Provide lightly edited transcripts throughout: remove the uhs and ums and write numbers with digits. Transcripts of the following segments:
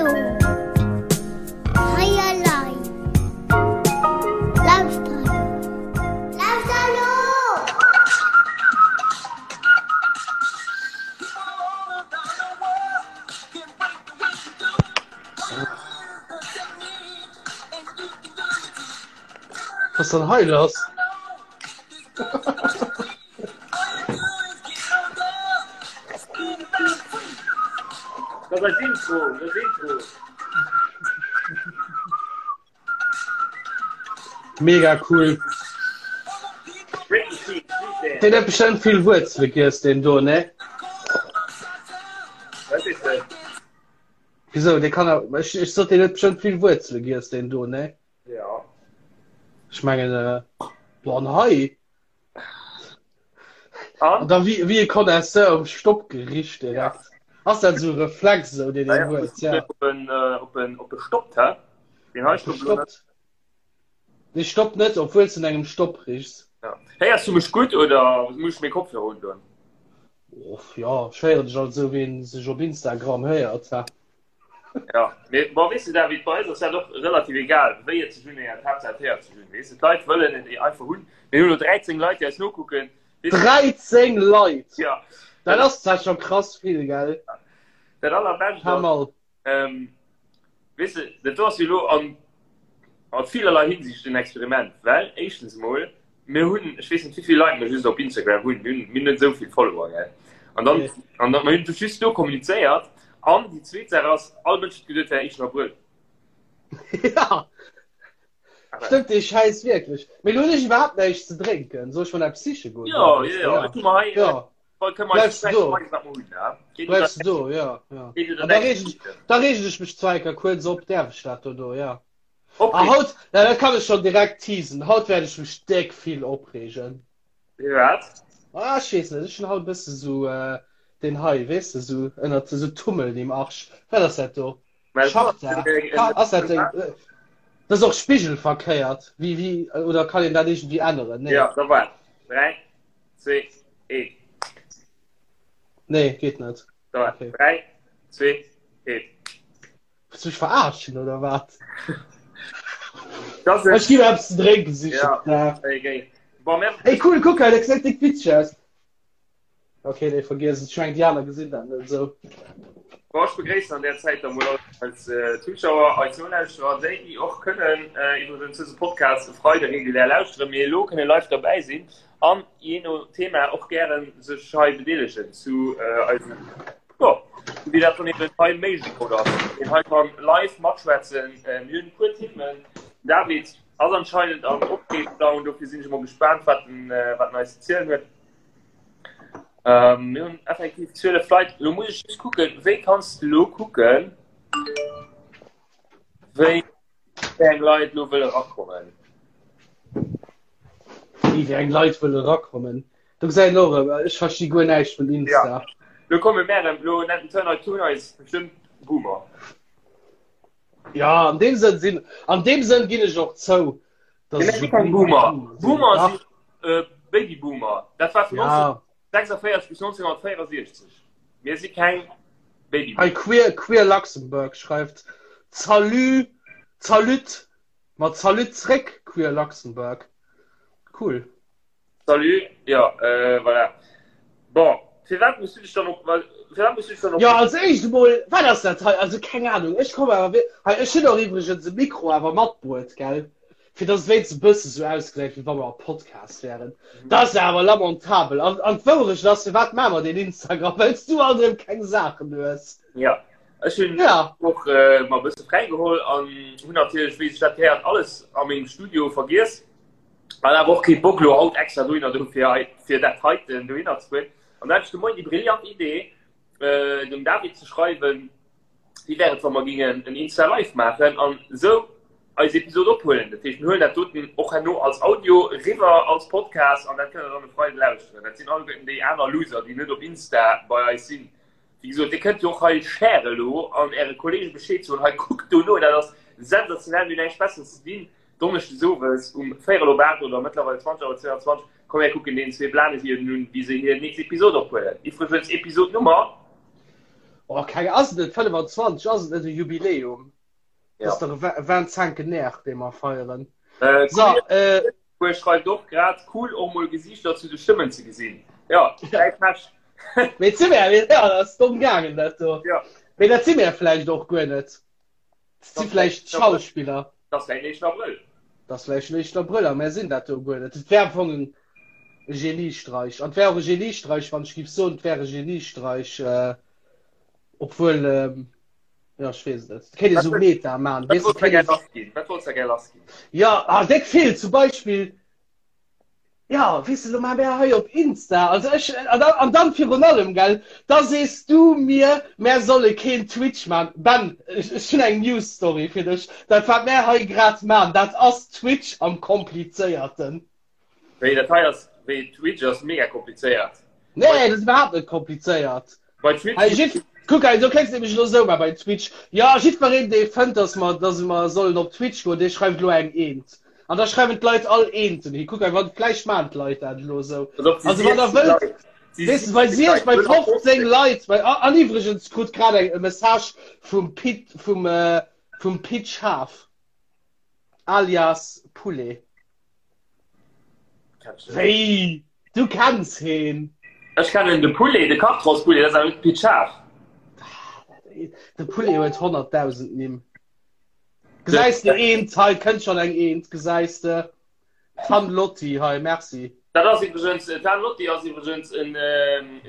Hallo. Hei elei. Lauschter elo. Lauschter elo! Was dann hei lass? Dat ass Intro, dat Intro. Mega cool. Den huet bestëmmt vill Wuerzele giess, deen do, ne? Wat is dat? Wieso, dee kann awer, ech, ech sot, deen huet bestëmmt vill Wuerzele giess, deen do, ne? Ja. Ech mengen, äh, boah, an hei. An? An da wie, wie e Connoisseur um Stopp gericht direkt. Ja. Ass dat so Reflex so, deen een huet, ja. Op en, äh, op en, op e stoppt, hä? Den hei stoppt lo net. Dee stoppt net, obwuel s du engem Stopp richs. Ja. Héiers du mech gutt oder muss ech meng Kopfhörer undoen? Och, ja, ech héieren dech alt esou, wéi een sech op Instagram héiert, ha. Ja, mee bon, weess de David, bei eis ass dat och relativ egal, wéi et sech unhéiert, Haaptsaach et héiert sech un, weess de. D'Leit wëllen et einfach hunn. Mir hunn elo 13 Leit, déi eis nokucken. Weess de. 13 Leit! Ja. Dat ass zwar scho krass vill, gell? Dat allerbescht Hör ass, mal. ähm, weess de, dat do ass jo elo an a villerlei Hinsicht en Experiment, well éischtens emol, mir hunn, ech weess net wéi vill Leit mir just op Instagram hunn, mir hunn, mir hunn net esou vill Follower, gell? An dann, Nee. an dann, mir hunn just do kommunizéiert. An déi zweet Saach ass, all Mënsch huet geduet, et wär éischten Abrëll. Ja, Aber, stëmmt dee Schäiss wierklech. Mee lo hunn ech iwwerhaapt näischt ze drénken. Soll ech mer eppes siche goen? ja, ja, ja, Ja. ech hu mer hei, Ja. Bleifs du do? Bleifs du do, ja. ja. An da regen ich, da regen ich mech zwar enker kuerz op, däerf ech dat dono, ja. A haut, ja, dat kann ech schon direkt teasen, haut wäert ech mech déck vill opreegen. Wat? Ah, ech weess net, ech hunn haut e bësse sou äh, den hei, weess de, sou ënnert sou Tummel im Arsch. Wat ass dat do? Schachtar? Ass dat deng? Dat ass och spigelverkéiert. Wie, wie, oder kann een dat irgendwie änneren? Nee. Ja, da waart. 3, 2, 1. Nee, geet net. Da, okay. 3, 2, 1. Willst du mich verarschen oder wat? Das Ech ginn eppes ze drénken sichen. Ja. Ja. Okay. Bon, mer... Ey, cool, guck hei, dat gesäit dick witzeg aus. Okay, nee, vergiess et. Ech mengen, déi aner gesinn dat net esou. Bon, ech begréissen an där Zäit da mol all eis äh, Zuschauer, eis Nolauschterer, déi, déi och kënnen äh, iwwregens dëse Podcast e Freide regulär lauschteren, mee elo kënne live derbäi sinn an jee no Thema och gären sech hei bedeelegen zu äh, eisem, jo, wéi dat dann eben hei méiglech oder ass. Een hei kann live matschwätzen. Äh, mir hunn e puer Themen. David ass anscheinend am Opreegdown, dofir sinn ech emol gespaant, wat en, äh, wat en eis ze zielen huet. Ähm, mir hunn effektiv 12 Leit. Lo muss ech just kucken, wéi kanns du lo kucken, wéi eng Leit lo wëlle rakommen? Wéi wéi eng Leit wëlle rakommen? Do gesäit een och erëm, ech versti guer näischt vun Insta. Ja. Lo komme mär erëm, lo nennt den Turner Tun eis bestëmmt Boomer. Ja, an deem Sënn sinn, an deem Sënn ginn ech och zou, dass ech e Boomer. Boomer sinn äh, Babyboomer. Dat war vun ja. 1946 bis 1964. Mir si keng Babyboomer. Hei Queer, Queer Luxembourg schreift Salut, Salut, ma Salut zréck Queer Luxembourg. Cool. Salut, jo, voilà. Bon, firwat muss du dech dann op, firwat muss du dech dann op. Jo, als éischt emol, wat ass dat hei? Also keng Ahnung, ech komme awer wierk, hei, ech hunn och iwwregens e Mikro awer matbruet, gell, fir dass et wéinstens e bësse sou ausgesäit, wéi wa mer am Podcast wären. Dat ass awer lamentabel. An, an d'Wourecht ass, firwat maache mer deen Instagram? Well s du alt erëm keng Saachen hues. Jo, ech hunn Ja. och mer e bësse fräigeholl an hunn natierlech, wéi sech dat gehéiert, alles a mengem Studio vergiess. An awer och kee Bock lo haut extra dohinner do fir hei fir dat heiten dohinner ze fueren. An da hat ech de Moien déi brillant Idee äh, dem David ze schreiwen, wéi wär et wa mer gingen en Insta Live maachen an esou eis Episod ophuelen. Dat heescht mir huelen dat doten och herno als Audio riwwer als Podcast an dat kënnt der dann e Freide lauschteren. Dat sinn alleguerten déi aner Loser, déi net op Insta bei eis sinn. Wéi gesot, Dir kënnt jo och hei share elo an Äre Kollege Bescheed soen, hei kuckt dono, dat ass sensationell, mir hunn näischt Besseres ze dinn. Donneschdes owes um véierel op 8 oder mëttlerweil 20 auer 22, komm mir kucken deenen zwee Blanen hier un, wéi se hir nächst Episod ophuelen. Iwwregens Episod Nummer. Oh, keng ass et net 25, ass et net e Jubiläum? Ja. Das ass dach e Vingt-cinquenaire, dee mer feieren. Äh, So, äh, Kuer schreift och grad cool och mol Gesiichter zu de Stëmmen ze gesinn. Ja, däi Pech. Mee si mir, ja, dat ass domm gaangen dat do. Ja. Mee dat si mir vläicht och guer net. Dat si vläicht Schauspiller. Dat ass vläicht den éischten Abrëll. Dat ass vläicht den éischten Abrëll a mär sinn dat do guer net. Et wär am Fong en Geniestreich. An et wär och e Geniestreich, wann ech géif soen, et wär e Geniestreich, äh, obwuel, ähm, ja, ech weess et net. Et kéint ee sou Meta man, Wat weess de, wolls de kéint gär ee. lass ginn? Wat wolls de gär lass ginn? Ja, ah, déck vill, zum Beispill, Ja, weess de, lo maache mär hei op Insta, also ech, an dann, an dann virun allem, gell, da sees du mir, mär solle keen Twitch man. Ben, ech, ech hunn eng News Story fir dech, dat wat mär hei grad man, dat ass Twitch am komplizéierten. Wéi, dat hei ass, wéi, Twitch ass mega komplizéiert. Nee, dat ass iwwerhaapt net komplizéiert. Bei Twitch. Hei, jiff, kuck hei, do kéints de nämlech elo esou maachen bei Twitch. Jo, jiddwereen, dee fënnt, dass mer, dass mer sollen op Twitch goen, dee schreift elo eng Eent. An da schreiwen d'Leit all Eenten hi. Kuck hei, wann, vläicht maachen d'Leit dat elo esou. Also wann der wëllt, weess de, bei siech, bei 15 Leit, bei, an iwwregens krut grad eng e Message vum Pit, vum, vum Pit Schaaf, alias Poulet. Wéi? Du kenns heen? Ech kennen de Poulet, de Kartrosspoulet, dat ass awer net de Pit Schaaf. De Poulet huet 100.000 Nimm. Gesäis de eent hei, kënnt schonn eng eent, gesäis de. Tan Lotti hei, merci. Dat ass iwwregens, Tan Lotti ass iwwregens en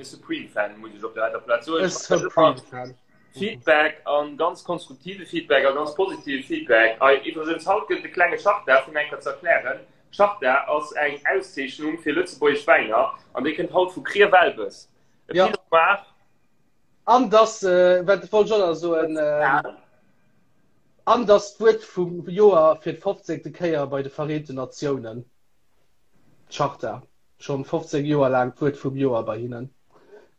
Supreme-Fan, muss ech op der heiter Plaz soen. E Supreme-Fan. Feedback an ganz konstruktive Feedback a ganz positive Feedback. Ei, iwwregens, haut gëtt et e klenge Charta, fir eng Kéier ze erklären. Charta ass eng Auszeechnung fir lëtzebuergesch Wäiner an déi kënnt haut vu Krier-Welbes. E Ja. Pinot Noir. An dass, wat wollt ech och nach soen, an dass d'Wuert vum Joer fir d'fofzéngte Kéier bei de Vereenten Natiounen, d'Charta, schonn 15 Joer laang d'Wuert vum Joer bei hinnen,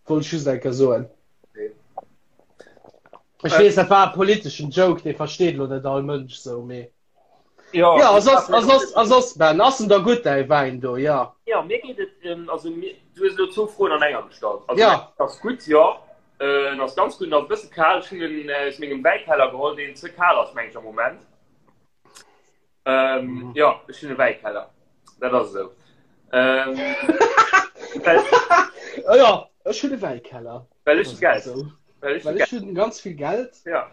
wollt ech just eng Kéier soen. Ech weess, dat war e politeschen Joke, dee versteet elo net all Mënsch sou, mee. Ja, Ja, a soss, a soss, a soss, Ben, ass en da gutt, däi Wäin do? Ja. Ja, mir geet et, ähm, also mir, du hues elo zwou Froen an enger gestallt. Also, Ja. ass gutt, jo. Äh, en ass ganz gutt, en ass e bësse kal. Ech hunn en äh, aus mengem Wäikeller geholl, deen ze kal ass, meng ech, am Moment. Ähm, Mhm. Ja, ech hunn e Wäikeller. Dat ass esou. Ähm, well, Oh ja, ech hunn e Wäikeller. well ech Das Geld. ass esou. Well ech Well Geld. ech hunn ganz vill Geld. Ja.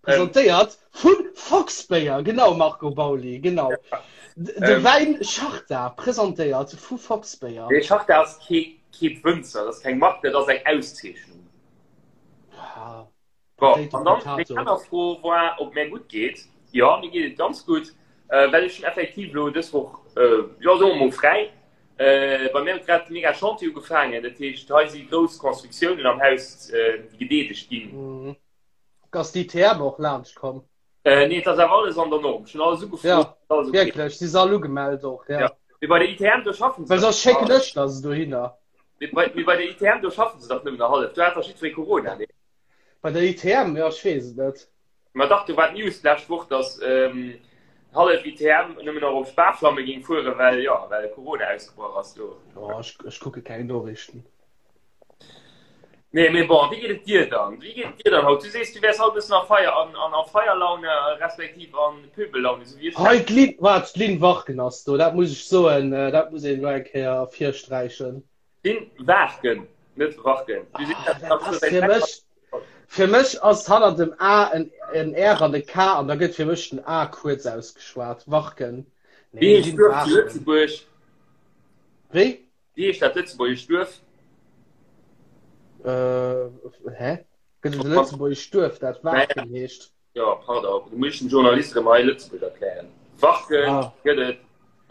Presentéiert vu Foxbéier, genau Marco Bauli, genau. De Ähm. Wäin Charta, presentéiert vu Foxbéier. Nee, Charta ass kee, kee Wënzer, dat ass keng Mark, dat ass eng Auszeechnung. Ah, Bon, Potato, an dann meng Potato. aner Fro war, ob mir gutt geet. Jo, mir geet et ganz gutt, äh, well ech hunn effektiv elo dës Woch, äh, jo, soe mer mol fräi. Äh, bei mir huet grad de mega Chantier ugefaangen, dat heescht, hei si grouss Constructiounen am Haus, äh, déi gedeedegt ginn. Mhm. Ass d'ITM och laanscht komm? Äh, nee, et ass awer alles an der Norm. Ech hunn alles ugefrot, Ja, alles okay. wierklech, si se all ugemellt och, ja. Ja. Mee bei der ITM, do schaffen se Well dach soss schécken ech der se dohinner. Mee bei, mee bei der ITM, do schaffen se dach nëmmen nach hallef. Do hat dach jiddweree Corona, nee? Bei der ITM, ja, ech weess et net. Ma dach, do war d'News d'lescht Woch, dass ähm, hallef ITM nëmmen nach op Sparflamme géing fueren, well, ja, well Corona ausgebrach ass do. Oh, ech, ech kucke keng Noriichten. Nee, mee bon, wéi geet et dir dann? Wéi geet et dir dann haut? Du sees, du wäers haut e bëssen a Feier, an, an, a Feierlaune, respektiv an Pöbellaune, sou wéi ech. Hei, d'Lynn, waart, d'Lynn Warken ass do, dat muss ech soen, dat muss een elo eng Kéier ervirsträichen. Lynn Waarken, net Warken. Du sees, Ah, dat dat ass ass sou fir wäit mech, fir mech ass hannert dem A en, en R an e K an da gëtt fir mech den A kuerz ausgeschwat. Warken. Wéi Nee, heescht Lynn d'Duerf zu Waarken. Lëtzebuerg? Wéi? Wéi heescht dat lëtzebuergescht Duerf? Äh, hä? Gëtt et e lëtzebuergescht Duerf, dat Waarken heescht? Jo, pardon, du muss den Journalist erëm hei Lëtzebuerg erklären. Warken ah. gëtt et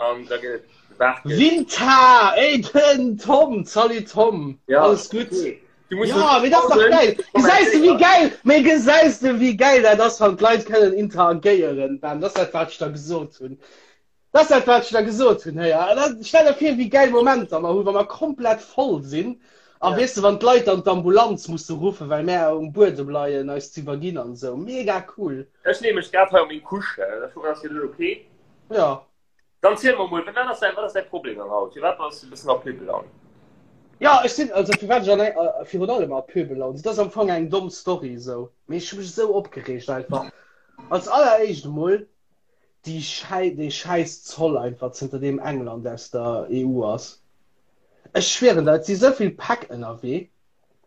an da gëtt et Waarken. Winter! Ey, den Tom! Salut Tom! Ja, Alles gutt? Okay. Du musst ja, mee dat ass dach geil! Gesäis de wéi geil, mee gesäis de wéi geil dat ass, wann d'Leit kënnen interagéieren, Ben? Dat ass dat, wat ech der gesot hunn. Dat ass dat, wat ech da gesot hunn. Héi, a da stell der vir, wéi gäil Momenter mer hunn, wa mer komplett voll sinn. A Ja. weess de, wann d'Leit dann d'Ambulanz musse ruffen, well mär um Buedem leien, eis ze iwwerginn an esou. Mega cool. Ech leeë mech grad hei op meng Couche. Ech hoffen, dat ass fir dech ok. Ja. Dann ziel mer mol, wat ass däi, wat ass däi Problem dann haut? Firwat bass du e bëssen a Pöbellaun? Ja, ech sinn, also firwat ech an eng, äh, virun allem a Pöbellaun sinn, dat ass am Fong eng domm Story esou, mee ech hu mech esou opgereegt einfach. Als alleréischt emol déi Schäi, dee schäiss Zoll einfach, zënter deem England aus der EU ass. Ech schwieren der, et si sou vill Päck ënnerwee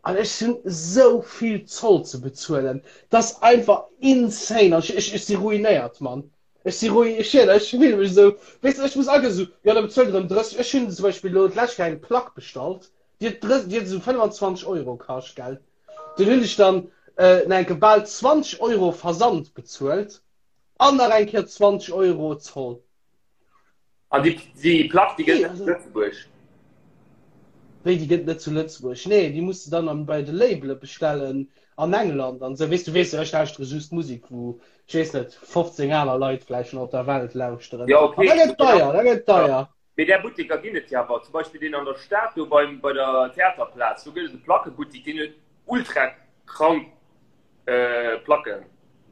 an ech hunn esou vill Zoll ze bezuelen, dat ass einfach insane an ech, ech, ech si ruinéiert, Mann. Ech si ruinéiert, ech schwieren, ech fille mech esou, weess de, ech muss agesou, esou, jo da bezuelt erëm 30, ech hunn zum Beispill elo d'lescht Kéier eng Plack bestallt, déi huet 30, déi huet esou 25 Euro kascht, gell, dunn hunn ech dann nach eng Kéier bal 20 Euro Versand bezuelt an nach eng Kéier 20 Euro Zoll. An déi, déi Plack, déi gëtt net zu Lëtzebuerg? Wéi, déi gëtt net zu Lëtzebuerg? Nee, déi muss de dann an, bei de Labele bestellen an England an esou. Weess du, weess du, ech lauschtere just Musek, wou, ech weess net, 15 aner Leit vläicht schon op der Welt lauschteren. Ja, okay. An da gëtt deier, da gëtt deier. Mee där Butteker ginn et jo awer. Zum Beispill deen an der Stad do beim, bei der Theaterplaz, do gëtt et e Plackebuttek, deen huet ultra krank Placken.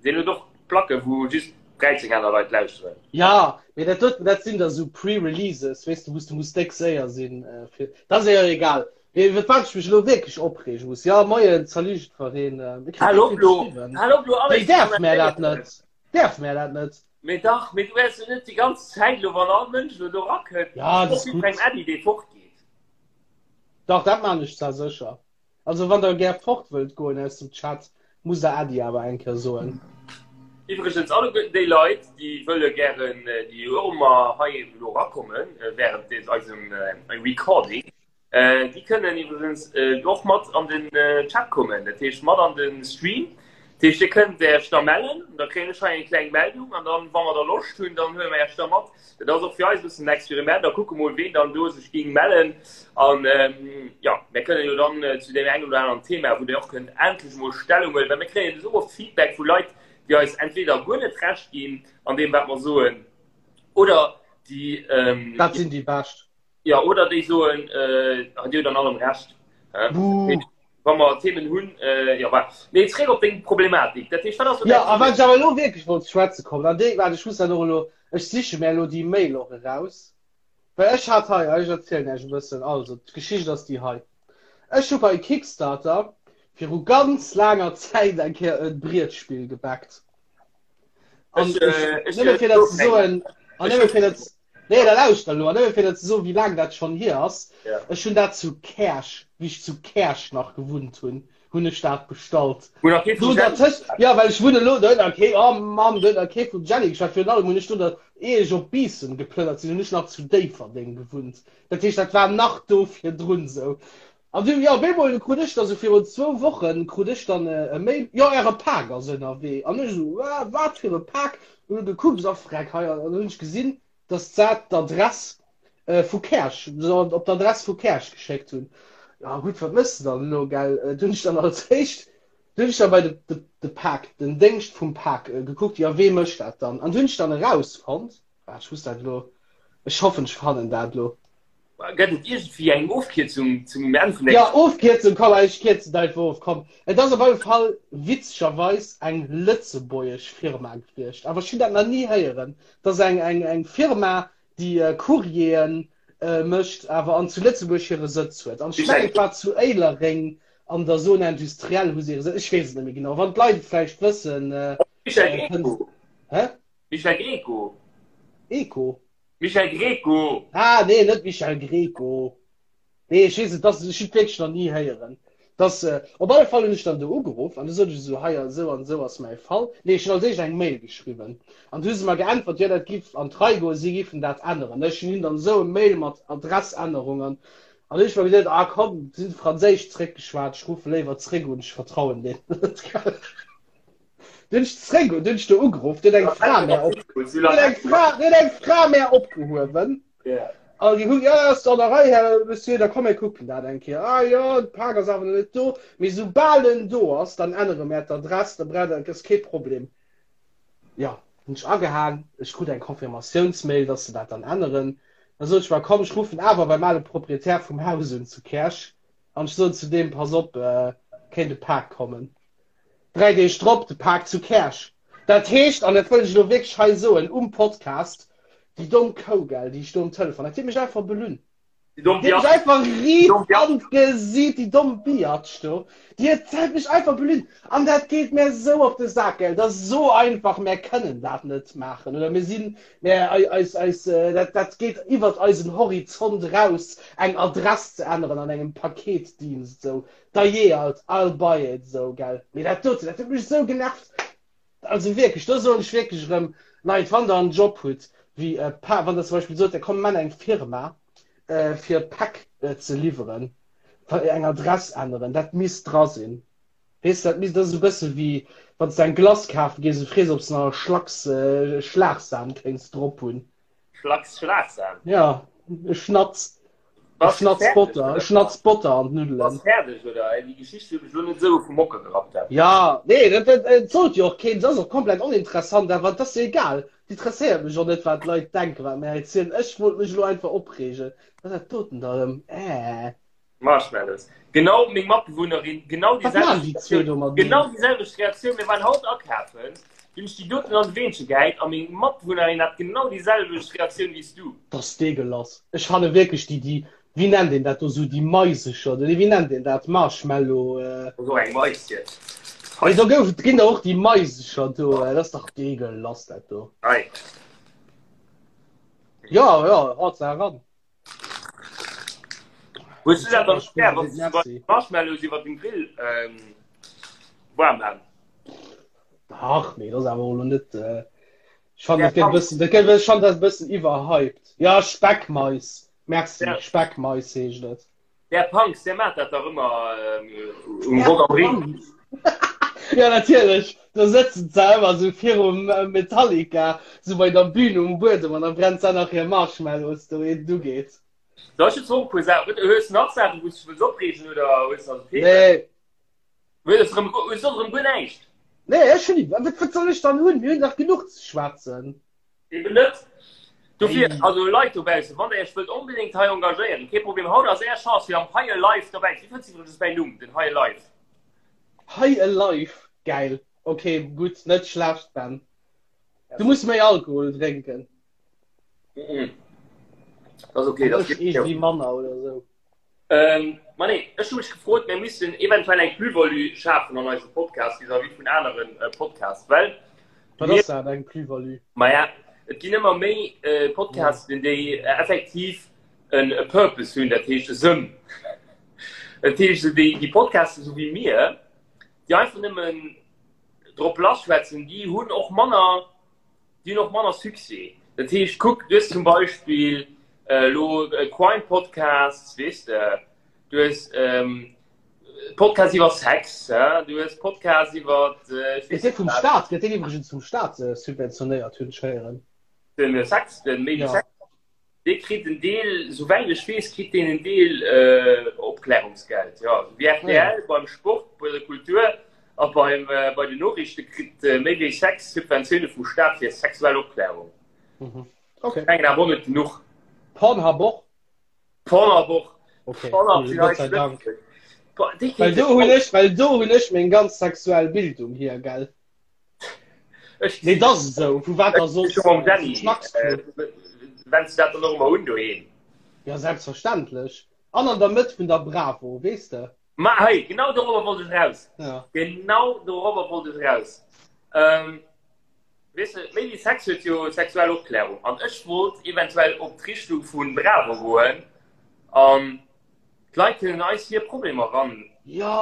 Deen huet och Placke wou just 13 aner Leit lauschteren. Ja, mee dat doten, dat sinn da sou Pre-Releases, weess de, wou s de muss déck séier sinn fir. Dat ass jo egal. Mee iwwer wat ech mech elo wierklech opreege muss, jo, moien, salut jiddwereen, mir kréien Hal déck op vill lo, geschriwwen. hal op lo Wéi alles ze däerf mär dat kommentéieren. net? Däerf mär dat net? Mee dach, mee du wäers jo net déi ganz Zäit elo, wann all Mënsch elo do erakënnt, Ja, dat och ass jiddwerengem gutt. Äddi, dee fortgeet. Dach, dat maan ech zwar sécher. Also wann der gär fort wëllt goen aus dem Chat, musst der Äddi awer eng Kéier soen. Iwwregens alleguerten déi Leit, déi wëlle gären, déi och ëmmer hei elo erakommen während des eisem Recording, déi kënnen iwwregens och mat an den Chat kommen, dat heescht mat an de Stream. Dat heescht dir kënnt Äech da mellen, da kréien ech hei eng kleng Meldung an dann, wa mer da Loscht hunn, dann huele mer Äech da mat. Dat ass och fir eis e bëssen en Experiment a kucke mol, ween dann do sech géing mellen. An jo, mir kënnen jo dann zu deem engen oder aneren Thema, wou Dir och kënnt endlech emol Stellung huelen, well mir kréien esou oft Feedback vu Leit, déi eis entweder guer net Recht ginn an deem, wat mer soen, oder déi. Dat sinn déi Bescht. Jo, oder déi soen, Dir hutt an allem Recht. Buh. Wa mer Themen hunn, jo, voilà. Mee zréck op deng Problematik. Dat heescht, wat ass elo Jo, däi a wat Problem? ech awer elo wierklech wollt ze schwätze kommen, an déi, waart, ech muss dat och elo, ech siche mär elo déi Mail och eraus, well ech hat hei, ech erzielen Iech e bëssen, also d'Geschicht ass déi hei, Ech hu bei Kickstarter viru ganz laanger Zäit eng Kéier e Brietspill gebackt. An Ech, ech, ech, nëmme fir dat ze soen, an ech nëmme fir dat, nee, da lauschter elo, an nëmme fir dat ze soen, wéi laang dat schonn hier ass, Ja. ech hunn dat zu Käerch, wéi ech zu Käerch nach gewunnt hunn, hunn ech dat bestallt. Wou nach kee Do vum Jenny dertëscht, ja, well ech wunne elo, do huet nach kee, oh Mann, do huet nach kee vum Jenny geschwat. Virun allem hunn ech do der, ier ech op Biissen geplënnert sinn, hunn ech nach zu Déifferdeng gewunnt. Dat heescht, dat war nach do virdrun esou. An du, jo, op eemol krut ech da sou virun zwou Wochen krut ech dann e Mail, jo, äre Pak ass ënnerwee. An ech esou, Wa, wat fir e Pak? Hunn gekuckt, a freck, hei, an dann hunn ech gesinn, dass dat d'Adress vu Käerch, se op d'Adress vu Käerch geschéckt hunn. Jo, gutt, wat méchs de dann elo, gell? Du hunn ech dann als éischt, du hunn ech dann bei de, de, de Pak, den Déngscht vum Pak gekuckt, jo, wee mécht dat dann? An du hunn ech dann erausfonnt, ah, ech muss dat elo, ech hoffen, ech fannen dat elo. Gëtt et iergendwéi eng Ofkierzung zum Enn vun der. Jo, Ofkierzung, komm, ech kierzen et einfach of, komm. Et ass op alle Fall witzegerweis eng lëtzebuergesch Firma gewiescht, awer ech hunn dat nach ni héieren. Et ass eng, eng, eng Firma, déi Courrieren mécht, awer an zu Lëtzebuerg hire Sëtz huet. An ech mengen, et war zu Éilereng an der Zone industrielle hu se hire Sëtz, ech weess et net méi genau. Wann d'Leit et vläicht wëssen, Michel kënnt. Greco. Hä? Michel Greco. Eco? Michel Greco! Ah, nee, net Michel Greco. Nee, ech weess et, dass, ech hunn et wierklech nach ni héieren. Dass, äh, op alle Fall hunn ech dann do ugeruff an du sot ech esou, hei, esou an esou ass mäi Fall. Nee, ech hunn als éischt eng Mail geschriwwen. An du hu se mer geäntwert, jo, dat giff an d'Rei goen, si giffen dat änneren. Ech hunn hinnen dann esou e Mail mat Adressännerung an an hu ech mer geduet, ah komm, si hunn Franséisch zréckgeschwat, ech ruffe léiwer zréck un, ech vertrauen deenen net. Du hunn ech zréck, du hunn ech do ugeruff, du huet eng Fra mär op, du huet eng Fra, du huet eng Fra mär opgehuewen. Ja. An déi hunn, ja, ass an der Rei, Här Monsieur, da komm mir kucken dat eng Kéier. Ah jo, de Pak ass awer nach net do, mee soubal en do ass, dann ännere mär d'Adress, da braucht Der, ass kee Problem. Jo, hunn ech agehaang, ech krut eng Confirmatiounsmail, dass se dat dann änneren. Da sot ech mer, komm, ech ruffen awer beim ale Proprietär vum Haus un zu Käerch an ech soen zu deem, pass op, kéint e Pak kommen. 3 Deeg drop de Pak zu Käerch. Dat heescht, an dat wëll ech elo wierklech hei soen um Podcast, déi domm Kou, gell, déi ech do um Telefon, dat huet mech einfach belunn. Déi domm Déi huet mech Biatch. einfach Déi riit domm Biatch. an d'Gesiit, déi domm Biatch do. Déi huet huet mech einfach belügt. An dat geet mär esou op de Sak, gell. Dat ass esou einfach, mär kënnen dat net maachen. Oder mir sinn, mär, eis, eis, dat, dat geet iwwert eisen Horizont eraus, eng Adress ze änneren an engem Paketdienst esou. Dajee alt, I'll buy it, esou, gell. Mee dat doten, dat huet mech esou genervt. Also wierklech, do soen ech wierklech erëm, Leit, wann Der en Job hutt, wéi e Pa, wann Der zum Beispill sot, Der komm, mir maachen eng Firma, fir Päck ze liwweren, eng Adress änneren, dat misst dra sinn. Weess de, dat misst, dat ass e bësse wéi wann s de eng Glace kafe gees a frees, ob s de nach e Schlacks Schlagsahn kéints drop hunn. Schlacks Schlagsahn? Ja, e Schnatz. E Bass du Schnatz fäerdeg, Botter, e oder? Schnatz Botter an Bass d'Nuddelen. fäerdeg, oder? Ey, déi Geschicht huet mech elo net esou vum Hocker gerappt. Dat. Ja, nee, dat, dat, et sollt jo och keen, dat ass och komplett oninteressant, awer et ass jo egal. Et interesséiert mech och net, wat d'Leit denken, wat mir erzielen. Ech wollt mech elo einfach opreegen. Wat ass dat doten da erëm? Äh. Marshmallows. Genau meng Matbewunnerin, genau déi Wat maachen selwecht déi zwee Reaktioun. do mateneen? Genau déi selwecht Reaktioun. Mir waren haut akafen, dunn hunn ech déi doten an de Weenche gehäit a meng Matbewunnerin hat genau déi selwecht Reaktioun wéi s du. Dat ass deegelass. Ech fanne wierklech déi, déi, wéi nennt een dat do, sou déi Maisecher, oder wéi nennt een dat, Marshmallow. Dat ass och eng Mais jetzt. Hei, do gouf, ginn der och déi Maisecher do. Dat ass dach deegelass, dat do. Hei. Jo, jo, haut se eran. Hues du dat dann gär, wann du Marshmallows iwwer dem Grill ähm, warm han? Ach nee, das awer lo net. Äh, ich fand, das geht bisschen, das geht, ich fand das bisschen überhyped. Ja, Speckmais. Merci, ja. Speckmais heescht dat. Der Punks, der macht dat dach ëmmer ähm, um Rock am Ring. Ja, natierlech. Da sëtzen se ëmmer sou virum äh, Metallica, sou bei der Bühn um Buedem an da brennt se nach hir Marshmallows do, ehe et ugeet. Da ech jetzt och e puer Saachen. Hues du nach Saachen, wou s du dech wëlls opreegen oder hues du also Themen? Nee. Hues du erëm, hues du soss erëm guer näischt? Nee, ech hunn, wat, wat soll ech dann hunn? Mir hunn dach genuch ze schwätzen. Eben net. Dofir, also Leit dobaussen, wann der Iech wëllt onbedéngt hei engagéieren, kee Problem, haut ass Är Chance fir am Hei Alive dobäi ze sinn. Wéi fënns du iwwregens mäin Numm, den Hei Alive? Hei Alive, gäil. Ok, gutt, net schlecht, Ben. Du muss méi Alkohol drénken. Mhm. Das okay, das Ech iergendwéi manner oder sou. Ähm, ma nee, ech hu mech gefrot, mir missten eventuell eng Plus-value schafen an eisem Podcast vis-à-vis vun aneren äh, Podcasts, well Wat mir, ass dat, eng Plus-value? maja, et ginn ëmmer méi äh, Podcasten, déi äh, effektiv en e Purpose hunn, dat heescht e Sënn. Dat heescht, déi, déi Podcasten, sou wéi mir, déi einfach nëmmen drop lassschwätzen, déi hunn och manner Déi hunn och manner Succès. Dat heescht, kuck, du hues zum Beispill elo Crime Podcasts, weess de, du hues Podcasts iwwer Sex, du hues Podcasts iwwer, ech Gëtt weess dee net vum wat. Staat, gëtt deen iwwregens vum Staat subventionéiert, hunn ech héieren. Den Sex, den Méi wéi Ja. Sex? Dee kritt en Deel, souwäit ech weess, kritt deen en Deel äh, Opklärungsgeld. Ja, sou wéi Ah, ja. rtl beim Sport, bei der Kultur a beim, äh, bei den Noriichte kritt äh, méi wéi 6 Subventioune vum Staat fir sexuell Opklärung. Mhm. Okay. Mengen awer och net genuch. Pornhub och? Pornhub och. Okay, Pornhub cool, sinn Gott eis sei Dank. Lëtzebuerg. Boah, déi Well kéinte do hunn ech, well do hunn ech meng ganz sexuell Bildung hier, gell? Ech Nee, dat ass esou. Vu wat da soss? Schon mam Danny. Vum Schnacksclub. Äh, Wennst du dat dann och ëmmer un doheem? Ja, selbstverständlech. An an der Mëtt vun der Bravo, weess de? Ma hei, genau dorobber wollt ech raus. Ja. Genau dorobber wollt ech raus. Ähm, weess de, Méi wéi Sex huet jo sexuell Opklärung. An ech wollt eventuell op d'Richtung vu Bravo goen an D'Leit kënnen eis hir Problemer ran. Ja!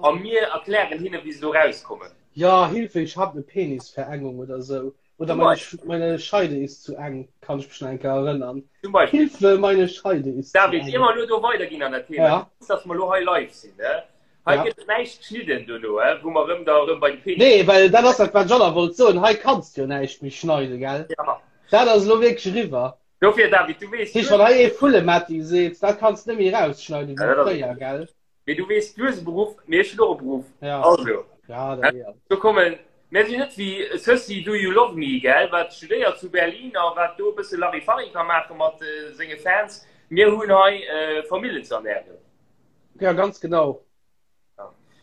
A mir erklären hinne wéi se do rauskommen. Ja, Hilfe, ich hab ne Penisverengung oder sou. Oder Zum meine, Beispiel. meine Scheide ist zu eng, kann ich mich nach eng Kéier erënnern. Zum Beispiel. Hilfe, meine Scheide ist zu David, eng. ier mer elo do weiderginn an dat Thema, Ja. du weess, dass mer elo hei live sinn, ne? Hei Ja. gëtt et näischt geschnidden dono, he? Wou mer erëm da erëm bei de Penis. Nee, well dat ass dat, wat ech och nach wollt soen. Hei kanns de jo näischt méi schneiden, gell? Ja. Dat ass elo wierklech eriwwer. Dofir, David, du weess, Heescht, wann hei ee Vullemetti seet, dat kanns de net méi rausschneiden wéi fréier, gell? Mee du weess, du hues e Beruff, mee ech hunn och e Beruff. Ja. Also, Ja, dat ja. do kommen, mir sinn net wéi Sëssi Do You Love Me, gell, wat studéiert zu Berlin a wat do e bësse Larifari ka maache mat senge Fans. Mir hunn hei Famillen ze ernären. Ja, ganz genau.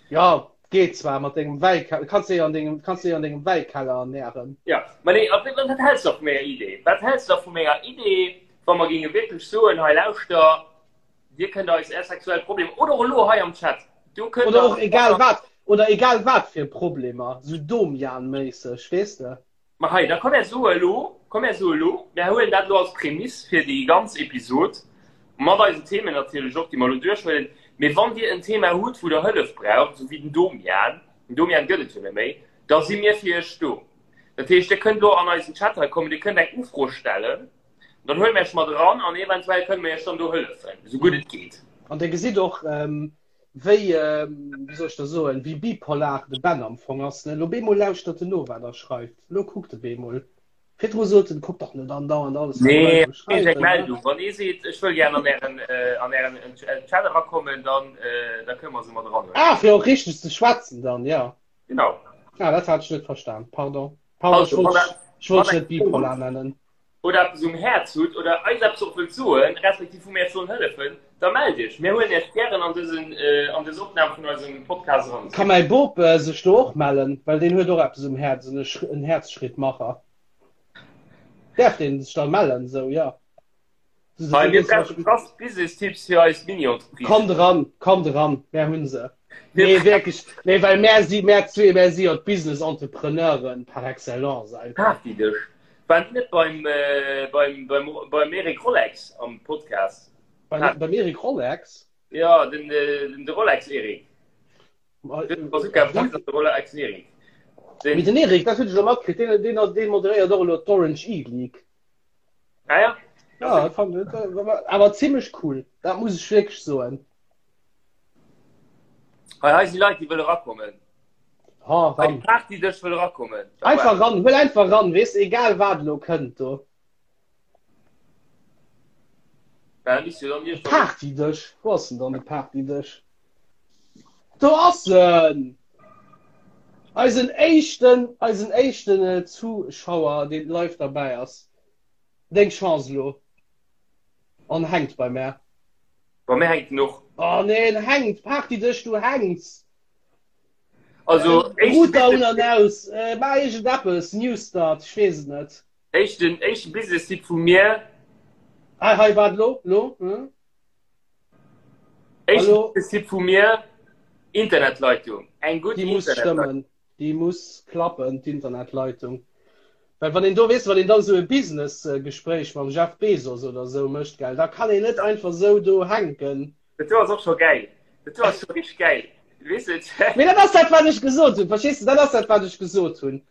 Ja, geet zwar mat dengem Wäikeller, kanns de an dengem, kanns de an dengem Wäikeller ernähren. Ja, ma nee, wat, wat häls du da vu menger Idee? Wat häls du da vu menger Idee? Wa mer géinge wierklech soen, hei lauschter, Dir kënnt eis är sexuell Problemer oder och elo hei am Chat, do kënnt Oder och egal wat, oder egal wat fir Problemer, sou Domian-méisseg, weess de. Ma hei, da komm mär soe elo, komm mär soe elo, mär huelen dat elo als Prämiss fir déi ganz Episod, mat eisen Themen natierlech och, déi mer elo duerchhuelen. Mee wann Dir en Thema hutt, wou Der Hëllef braucht, esou wéi den Domian, den Domian gëtt et jo net méi, da si mir fir Iech do. Dat heescht, Dir kënnt elo an eisen Chat hei kommen, Dir kënnt eng Ufro stellen, dann huele mir Iech mat eran an eventuell kënne mir Iech dann do hëllefen, esou gutt et geet. An Dir gesitt och, wéi, wéi soll ech da soen, wéi bipolar de Ben am Fong ass, ne? Lo bemol lauschtert en no, wat der schreift. Lo kuckt e bemol. Virdru sot en, kuck dach net andauernd alles, wat Nee, d'Leit do ech eng schreiwen, ne? Meldung. Wann ee seet, ech wëll gär an ären, an ären Chat erakommen, dann, da kënne mer se mat eranhuelen. Ah, fir och richteg ze schwätzen dann, jo. Genau. Ah, dat hat ech net verstan. Pardon. Pardon, ech Also, wollt wann dech, der, ech wollt wann dech net der eng Fro bipolar hutt nennen. oder eppes um Häerz hutt oder eis eppes och wëllt soen, respektiv wou mir Iech sollen hëllefen, da mellt Iech. Mir huelen Iech gären an dësen, an dës Opnam vun eisem Podcast eran. Ka mäi Bop sech do och mellen, well deen huet och eppes um Häerz, en en Häerzschrittmacher. Däerf deen sech da mellen? Sou, jo. Hei, mir brauche krass Business-Tipps fir eis Mini-Entreprise. Kommt eran, kommt eran, mär hunn se. Nee, wierklech, nee, well mär si, mär zwee, mär si jo d'Business-Entrepreneuren par excellence einfach. Partydësch. Waren déi net beim, beim, beim, beim Eric Rolex am Podcast? Beim, beim Eric Rolex? Ja, den, den, de Rolex Eric. Den Bazooka Bruce an de Rolex Eric. Den, Mee den Eric, dat hunn ech elo matkritt, deen, deen, deen moderéiert och elo d'Orange E-League. Ah ja? Ja, dat fand ich, awer zimmlech cool. Dat muss ech wierklech soen. Hei, hei si Leit, déi wëlle rakommen. Ha, Hei, ran. Partydësch wëll rakommen. Einfach ran, huel einfach ran, weess, egal wat elo kënnt do. Partydësch, wou ass denn dann de Partydësch? Do ass en! Eisen éischten, eisen éischten äh, Zuschauer, deen live derbäi ass. Deng Chance elo. En hänkt bei mär. Bei mir hänkt en och. Oh nee, en hänkt! Partydësch, du hänks! Also, äh, Router un an aus, äh, maach iergendeppes, New Start, ech weess et net. Éischten, éischten Business-Tipp vu mir. Hei, hei, waart lo, lo. Hm? Éischten Business-Tipp vu mir, Internetleitung. Eng gutt Déi muss stëmmen. Déi muss klappen, d'Internetleitung. Well wann een do, weess de, wann een dann esou e Business-Gespréich mam Jeff Bezos oder esou mécht, gell, da kann een net einfach esou do hänken. Dat do ass och scho gäil. Dat do ass scho richteg gäil. Weess de? Mee dat ass dat, wat ech gesot hunn. Verstees de? Dat ass dat, wat ech gesot hunn.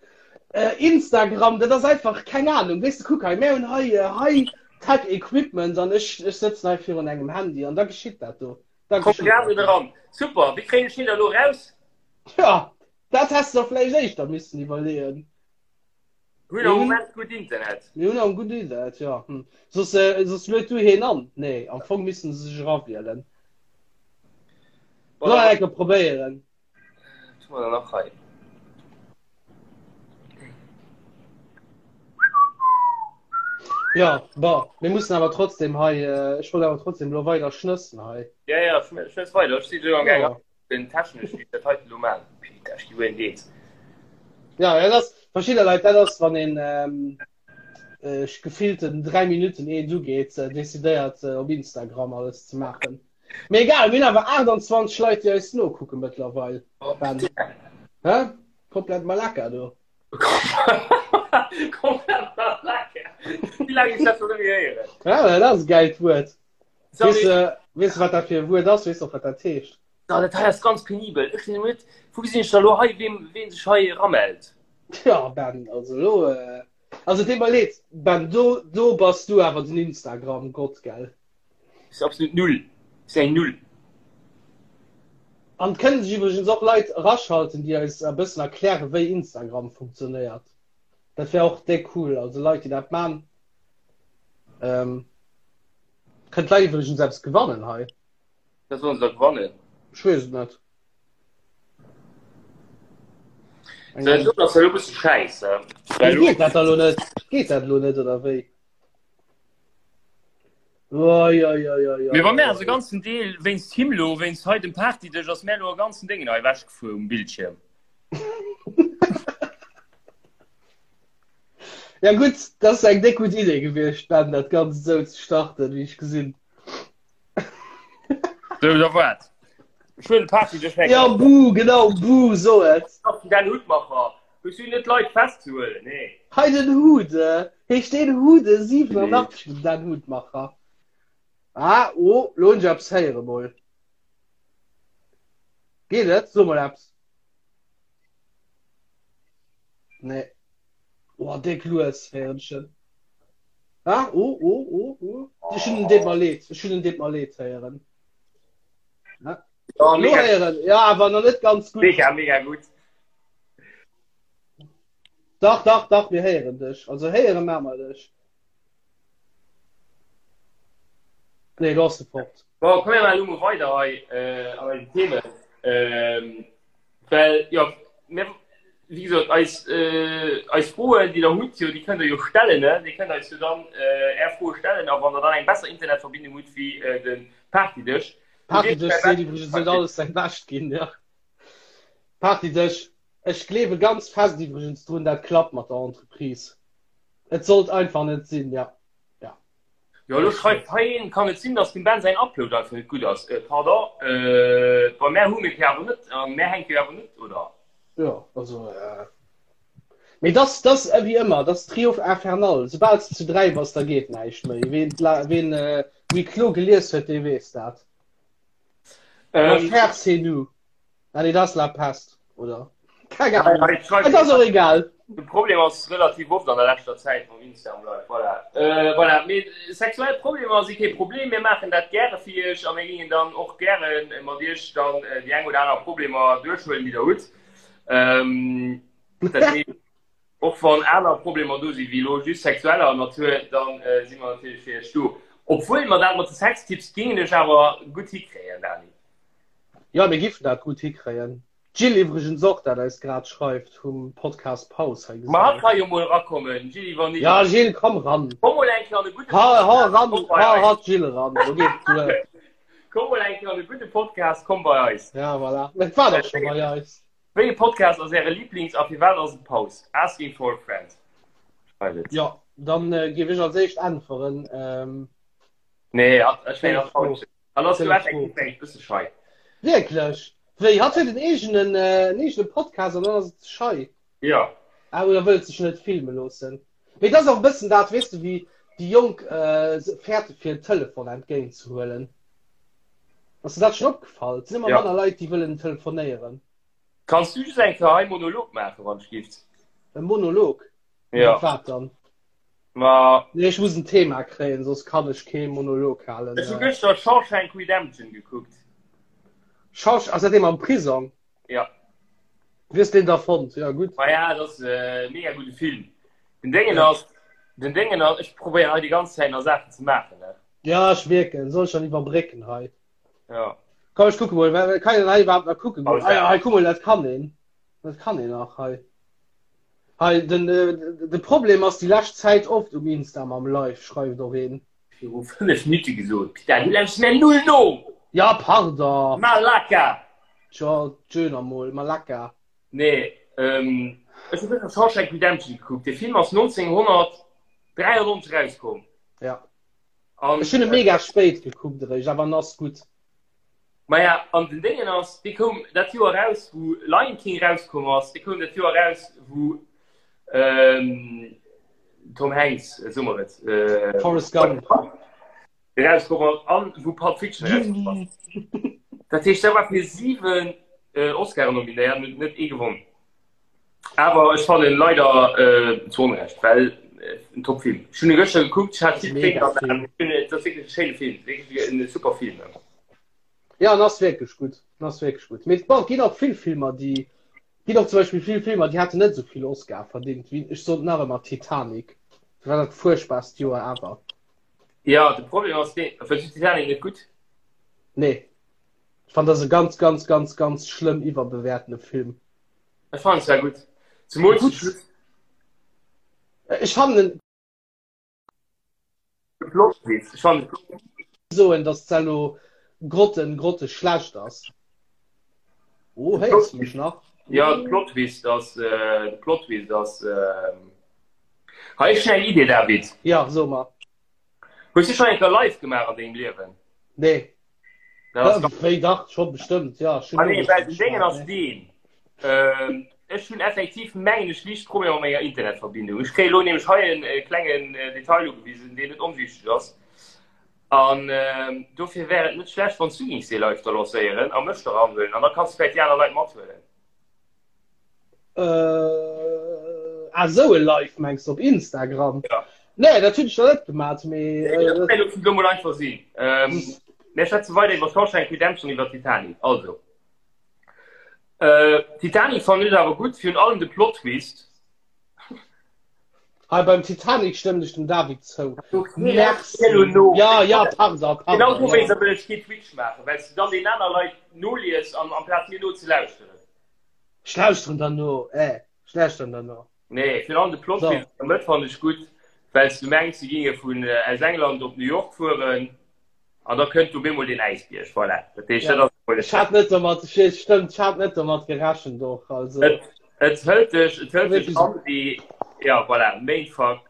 Instagram, dat ass einfach, keng Ahnung. Weess de, kuck hei, mär hunn hei High-Tech Equipment an ech, ech sëtzen hei virun engem Handy an da geschitt dat do. Da Komm geschitt grad dat net do. eran. Super, wéi kréien ech hien da elo eraus? Ja, dat häss de der vläicht éischter missen iwwerleeën. Hunn am Moment gutt Internet. Mir hunn am gutt Internet, ja. Hm. Soss, äh, soss luet du heen an. Nee, am Fong missten se sech erawielen. Bon, Soll enke probéieren. Tu mer nach hei. Ja, bon, mir mussen awer trotzdem hei, äh, ech wollt awer trotzdem lo weider schnëssen hei. Ja, ja, schnëss weider. Ech si jo am Gaang. Ja. Den technesch wéi dat heiten elo maan. Peter, ech gi wuel deet. Ja, dat ass verschidde Leit, dat ass wann een ähm, äh, gefillten 3 Minuten eent ugeet, äh, decidéiert äh, op Instagram alles ze maachen. Mee egal, mir hunn awer 28 Leit, déi eis nokucke mëttlerweil. Oh, Ben. Hä? Komplett Malaka do. Komplett Malaka. Wéi laang ech dat schon net méi héieren. Ja, dat ass e gäilt Wuert. Sorry. Weess de, weess de, wat dat fir e Wuert ass? Weess de och, wat dat heescht? Ja, dat hei ass ganz penibel. Ech sinn net, wou gesinn ech da lo hei, ween, ween sech hei eramellt? Ja, Ben, also lo, äh, also deet mer leed, Ben, do, do bass du awer den Instagram-Gott, gell? Ass absolut null. Ass eng Null. An et kënnen sech iwwregens och Leit eraschalten, déi eis e bëssen erklären, wéi Instagram funktionéiert. Dat wär och déck cool, also Leit, déi dat man. Ähm, kënnt d'Leit iwwregens eppes gewannen hei? Wat sollen se da gewannen? Ech weess et net. Eng So, dat ass elo e bësse schäisse. Wéi geet dat da lo net? Geet dat lo net oder wéi? Oi, oi, oi, oi, Mee wa mär oi, ass e oi. ganzen Deel wéinst him lo, wéinst hei dem Partydësch, ass mär lo e ganzen Déngen hei ewechgefuer um Bildschierm. Ja gutt, dat ass eng déck gutt Idee gewiescht, Ben, dat Ganzt esou ze starten, wéi ech gesinn. Sou, da wat? Ech huelen de Party duerch Ja, buh, genau, buh, so et. Den Hutmacher. Hues du net Leit festzehuelen? Nee. Hei den Hude. Heescht deen Hude 87 den Dan Hutmacher? Ah, oh, lo hunn ech eppes héiere mol. Geet et? So mol eppes. Nee. Oh, déck lues héieren ech en. Ah, oh, oh, oh, oh. Ech hunn en deet mer leed. Ech hunn en deet mer leed héieren. Ja. Ja, Lo mega, héieren. Ja, awer nach net ganz gutt. mega, mega gutt. Dach, dach, dach, mir héieren dech. Also héiere maache mer dech. Nee, lo ass de fort. Bon, komm mir maachen elo mol weider hei äh, an eisen Themen. Ähm, well, jo, mir, wéi gesot, eis, äh, eis Froen, déi der hutt, jo, déi kënnt der jo stellen, ne? Dir kënnt eis jo dann äh, är Froe stellen a wann der dann eng besser Internetverbindung hutt wéi äh, de Partydësch, Partydësch seet iwwregens huet alles säi Bescht ginn, ja. Partydësch, ech gleewe ganz fest iwwregens drun, dat klappt mat der Entreprise. Et sollt einfach net sinn, ja. Ja. Jo, elo schreift hei een, kann et sinn, dass dem Ben säin Upload einfach net gutt ass? Äh, pardon, äh, bei mär hu mir et jo awer net, an mär hänkt jo awer net, oder? Jo, also, äh, mee dass, dass ewéi ëmmer, dass Trio infernal, soubal s de zu 3 bass, da geet näischt méi. Ween, ween äh, Huis clos gelies huet, dee weess dat. Ähm, L'enfer c'est nous. Allez, das la pest, oder? Keng Ahnung. Hei, schreift Et ass och egal. De Problem ass relativ oft an der leschter Zäit mam Instagram Live. Voilà. Äh, voilà. Mee sexuell Problemer si kee Problem. Mir maachen dat gäre fir iech a mir gingen dann och gäre mat iech dann äh, déi eng oder aner Problemer duerchhuelen, déi der hutt. Ähm, dat heescht, och wann aner Problemer do si wéi elo just sexueller Natur, dann äh, si mer natierlech fir iech do. Obwuel mer dat mat de Sextipps gingen ech awer gutt hikréien, Dani. Jo, mir giffen dat gutt hikréien. D'Jill iwwregens och, dat eis grad schreift, vum Podcast Paus hei Ma hatt gesinn. ka jo mol erakommen, Jilly, wann Ja, Jill, komm ran. Komm mol eng Kéier an e gudde Ha, ha Podcast, ran, komm bei ha, eis. ha d'Jill eran, lo geet et duer. Komm mol eng Kéier an e gudde Podcast, komm bei eis. Ja, voilà. Et war dach scho bei eis. Wéi e Podcast ass Äre Lieblings a firwat ass et Paus? Asking for a friend. Schreift et. Jo, dann géif ech als éischt äntweren. Nee, hatt, ech mengen, Schéin hatt Fro. traut sech. An ass du effektiv Fro. eng bësse schei. Wierklech? Wéi, hatt huet en eegenen, äh, en eegene Podcast an dann ass et schei? Ja. Ah, oder wëllt sech net filme loossen. Mee dat ass och e bëssen dat, weess de, wéi déi Jonk äh, fäerte fir en Telefon entgéint ze huelen. Ass der dat schonn opgefall? Et sinn ëmmer Ja. manner Leit, déi wëllen telefonéieren. Kanns du just eng Kéier hei Monolog maachen, wann ech gift? E Monolog? Ja. Iwwer wat dann? Ma. Nee, ech muss en Thema kréien, soss kann ech kee Monolog halen. Ech hu gëschter Shawshank Redemption gekuckt. Shawsh, ass dat dee mam Prisong? Ja. Wéi hues deen da fonnt? Ja, gutt. Ma ja, dat ass e mega gudde Film. Den Déngen ass, den Déngen ass, ech probéieren hei déi ganz Zäit nach Saachen ze maachen, ne? Ja, ech mierken. Soll ech dann iwwerbrécken hei? Ja. Komm, ech kucke mol. Kann een hei iwwerhaapt nach kucken goen? Alles Ah ja, klar. hei, kuck mol, dat kann een. Dat kann een nach hei. Hei, den, de Problem ass déi lescht Zäit oft um Insta mam Live, schreift och een. Viru 5 Minutte gesot, Pita, du lauschts mär null no! Ja, pardon! Malaka! Tjo, tjö mol, Malaka. Nee, ech hu gëschter Shawshank Redemption gekuckt. Dee Film ass 1993 erauskomm. Ja. An, Ech hunn e mega spéit gekuckt eréischt, awer en ass gutt. Maja, an den Déngen ass, dee koum dat Joer eraus, wou Lion King erauskomm ass, dee koum dat Joer eraus, wou ähm, Tom Hanks, äh, soe mer et, äh, Forrest Gump. erauskomm ass an wou Pulp Fiction erauskomm ass. Dat heescht, der war fir 7 äh, Oscaren nominéiert an huet net ee gewonnen. Awer ech fannen leider äh, zu Onrecht, well äh, en Top-Film. Ech hunn e gëschter gekuckt, ech hat vill Mega Tréinen an den Film. Aen. Ech hunn, et ass wierklech e schéine Film, wierklech en super Film. Ja, en ass wierklech gutt. En ass wierklech gutt. Mee bon, et ginn och vill Filmer, déi ginn och zum Beispill vill Filmer, déi hätten net esou vill Oscar verdingt, wéi ech sot nach ëmmer Titanic. Dat war dat fuerchtbarst Joer ever. Ja, de Problem ass deen, fënns du Titanic net gutt? Nee. Ech fannen, dat ass e ganz, ganz, ganz, ganz schlëmm iwwerbewäertene Film. Ech fannen zwar gutt. Zemools de Schluss. Ech fannen en. De Plot Twist. Ech fannen de Plot Twist. Soen, dass d'Cello grotten, grotte schlecht ass. Oh, héiers du mech nach? Ja, de Plot Twist ass, de Plot Twist ass. Hei ech hunn eng Idee, David. Ja, so mer. Hues du schonn eng Kéier live gemaach an dengem Liewen? Nee. Wéi dach, scho bestëmmt, ja. Ah nee, well den Déngen ass deen. Ähm, ech hunn effektiv, mengen ech, liicht Problemer mat menger Internetverbindung. Ech kréie lo nämlech hei en äh, klengen äh, Detail ugewisen, deen net onwichteg ass. An ähm, dofir wär et net schlecht, wann s du géings dee Live da lancéieren a mech da ranhuelen. An da kanns du vläicht déi aner Leit mathuelen. Äh, ah, sou e Live mengs du op Instagram? Ja. Nee, dat hunn ech nach net gemaat, mee. Nee, dat kann jo lo mol einfach sinn. Ähm, mir schwätze weider iwwer Shawshank Redemption, iwwer Titanic. Also. Äh, Titanic fand ech awer gutt, virun allem de Plot-Twist. Hei beim Titanic stëmmen ech dem David zou. Merci. Ja, ja, pardon, pardon. Genau dowéinst wëll ech kee Twitch maachen, well s du dann den aner Leit nolies an amplaz mir nozelauschteren. Ech lauschteren der no, eh, ech lauschteren der no. Nee, virun allem de Plot twist an der Mëtt fannen ech gutt, well s du mengs, si ginge vun aus England op New York fueren an da kënnt op eemol deen Äisbierg. Voilà, dat heescht, dat ass emol Ech hat net domat, stëmmt, ech hat net domat gerechent och, also. Et, et hëlt dech, et hëlt dech an wéi, ja, voilà, Mindfuck.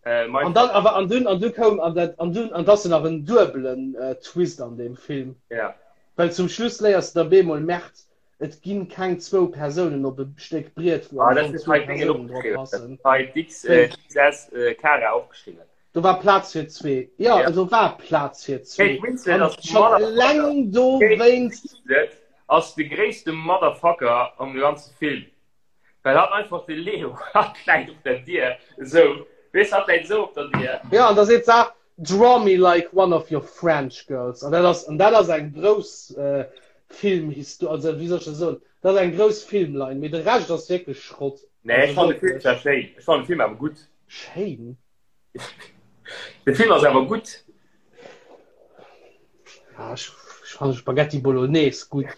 Äh, an dann, awer, an dunn, an du koum, an dat, an dunn, an dass nach en duebelen äh, Twist an deem Film. Ja. Well zum Schluss léiers du da bemol, Merd, et ginn keng zwou Persounen op e Stéck Briet, wou ah, am Fong zwou Persounen drop passen. Hei d'X, äh, XS äh, Kara opgeschriwwen. Do war Plaz fir zwee. Ja, ja. do war Plaz fir zwee. Kate Winslet ass schon eleng do wéinst. Ass de gréisste Motherfucker am ganze Film. Well hat einfach de Leo hat läit op der Dier esou. Weess hat läit esou op der Dier. Ja, an da seet se Draw me like one of your French girls. An dat ass, an dat ass eng grouss äh, Filmhisto also wéi soll ech dat soen, dat ass eng grouss Filmline, mee de Rescht ass wierklech Schrott. Nee, ech fannen de Film zwar schéin. Ech fannen de Film awer gutt. Schéin? De Film ass awer gutt. Ja, ech, ech fannen Spaghetti Bolognese gutt.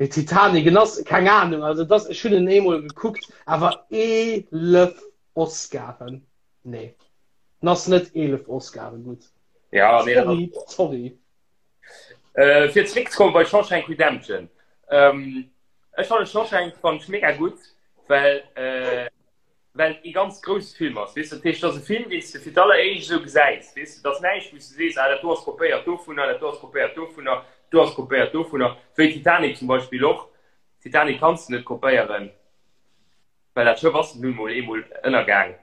De Titanic, en ass, keng Ahnung, also das, ech hunn en eemol gekuckt, awer 11 Oscaren, nee, en ass net 11 Oscaren gutt. Ja, nee, dat Sorry, sorry. Äh, fir zréckzekommen bei Shawshank Redemption. Ähm, ech fannen Shawshank fand ech mega gutt, well, äh, well et ee ganz grousse Film ass, weess de. Dat heescht, dat ass e Film, deen s de fir d'alleréischt esou gesäis, weess de. Dat ass näischt, wou s de sees, ah, dat do ass kopéiert dovunner, dat do ass kopéiert dovunner, dat do ass kopéiert dovunner, wéi Titanic zum Beispill och. Titanic kanns de net kopéieren, well dat Schëff ass nun mol eemol ënnergaang.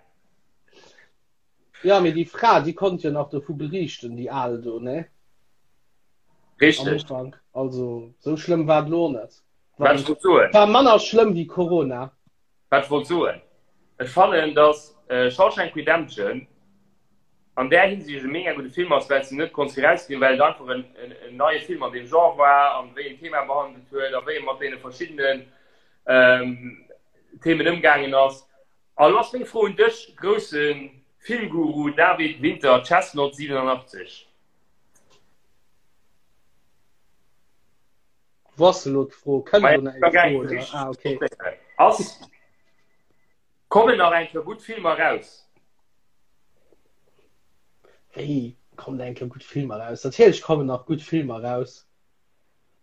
Ja, mee déi Fra, déi konnt jo nach dovu beriichten, déi al do, ne? Am Richteg. Ufank. Also, sou schlëmm war et lo och net. Wat ech wollt soen. War manner schlëmm wéi Corona. Wat ech wollt soen, ech fannen, dass Shawshank Redemption an där Hinsicht e mega gudde Film ass, well s de net konns virausgesinn, well et einfach en neie Film an deem Genre war an wéi en Thema behandelt huet a wéi e mat deene verschiddenen Themen ëmgaangen ass. A lo ass meng Fro un dech, grousse Filmguru David Winter, Chestnut 87. Wou ass elo d'Fro? Kënnt elo nach eng Fro oder? Ah, okay. Ass kommen nach eng Kéier gutt Filmer raus? Wéi kommen eng Kéier gutt Filmer raus? Natierlech kommen nach gutt Filmer raus.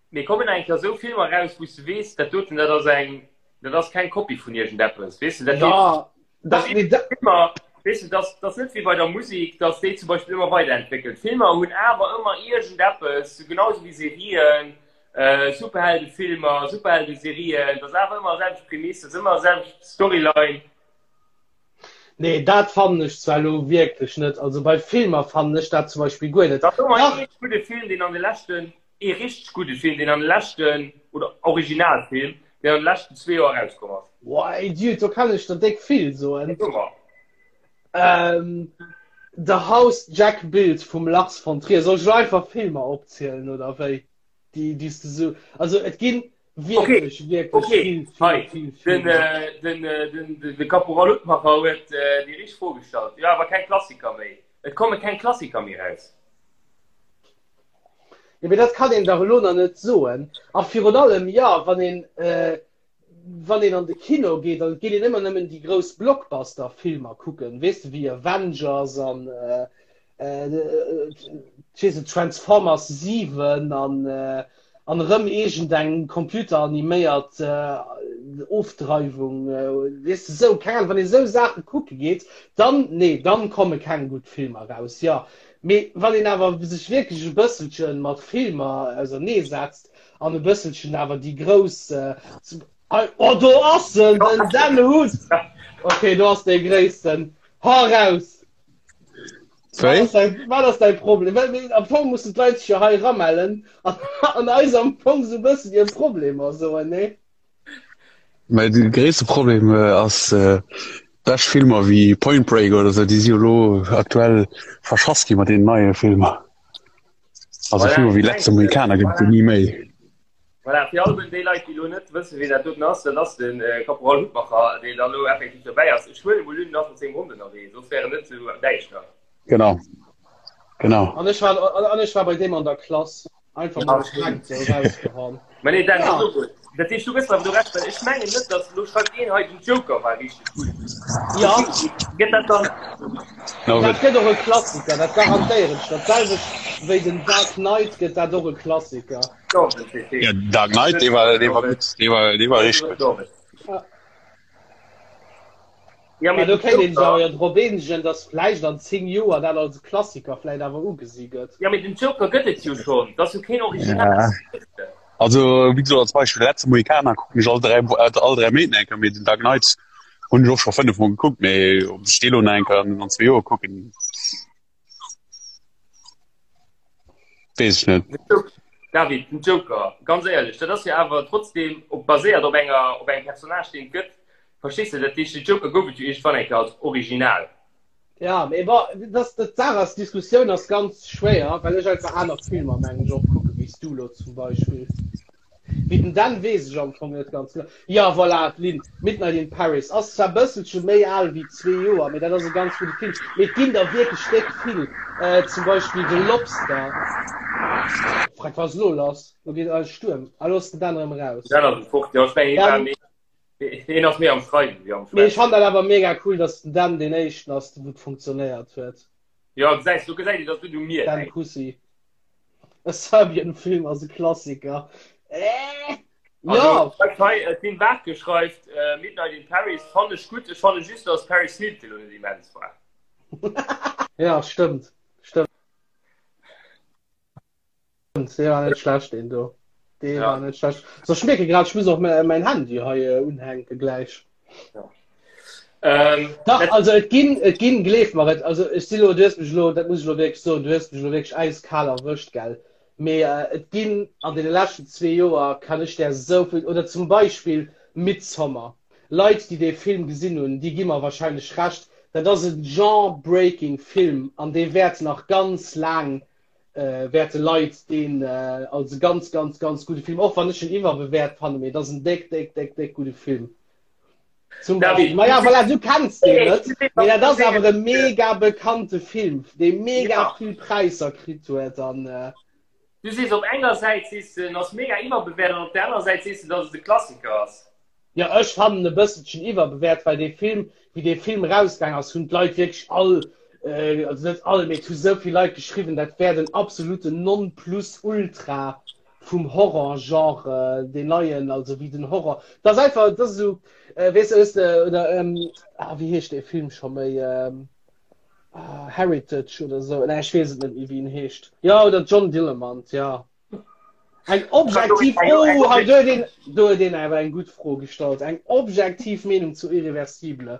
Mee kommen eng Kéier esou Filmer raus, wou s de weess, dat doten, dat ass eng, dat ass keng Kopie vun iergendeppes, weess de, dat Ja, dat, nee, dat. Filmer, weess de, dat ass net wéi bei der Musek, dass déi zum Beispill ëmmer weiderentwéckelt. Filmer hunn awer ëmmer iergendeppes, genau esou wéi Serien, Superheldefilmer, Superheldeserien, dat ass awer ëmmer selwecht Prämiss, dat ass ëmmer selwecht Storyline. Nee, dat fannen ech zwar elo wierklech net. Also bei Filmer fannen ech dat zum Beispill guer net. Dat ass ëmmer ee gudde Film, deen an de leschten, ee richteg gudde Film, deen an de leschten, oder Originalfilm, deen an de leschten zwee Joer erauskomm ass. Boah, Dude, do kann ech der déck vill soen. So mer. Ähm, The House Jack Built vum Lars von Trier. Soll ech elo einfach Filmer opzielen oder wéi? Déi, déi s de sou, also et ginn wierklech, okay. wierklech okay. vill, vill, Hei. vill, vill. Den, äh, den, äh, den, den, de Caporal Hutmacher huet äh, déi richteg Fro gestallt. Jo, awer keng Klassiker méi. Et komme keng Klassiker méi raus. Ja, mee dat kann een dach elo nach net soen. A virun allem, jo, wann een, äh, wann een an de Kino geet, dann geet een ëmmer nëmmen déi grouss Blockbuster-Filmer kucken, weess de, wéi Avengers an äh, äh, ech weess net, Transformers 7 an, äh, an erëm iergendeng computeraniméiert äh, Ofdreiwung, weess de sou, keng Ahnung, wann ee sou Saache kucke geet, dann, nee, dann komme keng gutt Filmer raus, jo. Mee wann een awer sech wierklech e bësselche mat Filmer auserneesetzt an e bësselchen awer déi grouss, oh do ass en, den Dan Hutt! Okay, do ass dee Gréissten, hau raus! Wéi? Wat ass däi Problem? Well mir, am Fong mussen d'Leit sech jo hei ramellen an, an eis am Fong sou bëssen hir Problemer soen, nee? Mä de gréisste Problem äh, ass äh, bescht Filmer wéi Point Break oder sou, déi si jo lo aktuell verschass gi mat deenen neie Filmer. Also Voilà, Filmer wéi ich Letzte mengen, Mohikaner gëtt et jo voilà. ni méi. Voilà, fir all déi Leit, déi elo net wëssen, wien dat doten ass, dat ass de Caporal Hutmacher, deen dann elo effektiv dobäi ass. Ech huelen emol un, en ass mat sengem Hond ënnerwee, soss wär en net esou däischter. Genau, genau. An ech war, an ech war bei deem an der Klass. Einfach Ja, mal schéin. Prank sou rausgehauen. Mä nee, Dan, Ja. ass och gutt. Dat heescht, du gëss mer awer do Recht, well ech mengen net, datt, elo schreift een hei, den Joker war richteg gutt. Ja. Gëtt dat dann? No, Dat gëtt och e Klassiker, dat garantéieren ech. Dat selwecht wéi den Dark Knight gëtt dat och e Klassiker. Ja, Dark Knight, dee war, dee war gutt, dee war, dee war richteg gutt. Ja, Mä do kéint een sech awer jo drop eenegen, datt vläicht an 10 Joer dat als e Klassiker vläicht awer ugesi gëtt. Ja, mee den Joker gëtt et jo schonn, dat ass jo keen Original. Ja. Also, wéi gesot, als Beispill, de letzte Mohikaner kucken ech all 3, all 3 Méint eng Kéier, mee den Dark Knight hunn ech och scho 5 Mol gekuckt, mee ob ech dee lo nach eng Kéier an zwee Joer kucken, Weess ech net. David, den Joker, ganz éierlech, dat ass jo awer trotzdem op baséiert op enger op engem Personnage, deen et gëtt. Verstees de? Dat heescht, den Joker gouf et jo iergendwann eng Kéier als Original. Ja, mee bon, dat, dat d'Saach ass, d'Diskussioun ass ganz schwéier, well ech einfach aner Filmer, mengen ech, och kucke wéi s du elo zum Beispill. Wéi den Dan weess ech am Fong net ganz genau. Jo, voilà, d'Lynn, Midnight in Paris ass zwar bësselche méi al wéi zwee Joer, mee dat ass e ganz gudde Film. Mee et ginn der wierklech déck vill, zum Beispill The Lobster. Freck, wat ass elo lass? Lo geet eis Stuerm. Ah, lo ass den Dan erëm eraus. Den Dan ass fort, jo, ech mengen, hie war Dan, méi, hien ass méi am Schreiwen wéi am mee ech Schwätzen. fannen dat awer mega cool, dass den Dan deen éischten ass, wou et funktionéiert huet. Jo, gesäis, do gesäit een, dass et net u mir Dan läit. Kussi. E Serbian Film ass e Klassiker. Äh, Also, ja. schreift hei, äh, d'Lynn Bartke schreift, äh, Midnight in Paris fann ech gutt, ech fanne just, dass Paris Hilton lo net immens war. Ja, stëmmt. Stëmmt. Dee war net schlecht, deen do. Dee Ja. war net schlecht. So, ech mierke grad, ech muss och mäin Handy hei äh, unhänke gläich. Ja. Ähm, Dach, dat, also et ginn, et ginn, gleef mer et, also ech si lo, du hues mech lo, dat muss ech lo wierklech soen, du hues mech lo wierklech äiskal erwëscht, gell. Mee äh, et ginn an deene leschten zwee Joer kann ech där esou vill, oder zum Beispill Midsommar. Leit, déi dee Film gesinn hunn, déi gi mer wahrscheinlech Recht, dat ass e genre-breaking Film an dee wäert nach ganz laang äh, wäerte Leit deen äh, als e ganz, ganz, ganz gudde Film, och wann ech en iwwerbewäert fannen, mee et ass en déck, déck, déck, déck gudde Film. Zum Beispiel. David, Maja, voilà, du kenns deen Nee, net, du mee dat ass sees- awer e mega bekannte Film, dee mega Ja. vill Präisser kritt huet an äh, Du sees op enger Säit sees du, en ass mega iwwerbewäert an op der anerer Säit sees du, dass et e Klassiker ass. Ja, ech fannen e bësselchen iwwerbewäert, well dee Film, wéi dee Film erausgaang ass, hunn d'Leit wierklech all, äh, also net all, mee et hu sou vill Leit geschriwwen, dat wär den absoluten Nonplusultra vum Horror-Genre, deen neien, also wéi den Horror, dat ass einfach, dat ass esou, äh, weess de, hues de, oder, ähm, ah, wéi heescht dee Film scho méi, ähm, ah, Heritage oder esou, nee, ech weess et net méi, wéi en heescht, jo, oder John Dillermand, ja. Eng objektiv, oh, hei, do huet een, do huet een awer eng gutt Fro gestallt, eng objektiv Meenung zu Irreversible.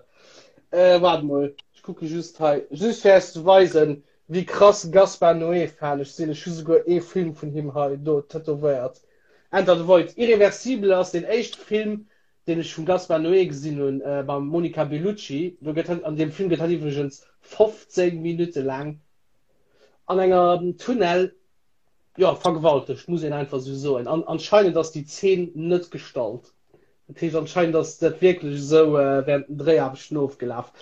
Äh, waart mol, ech kucke just hei, just fir iech ze weisen, Wéi krass Gaspar Noé Fan ech sinn, ech hu souguer ee Film vun him hei do tätowéiert. Enter the Void, Irreversible ass deen éischte Film deen ech vum Gaspar Noé gesinn hunn mam Monica Bellucci. Do gëtt hatt, an deem Film gëtt hatt iwwregens 15 Minutte laang an enger Tunnel, jo, vergewaltegt, muss een einfach esou soen. An anscheinend ass déi Zeen net gestallt. Dat heescht anscheinend ass dat wierklech esou während den Dréiaarbechten ofgelaf.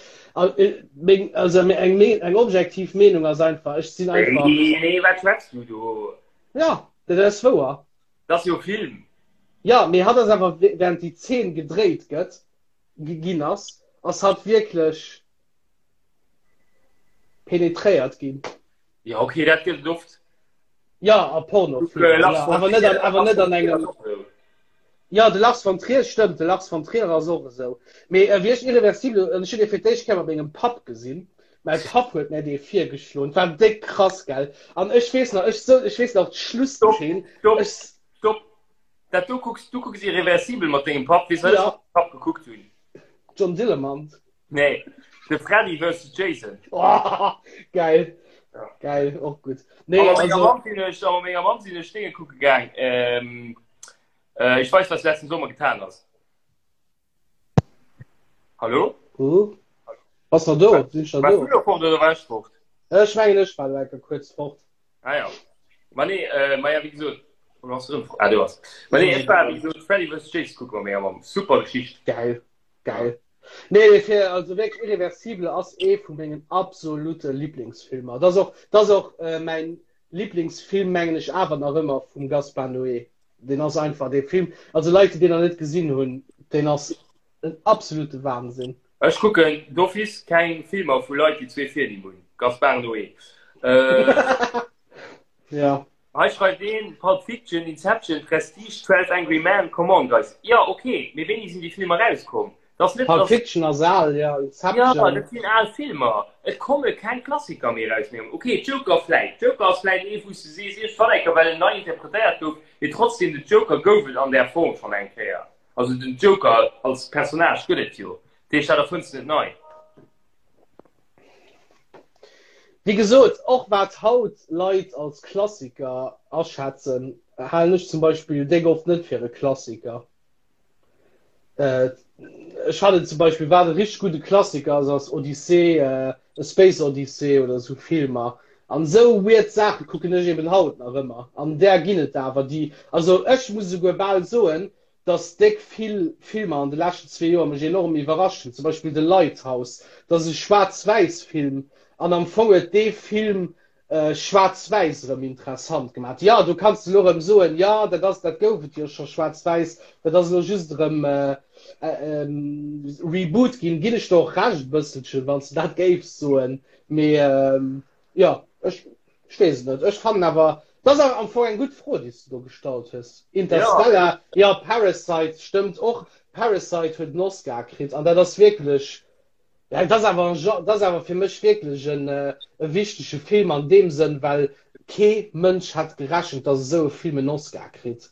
Meng, also eng, eng objektiv Meenung ass einfach, ech sinn einfach. Nee, nee, wat schwätz du do? Ja, dat ass wouer. Dat ass jo Film. Ja, mee hatt ass awer während déi Zeen gedréit gëtt, ginn ass, ass hatt wierklech penetréiert ginn. Ja, okay, dat gëtt et oft. Ja, a Pornofilmer, ja, awer net an, awer net an engem. Jo, de Lars von Trier, stëmmt, de Lars von Trier ass och esou. Mee wéi ech Irreversible, an ech hunn dee fir d'éischt Kéier mat mengem Papp gesinn, mäi Papp huet mär dee virgeschloen, et war déck krass, gell? An ech weess nach, ech sou, ech weess nach Stopp, d'Schlusszeen, stopp, ech. stopp! Dat do kucks, du kucks Irreversible mat dengem Papp, weess wat ech Ja. mat mengem Papp gekuckt hunn? John Dillermand. Nee, de Freddy versus Jason. Oh, geil. Ja. Geil, och gutt. Nee, A mat menger also. Mamm sinn ech, a mat menger Mamm sinn ech Dénge kucke gaang. Ähm, äh, ich weiß, was du letzten Sommer getan hast. Hallo? Uh. Bass nach do? Sinn ech nach Warst do? du lo fort oder war ech fort? Ech mengen, ech war elo kuerz fort. Ah ja. Ma nee, äh, ma ja, wéi gesot, oder hast du erëm fort? Ah, du hast. Ma nee, ech war, wéi gesot, Freddy vs. Jason kucke mat menger Mamm. Super Geschicht. Geil, geil. Nee, nee, fir, also wierklech Irreversible ass ee vu mengen absolute Lieblingsfilmer. Dat ass och, dat ass och äh, mäin Lieblingsfilm, mengen ech awer nach ëmmer vum Gaspar Noé. Deen ass einfach dee Film, also Leit, déi deen nach net gesinn hunn, deen ass en absolute Wahnsinn. Ech kucken d'office keng Filmer vu Leit, déi zwee Virnimm hunn. Gaspar Noé. Äh, Ja. Hei schreift een, Pulp Fiction, Inception, Prestige, 12 Angry Men, come on guys. Jo, ok, mee wéini sinn déi Filmer erauskomm? Dat ass net, Pulp dass. Fiction ass al, ja, Jo, Inception. dat sinn al Filmer. Et komme keng Klassiker méi eraus méi. Ok, Joker vläit. Joker ass vläit ee wou s de sees, iergendwann eng Kéier, well en nei interpretéiert gouf, mee trotzdem, den Joker gouf et an där Form schonn eng Kéier. Also den Joker als Personnage gëtt et jo. Dat heescht, dat erfënns de net nei. Wéi gesot, och wat haut Leit als Klassiker aschätzen, halen ech zum Beispill déck oft net fir e Klassiker. Ech fannen zum Beispill, wat e richteg gudde Klassiker ass, ass Odyssee, A Space Odyssey oder esou Filmer. An esou weird Saache kucken ech eben haut nach ëmmer. An där ginn et awer, déi, also ech muss esouguer bal soen, dass déck vill Filmer an de leschten zwee Joer mech enorm iwwerrascht hunn, zum Beispill The Lighthouse, dat ass e Schwaarz-Wäiss-Film an am Fong huet dee Film Schwaarz-Wäiss erëm interessant gemaach. Jo, do kanns de elo erëm soen, jo, dat ass, dat gouf et jo scho Schwaarz-Wäiss, dat ass elo just erëm Reboot ginn. Ginn ech der och Recht e bësselchen, wann s de dat géifs soen, mee Jo, ech, ech weess et net. Ech fannen awer, dat ass awer am Fong eng gutt Fro, déi s de do gestallt hues. Interstellar, jo, Parasite stëmmt och. Parasite huet en Oscar kritt an dat ass wierklech, ja, dat ass awer en Genre, dat ass awer fir mech wierklech en e wichtege Film an deem Sënn, well kee Mënsch hätt gerechent, datt esou e Film en Oscar kritt.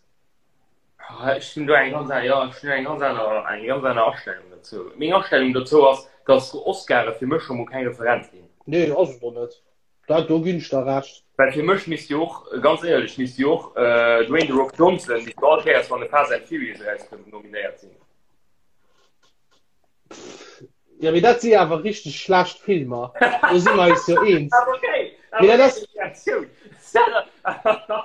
Ech hunn do eng ganz aner, jo, ech hunn eng ganz aner, eng ganz aner Astellung dozou. Meng Astellung dozou ass, dass Oscare fir mech scho mol keng Referenz sinn. Nee, ass et och net. Dat, do ginn ech der Recht. Well fir mech misst jo och, ganz éierlech, misst jo och Dwayne The Rock Johnson, misst jo all Kéiers, wann e Fast and Furious erauskënnt, nominéiert sinn. Ja, mee dat si awer richteg schlecht Filmer. Do si mer eis jo eens. Mee dat ass.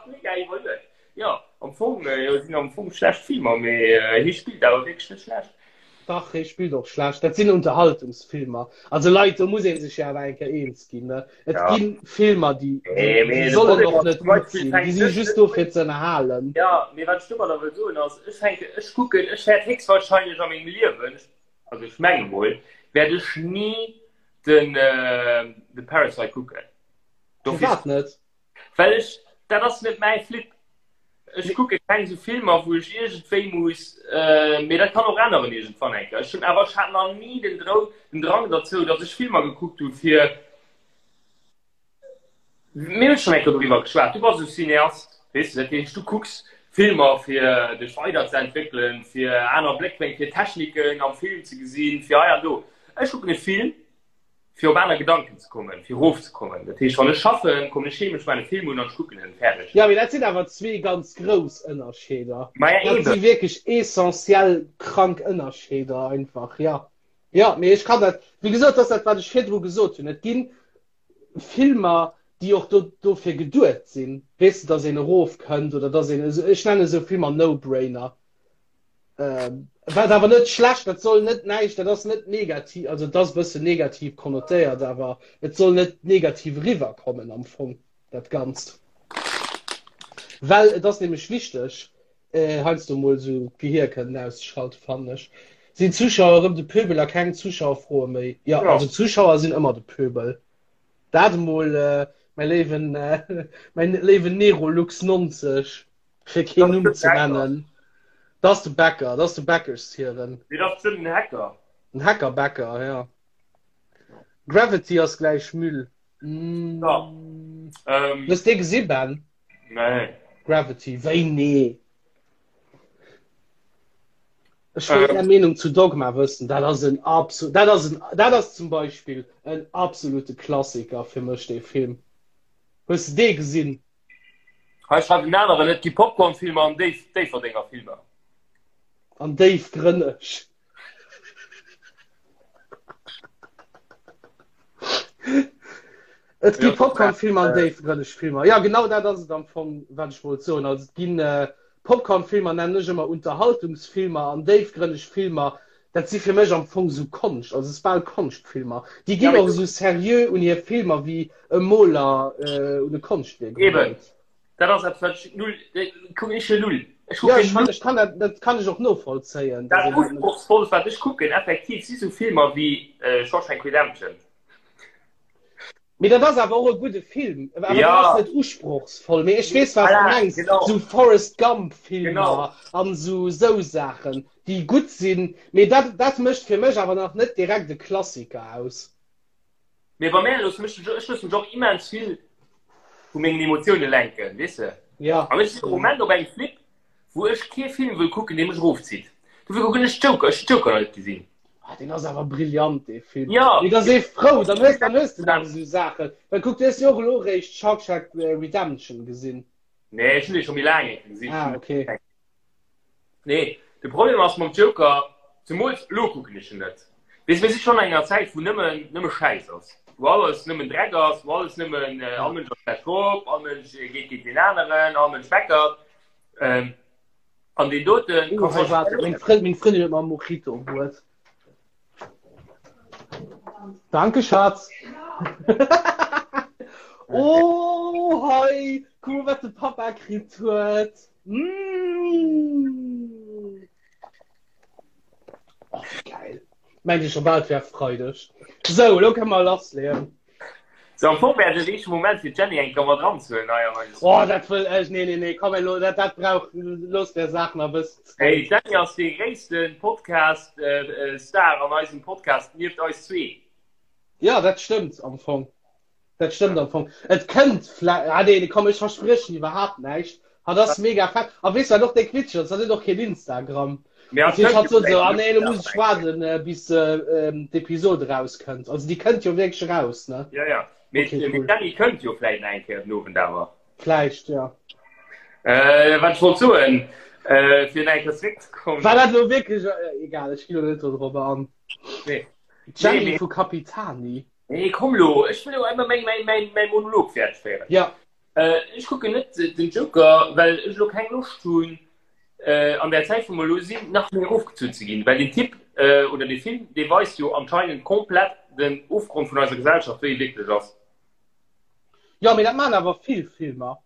Mega iwwerluecht. Jo, am Fong jo, sinn am Fong schlecht Filmer, mee hie spillt awer wierklech net schlecht. Dach, hie spillt och schlecht. Dat sinn Unterhaltungsfilmer. Also Leit, do muss ee sech jo awer eng Kéier eens ginn, ne? Et Ja. gi Filmer, déi, déi, Nee, mee déi de sollen Problem och ass net zum gutt Beispill sinn. Déi fänkt si net just do fir ze ënnerhalen. Ja, mee wat ech domadder wëll soen ass, ech fänke, ech kucken, ech wäert héchstwahrscheinlech a mengem Liewen, also ech menge mol, wäert ech ni den, de Parasite kucken. Dofir, Firwat net? well ech, dat ass net mäi Flip. Ech kucke keng esou Filmer, wou ech iergendwéi muss, mee dat kann och änneren iergendwann eng Kéier. Ech hunn awer, ech hat nach ni den Drou, den Drang derzou, datt ech Filmer gekuckt hu fir, mir hunn schonn eng Kéier doriwwer geschwat, du bass e Cineast, weess de, dat heescht, du kucks Filmer fir dech weiderzeentwéckelen, fir aner Bléckwénkel, fir Techniken am Film ze gesinn, fir hei an do. Ech kucken e Film, fir op aner Gedanken ze kommen, fir erofzekommen. Dat heescht, wann ech schaffen, kommen ech heem, ech maachen e Film un an ech kucken en, fäerdeg. Jo, mee dat sinn awer zwee ganz grouss Ënnerscheeder. Maja, Dat si eben. wierklech essentiell krank Ënnerscheeder einfach, jo. Jo, mee ech kann dat, wéi gesot, dat ass dat, wat ech virdru gesot hunn. Et gi Filmer, déi och do, dofir geduet sinn, weess de, dass een erofkënnt oder dass een, ech nennen esou Filmer No-Brainer. Wat awer net schlecht, dat soll net näischt, dat ass net negativ, also et ass e bëssen negativ konnotéiert, awer et soll net negativ eriwwerkommen am Fong, dat Ganzt. Well et ass nämlech wichteg, heiansdo mol esou d'Gehier kënnen auszeschalten, fannen ech. Sinn d'Zuschauer erëm de Pöbel a keng Zuschauerfroe méi? Jo, also d'Zuschauer sinn ëmmer de Pöbel. Dat emol, mäi léiwen, mäin léiwen Nerolux 90. Fir keen Numm ze nennen. Dat ass de Bäcker, dat ass de Bäckershiewen. Nee, dat ass bestimmt en Hacker. En Hackerbäcker, ja. Gravity ass gläich Müll. Mm. Ja. Ähm, Hues dee gesi, Ben? Nee. Gravity, wéi nee? Ech wëll ähm. Är Meenung zu Dogma wëssen. Dat ass en absolut, dat ass en, dat ass zum Beispill en absolute Klassiker fir mech, dee Film. Hues de dee gesinn? Hei schreift en aneren, et gi Popcorn-Filmer an Déif, Déifferdenger Filmer. An déifgrënneg. Et gi Popcorn-Filmer an déifgrënneg Filmer. Ja, genau dat ass et am Fong, wat ech wollt soen. Also et ginn äh, Popcorn-Filmer nennen ech ëmmer Unterhaltungsfilmer an déifgrënneg Filmer, dat si fir mech am Fong sou Konscht, also et ass bal Konschtfilmer. Déi ginn och esou seriö un hir Filmer wéi e Moler äh, un e Konschtwierk Eben. erugeet. Dat ass eppes, wat ech null, kucken ech jo null. Ech Ja, kucken ech, null. ech kann dat, dat kann ech och novollzéien, dass Dat een dat net. Usprochsvollst, wat ech kucken, effektiv, si sou Filmer wéi äh, Shawshank Redemption. Mee dat ass awer och e gudde Film. Awer dat Ja. ass net usprochsvoll. Mee ech weess, wat du Voilà, mengs. genau. Sou Forrest Gump-Filmer Genau. an sou sou Saachen, déi gutt sinn. Mee dat, dat mécht fir mech awer nach net direkt e Klassiker aus. Mee bei mär loosse mech, ech loosse mech och immens vill vu mengen Emotioune lenken, weess de? Ja. An ech sinn am Moment op engem Flip, wou ech kee Film wëll kucken, dee mech erofzitt. Dofir kucken ech Joker. Ech hunn Joker nach net gesinn. Ah, deen ass awer brillant, dee Film. Ja. Mee da si frou, dann hues, dann hues de nach esou Saachen. Well kuck, du hues jo och elo eréischt Shawshank Redemption gesinn. Nee, ech hunn dee scho méi laang eng gesinn. Ah, okay. Nee, de Problem ass mam Joker, zemools elo kucken ech en net. Weess, mir si schonn an enger Zäit, wou nëmmen, nëmme Schäiss ass, wou alles nëmmen Dreck ass, wou alles nëmmen, all Mënsch ass schlecht drop, all Mënsch geet géint deen aneren, all Mënsch meckert. Ähm, an deen doten Oh, hei, waart, meng Frënd, meng Frëndin huet mer e Mojito bruet. Danke, Schatz. Oh, hei, kuck mol, wat de Papa kritt huet. Mmh. Oh, geil. Mengt Dir scho bal, et wär Freideg. Sou, elo kënne mer lassleeën. Sou, am Fong wär et de richtege Moment fir d'Jenny eng Kéier mat eranzehuelen hei an eise Oh, dat wëll ech, nee, nee, nee, komm elo, dat, dat brauch, looss der Saach nach e bëssen Zäit. Hey, d'Jenny ass dee gréisste Podcast-Star an eisem Podcast nieft eis zwee. Ja, dat stëmmt am Fong. Dat stëmmt am Fong. Et kënnt vläicht, ah nee, komm, ech verspriechen iwwerhaapt näischt. Hatt ass mega fett. A weess du, wat och déck witzeg ass? Hatt huet och keen Instagram. Mee Dat hatt heescht, kënnt hatt jo sot esou, vläicht ah nee, elo muss nach ech eng Kéier. waarden, bis d'Episod erauskënnt. Also déi kënnt jo wierklech eraus, ne? Ja, ja. Mee Okay, mee cool. d'Jenny kënnt jo vläicht nach eng Kéier den Owend awer. Vläicht, ja. Äh, wat ech wollt soen, äh, fir nach eng Kéier zeréckzekommen. War dat elo wierklech, egal, ech ginn elo net dodrobber an. Nee. Nee, D'Jenny mee. vu Capitani. Nee, komm lo, ech wëll jo emmer mäin, mäin, mäin, mäin Monolog fäerdeg féieren. Ja. Äh, ech kucken net den Joker, well ech lo keng Loscht hunn, äh, an der Zäit, wou mer lo sinn, nach méi erofgezunn ze ginn. Well den Typ, äh, oder de Film, dee weist jo anscheinend komplett den Ofgrond vun eiser Gesellschaft, wéi e wierklech ass. Jo, mee dat maachen awer vill Filmer.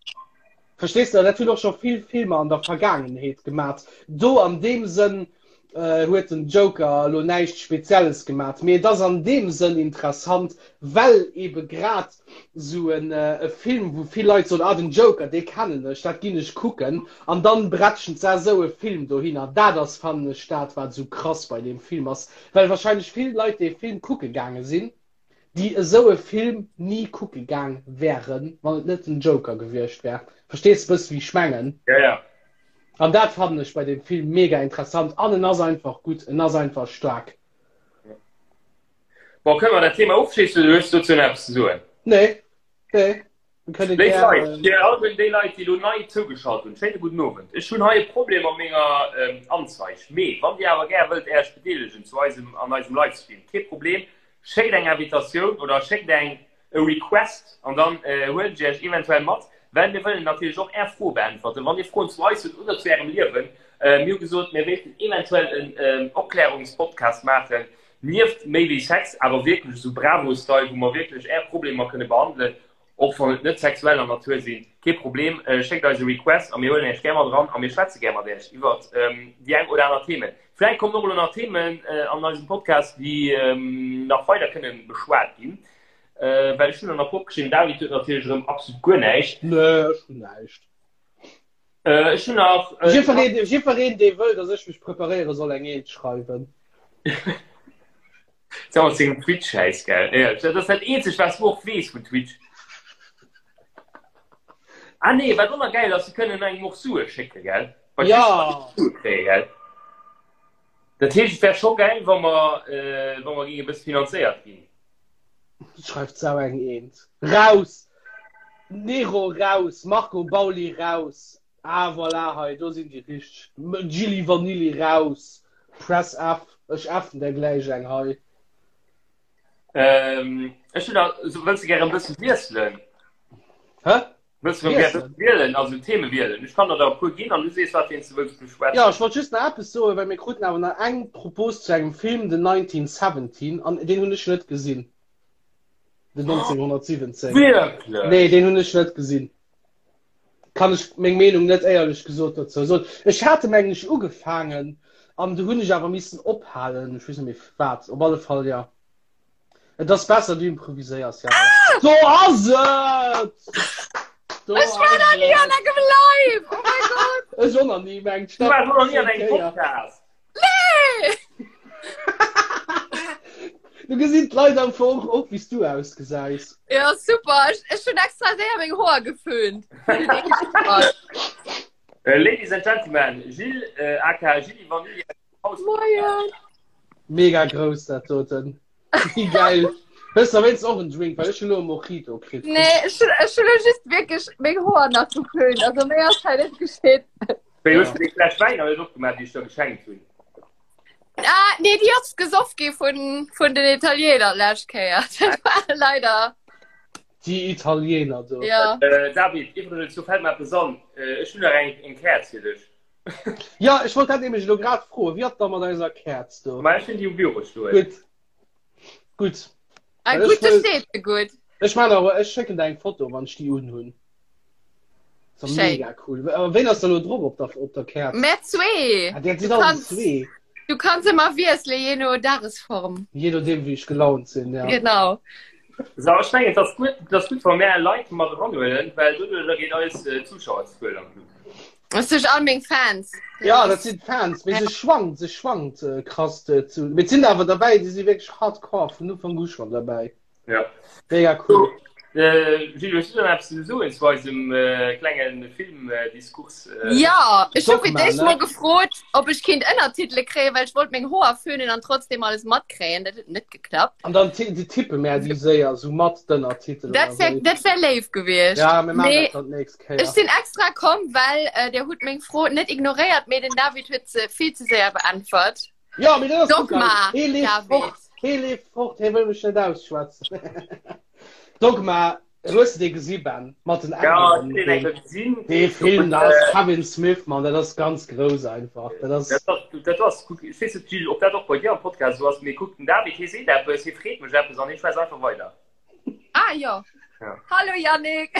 Verstees de? Dat hunn och scho vill Filmer an der Vergaangenheet gemat. Do an deem Sënn huet den Joker elo näischt Spezielles gemat, mee et ass an deem Sënn interessant, well ebe grad esou e Film, wou vill Leit soen, ah den Joker, dee kennen ech, dat ginn ech kucken, an dann bretschen se esou e Film dohinner. Dat ass, fannen ech, dat wat esou krass bei deem Film ass, well wahrscheinlech vill Leit dee Film kucke gaange sinn, déi esou e Film ni kucke gaang wären, wann et net den Joker gewiescht wär. Verstees de bëssen, wéi ech mengen? Ja, ja. An dat fannen ech bei dem Film mega interessant an en ass einfach gutt, en ass einfach staark. Bon, kënne mer dat Thema ofschléissen oder hues du dozou nach eppes ze soen? Nee, nee. Wir kënne Léif gär, Leit, fir all déi Leit, déi elo nei zougeschalt hunn, schéine gudden Owend. Ech hunn hei e Problem mat menger Anzeig. Mee wann Dir awer gär wëllt Äech bedeelegen zu eisem, an eisem Livestream, kee Problem, schéckt eng Invitatioun oder schéckt eng e Request an dann huelen ech Iech eventuell mat, well mir wëllen natierlech och Är Froe beäntwerten. Wann Dir Froen zu eis hutt oder zu Ärem Liewen, mir hu gesot, mir wéilten eventuell en Opklärungspodcast maachen, nieft méi wéi Sex, awer wierklech esou Bravo-Style, wou mer wierklech Är Problemer kënne behandelen, och wann et net sexueller Natur sinn, kee Problem, schéckt eis e Request a mir huelen Iech gär mat eran a mir schwätze gär mat Iech iwwert déi eng oder aner Themen. Vläicht kommen och elo nach Themen an eisem Podcast, déi nach weider kënne beschwat ginn, well ech hunn der nach opgeschriwwen, David huet natierlech erëm absolut guer näischt. Nee, ech hunn näischt. Äh, ech hunn nach. Äh, Jiddwereen, jiddwereen, dee wëll, dass ech mech preparéiere soll eng Eent schreiwen. Sag mal, sengem Twitch-Schäiss, gell? Ja, dat ass dat eenzegt, was du och weess vun Twitch. Ah nee, wat och nach geil ass, se kënnen engem och Sue schécke, gell? Bei Ja. Twitch kann een Sue kréien, gell? Dat heescht, et wär scho geil, wa mer, äh, wa mer géinge bësse finanzéiert ginn. Schreift sau eng Eent. Raus! Nero raus! Marco Bauli raus! Ah voilà, hei, do sinn déi richteg. Gilli Vanilli raus! Press F, ech effen der gläich eng hei. Ähm, ech hunn nach, so, wëlls de gären e bësse wiesselen? Hä? Wëlls du gär wielen, also Theme wielen? Ech kann der der e puer ginn an du sees, wat fir een s du wëlls beschwätzen. Jo, ech wollt just nach eppes soen, well mir kruten awer nach eng Propos zu engem Film, den 1917, an deen hunn ech net gesinn. Den 1917. Wierklech? Nee, deen hunn ech net gesinn. Kann ech meng Meenung net éierlech gesot dozou soen. Ech hat e mengen ech ugefaangen an du hunn ech awer missen ophalen. Ech weess net méi wat. Op alle Fall, jo. Et ass besser du improviséiers ja. Ah! Do ass et! Do Ech war nach nie an engem Live! Oh mein Gott! Ech och nach nie, mengt Du warst noch nie an engem Podcast. Nee! Du gesinn d'Leit am Fong och wéi s du ausgesäis. Ja, super. Ech, ech hunn extra séier meng Hoer geföhnt. Äh, Ladies and Gentlemen, Gilles, äh, aka Gilli Vanilli Moien. Mega grouss dat doten. Wéi geil. Hues de wéinst och en Drink, well ech hunn elo e Mojito kritt. Nee, ech hunn ech hunn elo just wierklech meng Hoer nach geföhnt. Also méi ass hei net geschitt. Wéi hues du déi Fläsch Wäin nach net opgemaach, déi ech der geschenkt hunn? Ah, nee, déi ass gesoff gi vun, vun den Italiener d'lescht Kéier. Dat war leider. Déi Italiener do. Ja. Äh, David, iwwregens, do fält mer eppes an. Äh, ech hunn nach eng, eng Käerz fir dech. Ja, ech wollt dat nämlech elo grad froen. Wéi ass da mat eiser Käerz do? Ma ech hunn déi um Büro stoen. Gutt. Gutt. Ah, Well ech gutt, do wëll- steet se gutt. Ech man awer, ech schécken der eng Foto, wann ech déi unhunn. So Schéin. mega cool. Awer ween ass da lo drop op der, op der Käerz? Mär zwee. Ah, der Du sinn alle kanns, zwee. du kanns ëmmer wiesselen, je no Dagesform. Je nodeem, wéi ech gelaunt sinn, ja. Genau. So, ech mengen, et ass gutt, et ass gutt, wa mär Leit mat eranhuelen, well doduercher geet eis äh, Zuschauerzuel an d'Luucht. Das sind all meng Fans. Ja, dat sinn d'Fans, mee se schwankt, se schwankt äh, krass äh, zu. Mee et sinn awer derbäi, déi si wierklech hardcore vun Ufank u schonn derbäi. Ja. Mega cool. Äh, Gilles, hues du dann eppes ze soen zu eisem äh, klengen Filmdiskurs? Äh, Ja, ech hu fir Dogma, d'éischt ne? mol gefrot, ob ech kinnt Ënnertitele kréien, well ech wollt meng Hoer föhnen an trotzdem alles matkréien. Dat huet net geklappt. An dann ti- déi tippe mär déi séier sou mat d'Ënnertitelen Dat a wär, sou. dat wär léif gewiescht. Ja, mir maachen Mee dat dann d'nächst Kéier. ech sinn extra komm, well äh, der hutt meng Fro net ignoréiert, mee den David huet se vill ze séier beäntwert. Ja, mee dat ass gutt, Dogma, Hee leeft David. fort, hee leeft fort, hee wëll mech net ausschwätzen. Dogma, hues de dee gesi, Ben? Mat den Ja, Engelen? ech hunn deen eng Kéier gesinn. Dee Film, da ass Kevin Smith, Mann, dat ass ganz grouss einfach. Dat ass. Dat ass, dat ass, kuck, ech weess net, Gilles, ob dat och bei dir am Podcast esou ass, mee kuck, den David, hee seet eppes, hee freet mech eppes an hee schwätzt einfach weider. Ah jo. Ja. Hallo Yannick.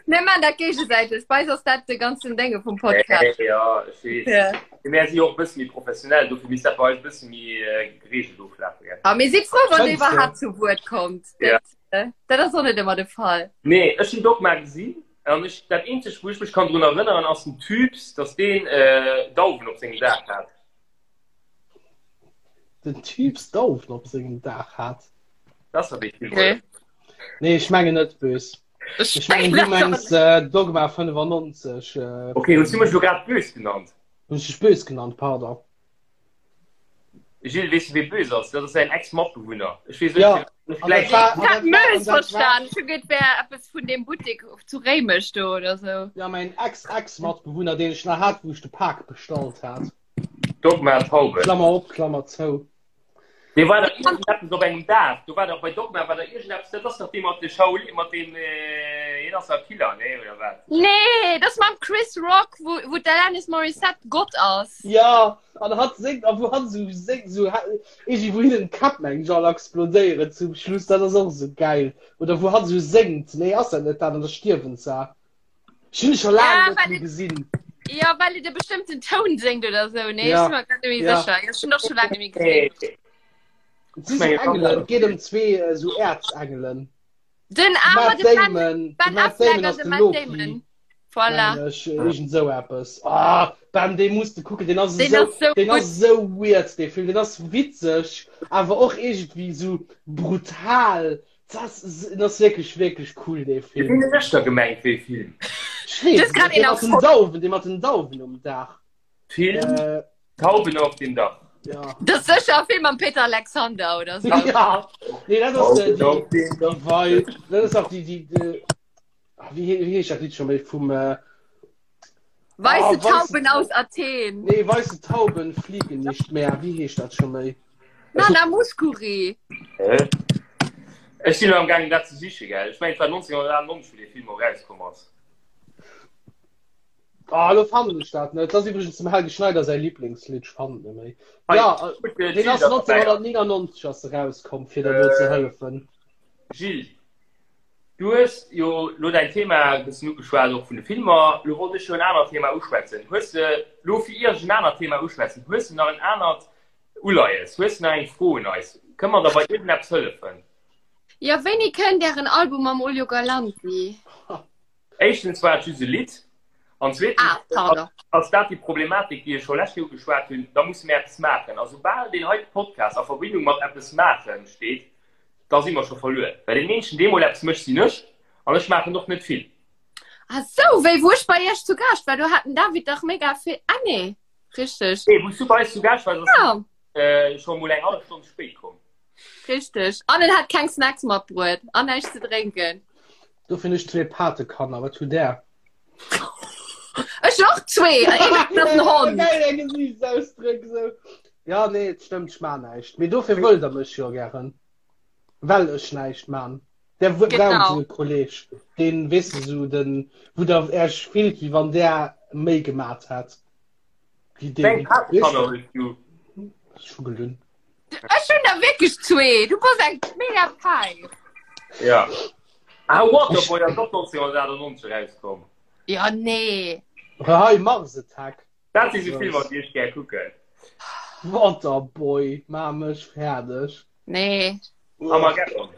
Mir man dat géigesäiteg. Bei eis ass dat de ganzen Dénge vum Podcast. Äh, ja, ech weess. Ja. Mee Mär si jo och e bësse méi professionell, dofir misst dat bei eis e bësse méi äh, gereegelt oflafen, gell? A mir si frou, wann Fënns du? iwwerhaapt zu Wuert kommt. Ja. Dat, äh, dat ass och net ëmmer de Fall. Nee, ech hunn Dogma gesinn an ech, dat eenzegt, wou ech mech kann drun erënneren, ass den Typs, dass deen äh, Dauwen op sengem Daach hat. Den Typs Dauwen op sengem Daach hat. Dat ass dee Film, Okay. oder? Nee, ech mengen net bös. Ech Ech mengen du mengen dat och mengs äh, Dogma 95. Äh, Okay, hues du mech lo grad bös genannt? Hunn ech dech bös genannt, pardon. Gilles, weess du wee bös ass? Dat ass säin Ex-Matbewunner. Ech weess Ja, net, an dat vläicht. war, Ich an hat dat war, Mös an dat war, verstan. Ech hu geduet, wär eppes vun deem Buttek zu Réimech do oder sou. ja, mein Ex-Ex-Matbewunner, deen ech nach hat, wou ech de Pak bestallt hat. Dogma Tauben. Klammer op, Klammer zou. Dee war da iergendeppes op engem Daach. Do war dach bei Dogma war da iergendeppes, dat ass dach dee mat de Shaolin, mat deem, hien ass dach Killer, nee, oder wat? Nee, dat ass mam Chris Rock, wou, wou d'Alanis Morissette Gott ass. Ja, an hatt séngt, a wou hatt esou séngt, esou iergendwéi wou hinnen d'Käpp mengen ech all explodéieren zum Schluss, dat ass och esou gäil. Oder wou hatt esou séngt, nee ass dat net dat, an da stierwen se. Ech hunn e scho laang Ja, net well méi et, gesinn. ja, well et e bestëmmten Toun séngt oder sou, nee, ech Ja, si mer grad net méi ja. sécher. Ech hunn och scho laang net méi gesinn. Nee, Et ech si sou mengen, Engelen, et geet ëm zwee esou Äerzengelen. Den De ah, Matt de Ben, Damon, de Ben Matt Affleck Damon an ass de de Matt Loki. Damon. Voilà. Mengen ech, iergend esou eppes. Ah, bam, dee muss de kucken, deen ass Deen esou, ass sou deen gutt. ass esou weird, dee Film. Deen ass witzeg, awer och iergendwéi esou brutal. Dat ass, deen ass wierklech, wierklech cool, dee Film. Ween hues da gemengt, wéi Film? Ech Du weess hues et grad net, dee een mat den erfonnt. Dauwen, dee mat den Dauwen um Daach. Film Äh, Tauben auf dem Dach. ja. Dat ass sécher e Film mam Peter Alexander oder sou. Ja, nee, dat ass äh, Tauben déi, auf dem Dach. déi Wei, dat ass auch déi, déi, déi, ah, wéi, wéi heescht dat Lidd scho méi vum, äh, Weiße Ah, weiße Tauben aus Athen. Nee, weiße Tauben fliegen nicht mehr. Wéi heescht dat scho méi? Nana Mouskouri. Hä? Ech sinn am gaangen dat ze siche gell. Ech mengen et war 1998 wou dee Film och rauskomm ass. Ah, lo fannen ech dat net. Dat ass iwwregens dem Helge Schneider säi Lieblingslidd. Ech fannen et net méi. Hei, Ja, gutt, äh, deen Gilles ass ass derbäi. 1999 ass e rauskomm, fir der do ze hëllefen. Gilles, du hues jo lo däin Thema e bëssen ugeschwat, och vun de Filmer. Lo wollt ech jo en anert Thema uschwätzen. Hues de lo fir ier ech en anert Thema uschwätzen, hues de nach en anert Uleies? Hues de nach eng Fro un eis? Kënne mer der bei iergendeppes hëllefen? Jo, wéini kënnt ären Album mam Olio Galanti? Éischtens war et just e Lidd an zweetens Ah, pardon. ass dat déi Problematik, déi ech scho lescht Joer ugeschwat hunn, da musse mir eppes maachen. A soubal deen heite Podcast a Verbindung mat eppes maachen steet, da si mer scho verluer. Well deen eenzegen, dee mol eppes mécht, sinn ech an ech maachen och net vill. Ah sou, wéi wou ech bei iech zu Gaascht war, do hat den David dach mega vill, ah nee, richteg. Nee, wou s du bei eis zu Gaascht waars, ass Ja. den scho mol eng hallef Stonn ze spéit komm. Richteg. An en hat keng Snacks matbruet an näischt ze drénken. Dofir hunn ech zwee Patekanner. Wat hutt Där? Ech och zwee! An een ass en Hond. Geil, är Gesiichtsausdréck esou. Ja, nee, et stëmmt, ech maan näischt. Mee dofir wëllt der mech jo gären. Well ech näischt maan. Der braucht Genau. esou e Kolleg, deen, weess de, esou den, wou der Äech fillt, wéi wann där méi gemat hätt wéi Wéi deen. eng Patekanner hues du? Ech hu gelunn. Ech hunn der wierklech zwee. Du bass eng mega Päif. Ja. Ah, Waterboy ass och 1998 erauskomm. Ja, nee. Hei, Mars Attack. Dat si sou Filmer, déi ech gär kucken. Waterboy, maa mech fäerdeg. Nee. Armageddon.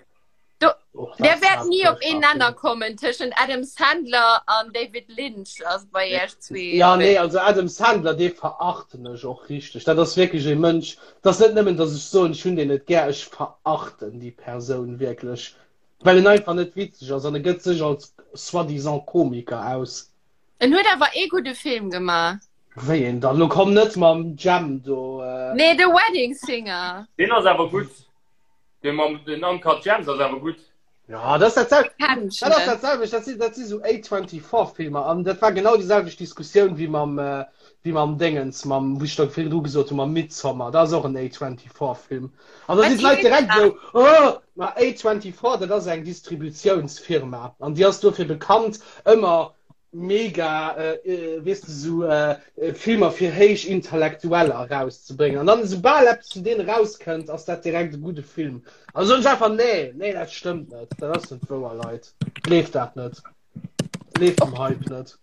Du, Och der das wäert war nie op een furchtbar Nenner kommen tëschent Adam Sandler an David Lynch ass bei iech zwee. Ja, nee, also Adam Sandler, dee verachten ech och richteg. Dat ass wierklech e Mënsch, dat ass net nëmmen, datt ech soen, ech hunn deen net gär, ech verachten déi Persoun wierklech, well en einfach net witzeg ass an e gëtt sech als soi-disant Komiker aus. En huet awer ee gudde Film gemaach. Wéi een dann? Lo komm net mam Jam do. Nee, The Wedding Singer. Deen ass awer gutt. Dee mam den Uncut Gems ass awer gutt. Ja, dat ass dat selwecht. Kenn ech Dat ass net. dat selwecht, dat sinn, dat si sou A24-Filmer an dat war genau déi selwecht Diskussioun wéi mam, äh, wéi mam Déngens, mam, wou ech da virdru gesot hunn, mam Midsommar. Dat ass och en A24-Film. An da Wat sinn d'Leit heescht direkt dat? esou, Oh, ma A24, dat ass eng Distributiounsfirma an déi ass dofir bekannt, ëmmer mega äh, weess de, sou äh, Filmer fir héich Intellektueller erauszebréngen. An dann esoubal eppes vun deenen erauskënnt, ass dat direkt e gudde Film. Also soen ech einfach, nee, nee, dat stëmmt net, dat ass net wouer, Leit. Gleeft dat net. Gleeft dem Hype net.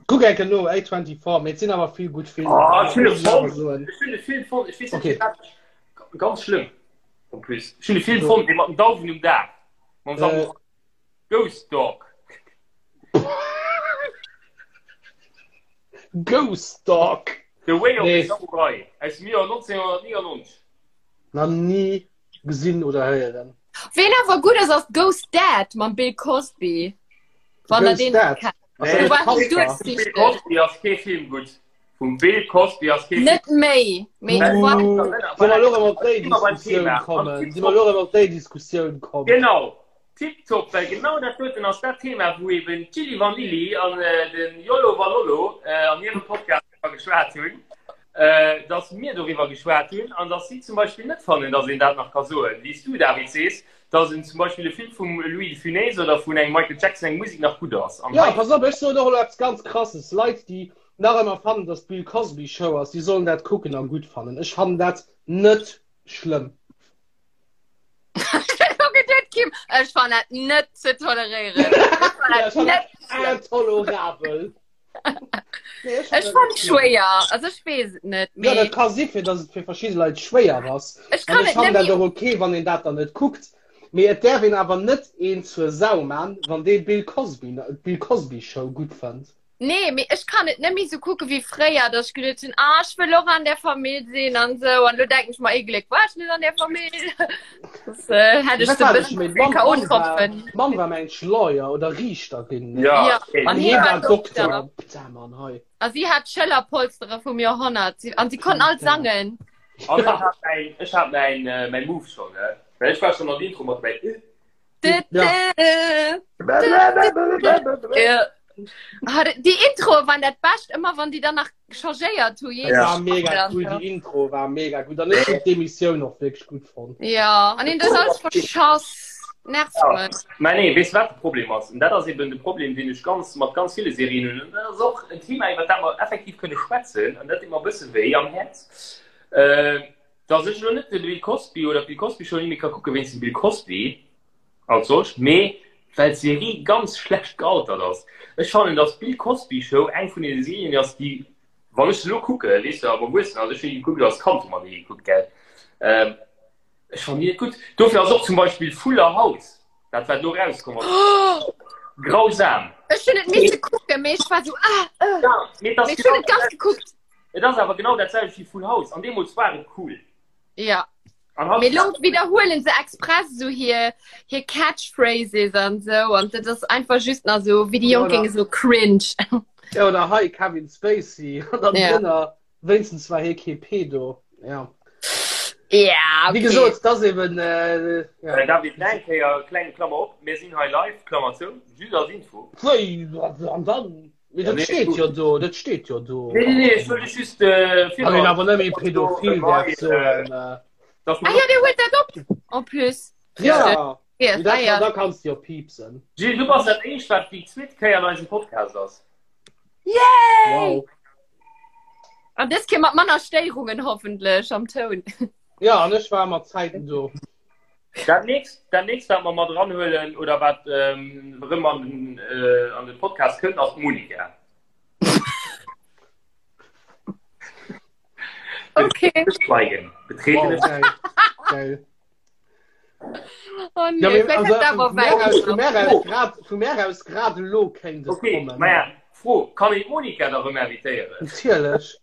Kuck eng Kéier no, A24, mee et sinn awer vill gutt Filmer. Oh, ech hunn e Muss ech awer fonnt. soen. Ech hunn e Film fonnt, ech weess net Okay. firwat ech, ganz schlëmm en plus. Ech hunn e Film fonnt, dee mat den Dauwen um Daach, mam Äh, Samurai. Ghost Dog. Ghost Dog. The Way of Nee. the Samurai aus dem Joer 1999. Nach ni gesinn oder héieren. Ween awer gutt ass, ass Ghost Dad mam Bill Cosby. Wann der Ghost deen Dad? kennt. Ass Nee, dat Do e war Kasper? Bill duerchsichteg. Cosby ass kee Film gutt. Vum Bill Cosby ass kee Film. Net méi, mee Uh, war Soll mer elo erëm op déi Immer beim Diskussioun Thema. kommen? Si mer elo erëm op déi Diskussioun komm? Genau. Tiptop, well genau dat doten ass dat Thema, wou eben d'Gilli Vanilli an de Yolo Valolo an hirem Podcast driwwer geschwat hunn, dass mir doriwwer geschwat hunn an dass si zum Beispill net fannen, dass een dat nach ka soen, wéi s du, David, sees, dass en zum Beispill e Film vum Louis de Funès oder vun engem Michael Jackson eng Musek nach gutt ass. An Jo, hei. pass op, ech soen och elo eppes ganz Krasses, Leit, déi nach ëmmer fannen, dass d'Bill Cosby Show ass, déi sollen dat kucken a gutt fannen. Ech fannen dat net schlëmm. Kim, ech fan dat net ze toleréieren. Ja, ech fan dat intolerabel. Nee, ech Ech fan schwéier, also ech weess et net. Ja, dat ka si fir, dass et fir verschidde Leit schwéier ass. Ech An kann ech et fannen net dat och okay, wann een dat dann net kuckt. Mee et däerf een awer net een zur Sau man, wann dee Bill Cosby, d'Bill Cosby Show gutt fënnt. Nee, mee ech kann et net méi sou kucke wéi fréier, dass ech geduet hunn, ah, ech wëll och an där Famill sinn an sou. An elo denken ech mer, ee Gléck war ech net an där Famill. Das äh, hätt ech Wat se war bëssen ech méi? ze vill K.O.-Tropfen. D'Mamm war mengt Lawyer oder Riichterin, ne? Ja, Ja, okay. an An hie hie war war Dokter. Dokter. Putain, Mann, hei. A si hat Schëllerpolstere vum Joerhonnert. Si, an si konnten all sangen. An ech hat mäin, ech hat mäin, äh, mäin Move schon, ne? Well ech war schon an der Intro mat dobäi. Ja. Ja. Ah, déi Introe waren dat Bescht, ëmmer wann déi dann nach changéiert hu. Ja. War mega cool, déi Intro war mega gutt. An ech hunn d'Emissioun och wierklech gutt fonnt. Ja, an hien huet alles verschass. Nervt Ja. mech. Mä nee, weess du wat de Problem ass? An dat ass eben de Problem, deen ech ganz mat ganz ville Serien hunn. An dat ass och en Thema, iwwer dat mer effektiv kënne schwätzen. An dat deet mer e bësse wéi am Häerz, äh, dass ech elo net de Bill Cosby oder d'Bill Cosby Show ni méi ka kucke wéinst dem Bill Cosby als solcht, mee well d'Serie ganz schlecht gealtert ass. Ech fannen, dass d'Bill Cosby Show eng vun deene Serien ass, déi, wann ech se elo kucke, weess de, ab erwuessen, also ech hunn déi gekuckt als Kand, hu mer déi gekuckt, gell, ähm, Ech fannen déi net gutt. Dofir ass och zum Beispill Fuller House, dat wat elo erauskomm ass, grausam. Ech hunn et misse kucken, mee ech war sou ah, äh. Ja, mee et ass Mee ech hunn genau et ganz gekuckt. Et ass awer genau dat selwecht wéi Full House an deemools war et cool. Ja. An haut Mee lo widderhuelen se express sou hir hir Catchphrases an sou an dat ass einfach just nach sou wéi déi Ja, Jonk oder- géinge sou cringe. Ja, oder hei Kevin Spacey an dann Ja. drënner Wéinstens war hie kee Pedo. Ja. Ja, Wéi okay. gesot, dat ass eben. Äh, ja. Äh, David, nach eng Kéier, kleng Klammer op, mir sinn hei live, Klammer zou, just als Info. Wéi, an dann? Mee Ja, dat nee, steet gut. jo do, dat steet jo do. Nee, nee, nee, ech wëll dech just äh, Wann een awer net méi pädophil däerf soen. Äh, Dass Ah man ja, der huet dat op en plus. ja, Yes, dat, ah, ja. da kanns du jo piepsen. Gilles, du bass dat éischt, wat déi zweet Kéier an eisem Podcast ass. Yay! Wow. An dës Kéier mat manner Stéierungen hoffentlech am Toun. Ja, an ech war mat Zäiten do. Dat nächst, dat nächst, wat mer mat eranhuelen oder wat ähm, erëm an den, äh, an den Podcast kënnt, ass d'Monika. Okay. Schweigen. Betretene Wow, geil. Geil. Oh nee, Ja, mee, vielleicht also, hat awer vu mär aus, vu weit. mär aus grad, vu mär aus grad elo kéint et Okay, kommen. maja, Fro, kann een d'Monika da rëm invitéieren? Natierlech.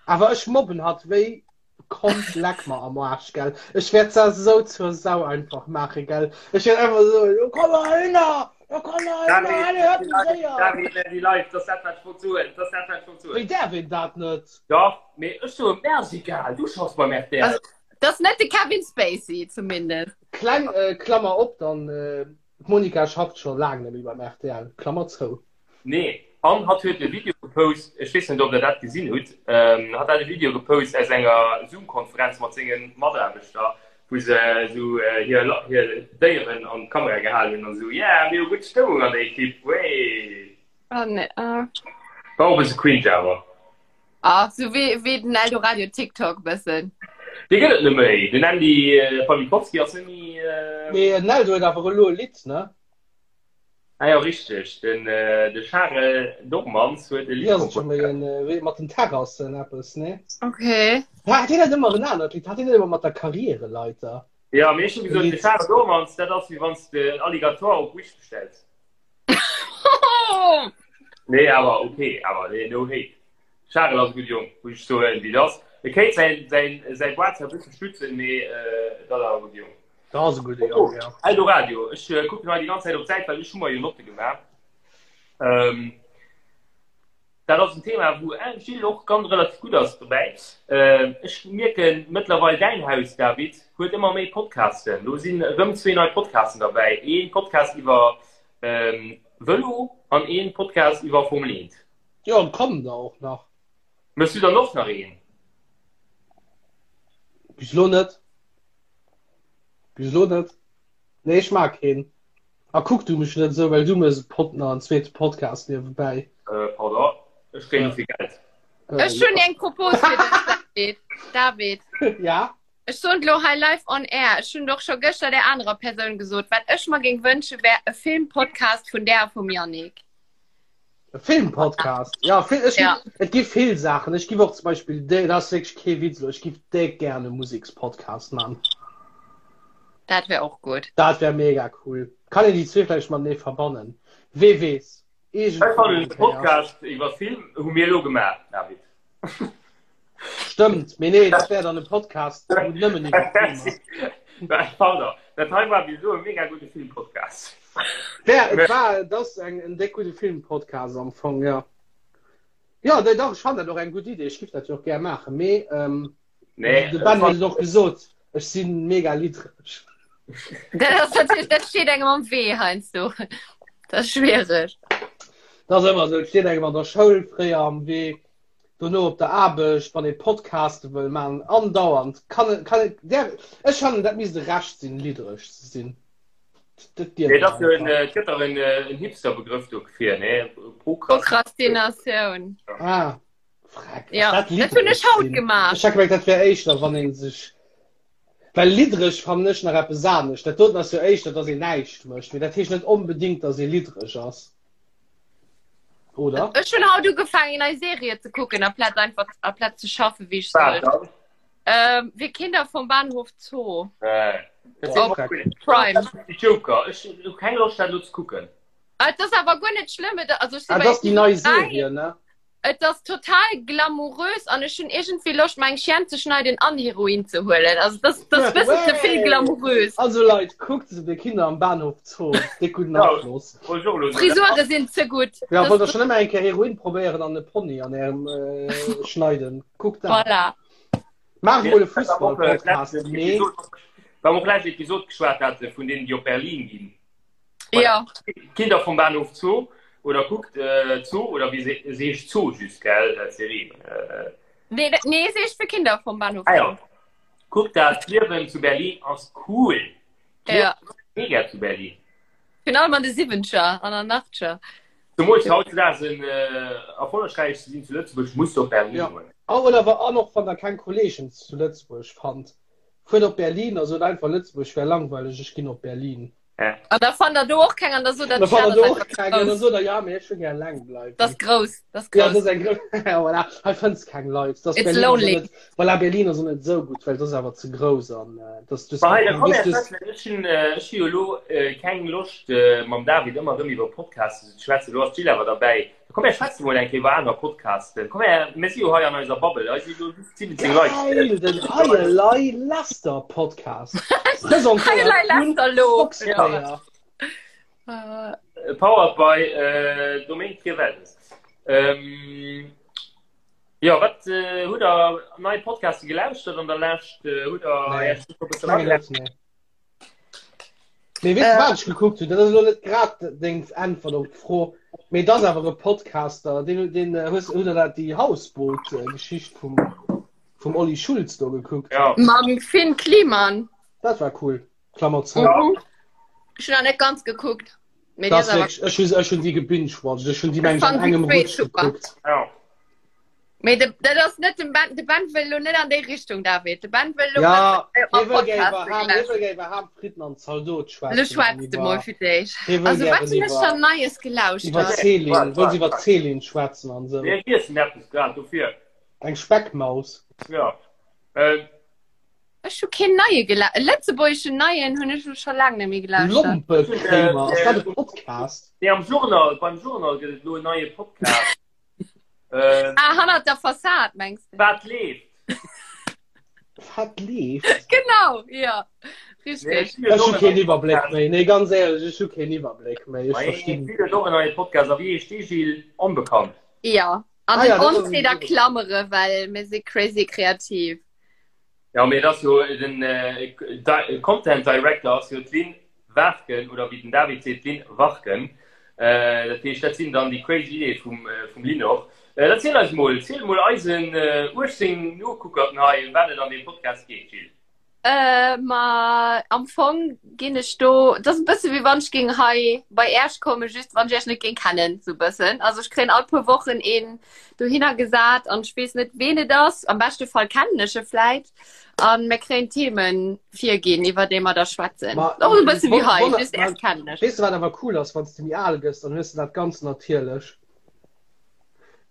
Awer ech mobben hatt wéi kommt leck mer am Arsch, gell. Ech wäert se esou zur Sau einfach maachen, gell. Ech wäert einfach soen, jo komm heihinner, jo komm heihinner, allez, hört du séier. David, merci live, dat ass dat wat ech wollt soen, dat ass dat wat ech wollt soen. Wéi däerf een dat net? Dach, mee ech soen, mär ass egal, du schaffs beim rtl. Also, Das ass net de Kevin Spacey zumindest. Kleng Klammer op dann, d'Monica schafft scho laang net méi beim rtl, Klammer zou. Nee, an hatt huet e Video gepost, ech weess net ob der dat gesinn hutt, hatt hat e Video gepost aus enger Zoom-Konferenz mat senge Mataarbechter, wou se esou hir hir Déieren an d'Kamera gehalen hunn an esou, yeah, mir hu gutt Stëmmung an der Ekipp, wéi. Ah, nee, ah. War och e bësse cringe awer. Ah, sou wéi, wéi den Eldoradio TikTok bëssen. Dee gëtt et net méi. Den Andy Pawlikowski ass net méi. Mee den Eldo huet awer elo e Lidd, ne? Ah jo, richteg. Den de Charel Dormans huet e Wéi Lidd ass et scho méi komponéiert. en, wéi mat den Terrassen eppes, ne? Okay. Hat hien net ëmmer en anert Lidd? Hat hien net ëmmer mat der Karriereleiter? Jo, mee ech hu E gesot, de Lidd. Charel Dormans, dat ass wéi wann s de en Alligator op Wish bestells. Nee, awer okay, awer nee, no hate. Charel ass e gutt Jong, muss ech soen, wéi et ass. E kéint säin, säin, säi Boîte zwar e bësse stützen, mee et ass awer e gutt Jong. Dat ass e gudde Jong, ja. Eldoradio, ech kucken hei déi ganz Zäit op d'Säit, well ech hu mer jo Notte gemaach. Ähm, Dat ass en Thema, wou Gilles och ganz relativ gutt ass dobäi. Ech mierken mëttlerweil, däin Haus, David, huet ëmmer méi Podcasten. Do sinn erëm zwee nei Podcasten derbäi, ee Podcast iwwer Vëlo an ee Podcast iwwer Formel 1. Jo, an kommen der och nach. Méchs du dann och nach een? Bis elo net. Bis elo net. Nee, ech mag keen. A kuck du mech net esou, well du mëss e Pod nach en zweete Podcast niewebäi. Äh, pardon, ech kréien dofir Geld. Ech hunn eng Propos fir dech, David. David. Ja? Ech soen elo hei live on air, ech hunn et och scho gëschter där anerer Persoun gesot, wat ech mer géing wënsche wär e Filmpodcast vun där a vum Yannick. E Filmpodcast? Ja, Fil ech Ja. et gi vill Saachen. Ech giff och zum Beispill, dat ass wierklech kee Witz elo, ech giff déck gären e Musekspodcast man. Dat wär och gutt. Dat wär mega cool. Kann een déi zwee vläicht matenee verbannen? Wee weess. Ech fannen de Podcast iwwer Film hu mir elo gemaach, David. Stëmmt, mee nee, dat wär dann e Podcast wou nëmmen iwwer Film ass. Pardon, dat hei war bis elo e mega gudde Filmpodcast. Wär, et war, et ass eng, en déck gudde Filmpodcast am Fong, jo. Jo, dach, ech fannen dat och eng gutt Idee, ech giff dat jo och gär maachen, mee ähm, Nee, de Ben huet et och gesot, ech si mega liddreg. Dat ass natierlech, dat steet engem am Wee heiansdo. Dat ass schwiereg. Dat ass ëmmer esou, et steet engem an der Schoul fréier am Wee, dono op der Aarbecht, wann ee Podcaste wëll maachen, andauernd kann, kann, där, ech fannen, dat misst e Recht sinn, liddreg ze sinn. Dat dierf Nee, een dat ass jo en, einfach. et gëtt dach en, en Hipster-Begrëff dofir, nee? Prokrastinatioun. Prokrastinatioun. Ah. Freck, Ja, dat dat hunn ech haut gemaach. Ech hat gemengt, dat wär éischter, wann een sech. Well liddreg fannen ech nach eppes anescht. Dat doten ass jo éischter, dass een näischt mécht. Mee dat heescht net onbedéngt, dass ee liddreg ass. Oder? Ech hunn haut ugefaangen, eng nei Serie ze kucken, amplaz einfach amplaz ze schaffen, wéi ech Wat sollt. dann? Ähm, Wir Kinder vom Bahnhof Zoo. Äh, dat Boah, ass Freck. cool. Prime. Joker, ech hu keng Loscht, dat elo ze kucken. Ah, Et ass awer guer net schlëmm. Et, also ech si Ah, bei dat ass déi nei Episode 3. Serie, ne? Et ass total glamourös an ech hunn iergendwéi Loscht mer eng Chienne ze schneiden an Heroin ze huelen. Also das, das bëssen ze vill glamourös. Also Leit, kuckt se de Kinder am Bahnhof Zoo. Déck gudden Afloss. Frisure sinn ze gutt. Ja, wollt der schon ëmmer eng Kéier Heroin probéieren an e Pony an ärem äh, schneiden. Kuckt dat. Voilà. Maacht mol e Fussball-Podcast. Nee. Wa mer och lescht Episod geschwat hate vun deenen, déi op Berlin ginn. Ja. Kinder vom Bahnhof Zoo oder kuckt äh, Zoo oder wie se, se heescht Zoo just gell dat Serie. Äh, Nee, dat- nee, se heescht für Kinder vom Bahnhof. ah, ja. Kuckt dat Liewen zu Berlin ass cool. Ja. Mega zu Berlin. Virun allem an de Siwwencher an an Achtscher. Zemools hautdesdaags en äh, erfollegräich ze sinn zu Lëtzebuerg muss du op Berlin Ja. goen. Oh, oder wa an och wann der keng Kollegen zu Lëtzebuerg fannt. Fuert op Berlin a sot einfach Lëtzebuerg wär langweileg, ech ginn op Berlin. Ja. An da fannt der do och keng an da sot der, Da fannt der do dat och ass keng an da grouss. sot der, ja, mee ech wëll gär eleng bleiwen. Dat ass grouss, dat ass Ja, dat grouss. ass eng grouss, voilà, hei fënns keng Leit. Das It's Berlin ass och lonely. net, voilà, Berlin ass och net esou gutt, well dat ass awer ze grouss an äh, das, das, Ma hei, da komm das, her, das, schwätzen. Ech hunn, äh, ech hu jo elo äh, keng Loscht äh, mam David ëmmer erëm iwwer Podcasten ze schwätzen. Elo ass d'Jill awer derbäi. Komm her, schwätze mol eng Kéier iwwer aner Podcasten. Komm her, mir si jo hei an eiser Bubble. Hei si jo just 17 Leit. Geil, den Hei Elei Lester Podcast. Presentéiert Hei Elei vun Lester lo. Fox Player. Äh, Powered by äh, Domaine Trivelles. Ähm, ja, wat äh, hutt der nei Podcaste gelauschtert an der Lescht? Äh, hutt der Nee. Iech e bësse Mengen net, nee. Mee weess de Äh. wat ech gekuckt hunn? Dat ass elo net grad deng Äntwert op d'Fro, mee et ass awer e Podcaster, deen, deen äh, hues, hutt der dat déi Hausboot-Geschicht vum, vum Olli Schulz do gekuckt? Ja. Mam Finn Kliman. Dat war cool. Klammer zou. Ja. Mhm. Ech hunn nach net ganz gekuckt. Mee Dat déi ass awer ass wierklech, ech hunn, ech hunn déi gebingewatcht. Ech hunn déi Ech meng ech an fand déi engem zwee Rutsch super. gekuckt. Ja. Mee de, dat ass net dem Ben, de Ben wëll lo net an déi Richtung, David. De Ben wëll lo Ja, besser hie wëll gär Podcaste iwwer Ham, hie gelauschtert. wëll gär iwwer Ham, Fritten an Zaldot Lo schwätzen an schwätz de mol iwwer, fir d'éischt. hie wëll Also wat gären hunn ech iwwer, dann Neies iwwer gelauschtert? Céline, Wat, wëll wat, se iwwer wat? Céline schwätzen an esou. Mir iessen eppes grad dofir. Eng Speckmaus. Ja. Ähm, Ech hu keen neie gela e lëtzebuergeschen neien hunn ech lo scho laang net méi gelauschtert. Lompekréimer, ass dat e Podcast? Nee, am Journal, beim Journal gëtt et elo en neie Podcast. Ähm, Ah, hannert der Fassad, mengs de? Wat leeft? Wat leeft? Genau, ja. Richtig. Nee, Ech hu keen Iwwerbléck méi. Nee, ganz éierlech, ech hu keen Iwwerbléck méi. Ech verstinn. Mir och en neie Podcast. A wéi heescht dee, Gilles? Onbekannt. Ja. An Ah, den ja, dat ass Ons a Klammere, well mir si crazy kreativ. Ja, mee et ass jo den Content Director ass jo d'Lynn Waarken, oder wéi den David seet, d'Lynn Warken. Dat heescht, dat sinn dann déi crazy Ideeë vum, vum Lynn och. Erziel eis mol, ziel mol eisen 18 Nokuckerten hei, ëm wat et an deem Podcast geet, Jill. Ma am Fong ginn ech do, et ass e bësse wéi wann ech géing hei bei Äerch kommen, just wann ech Äerch net géing kennen, sou e bëssen. Also ech kréien all puer Wochen een dohinner gesat an ech weess net, ween et ass. Am beschte Fall kennen ech e vläit. An mir kréien Themen virginn, iwwer déi mer da schwätzen. Ma, Och e bësse wéi hei, wonner, just Äerch kennen ech. Weess de, wat awer cool ass, wann s de méi al gëss, dann hues de dat ganz natierlech.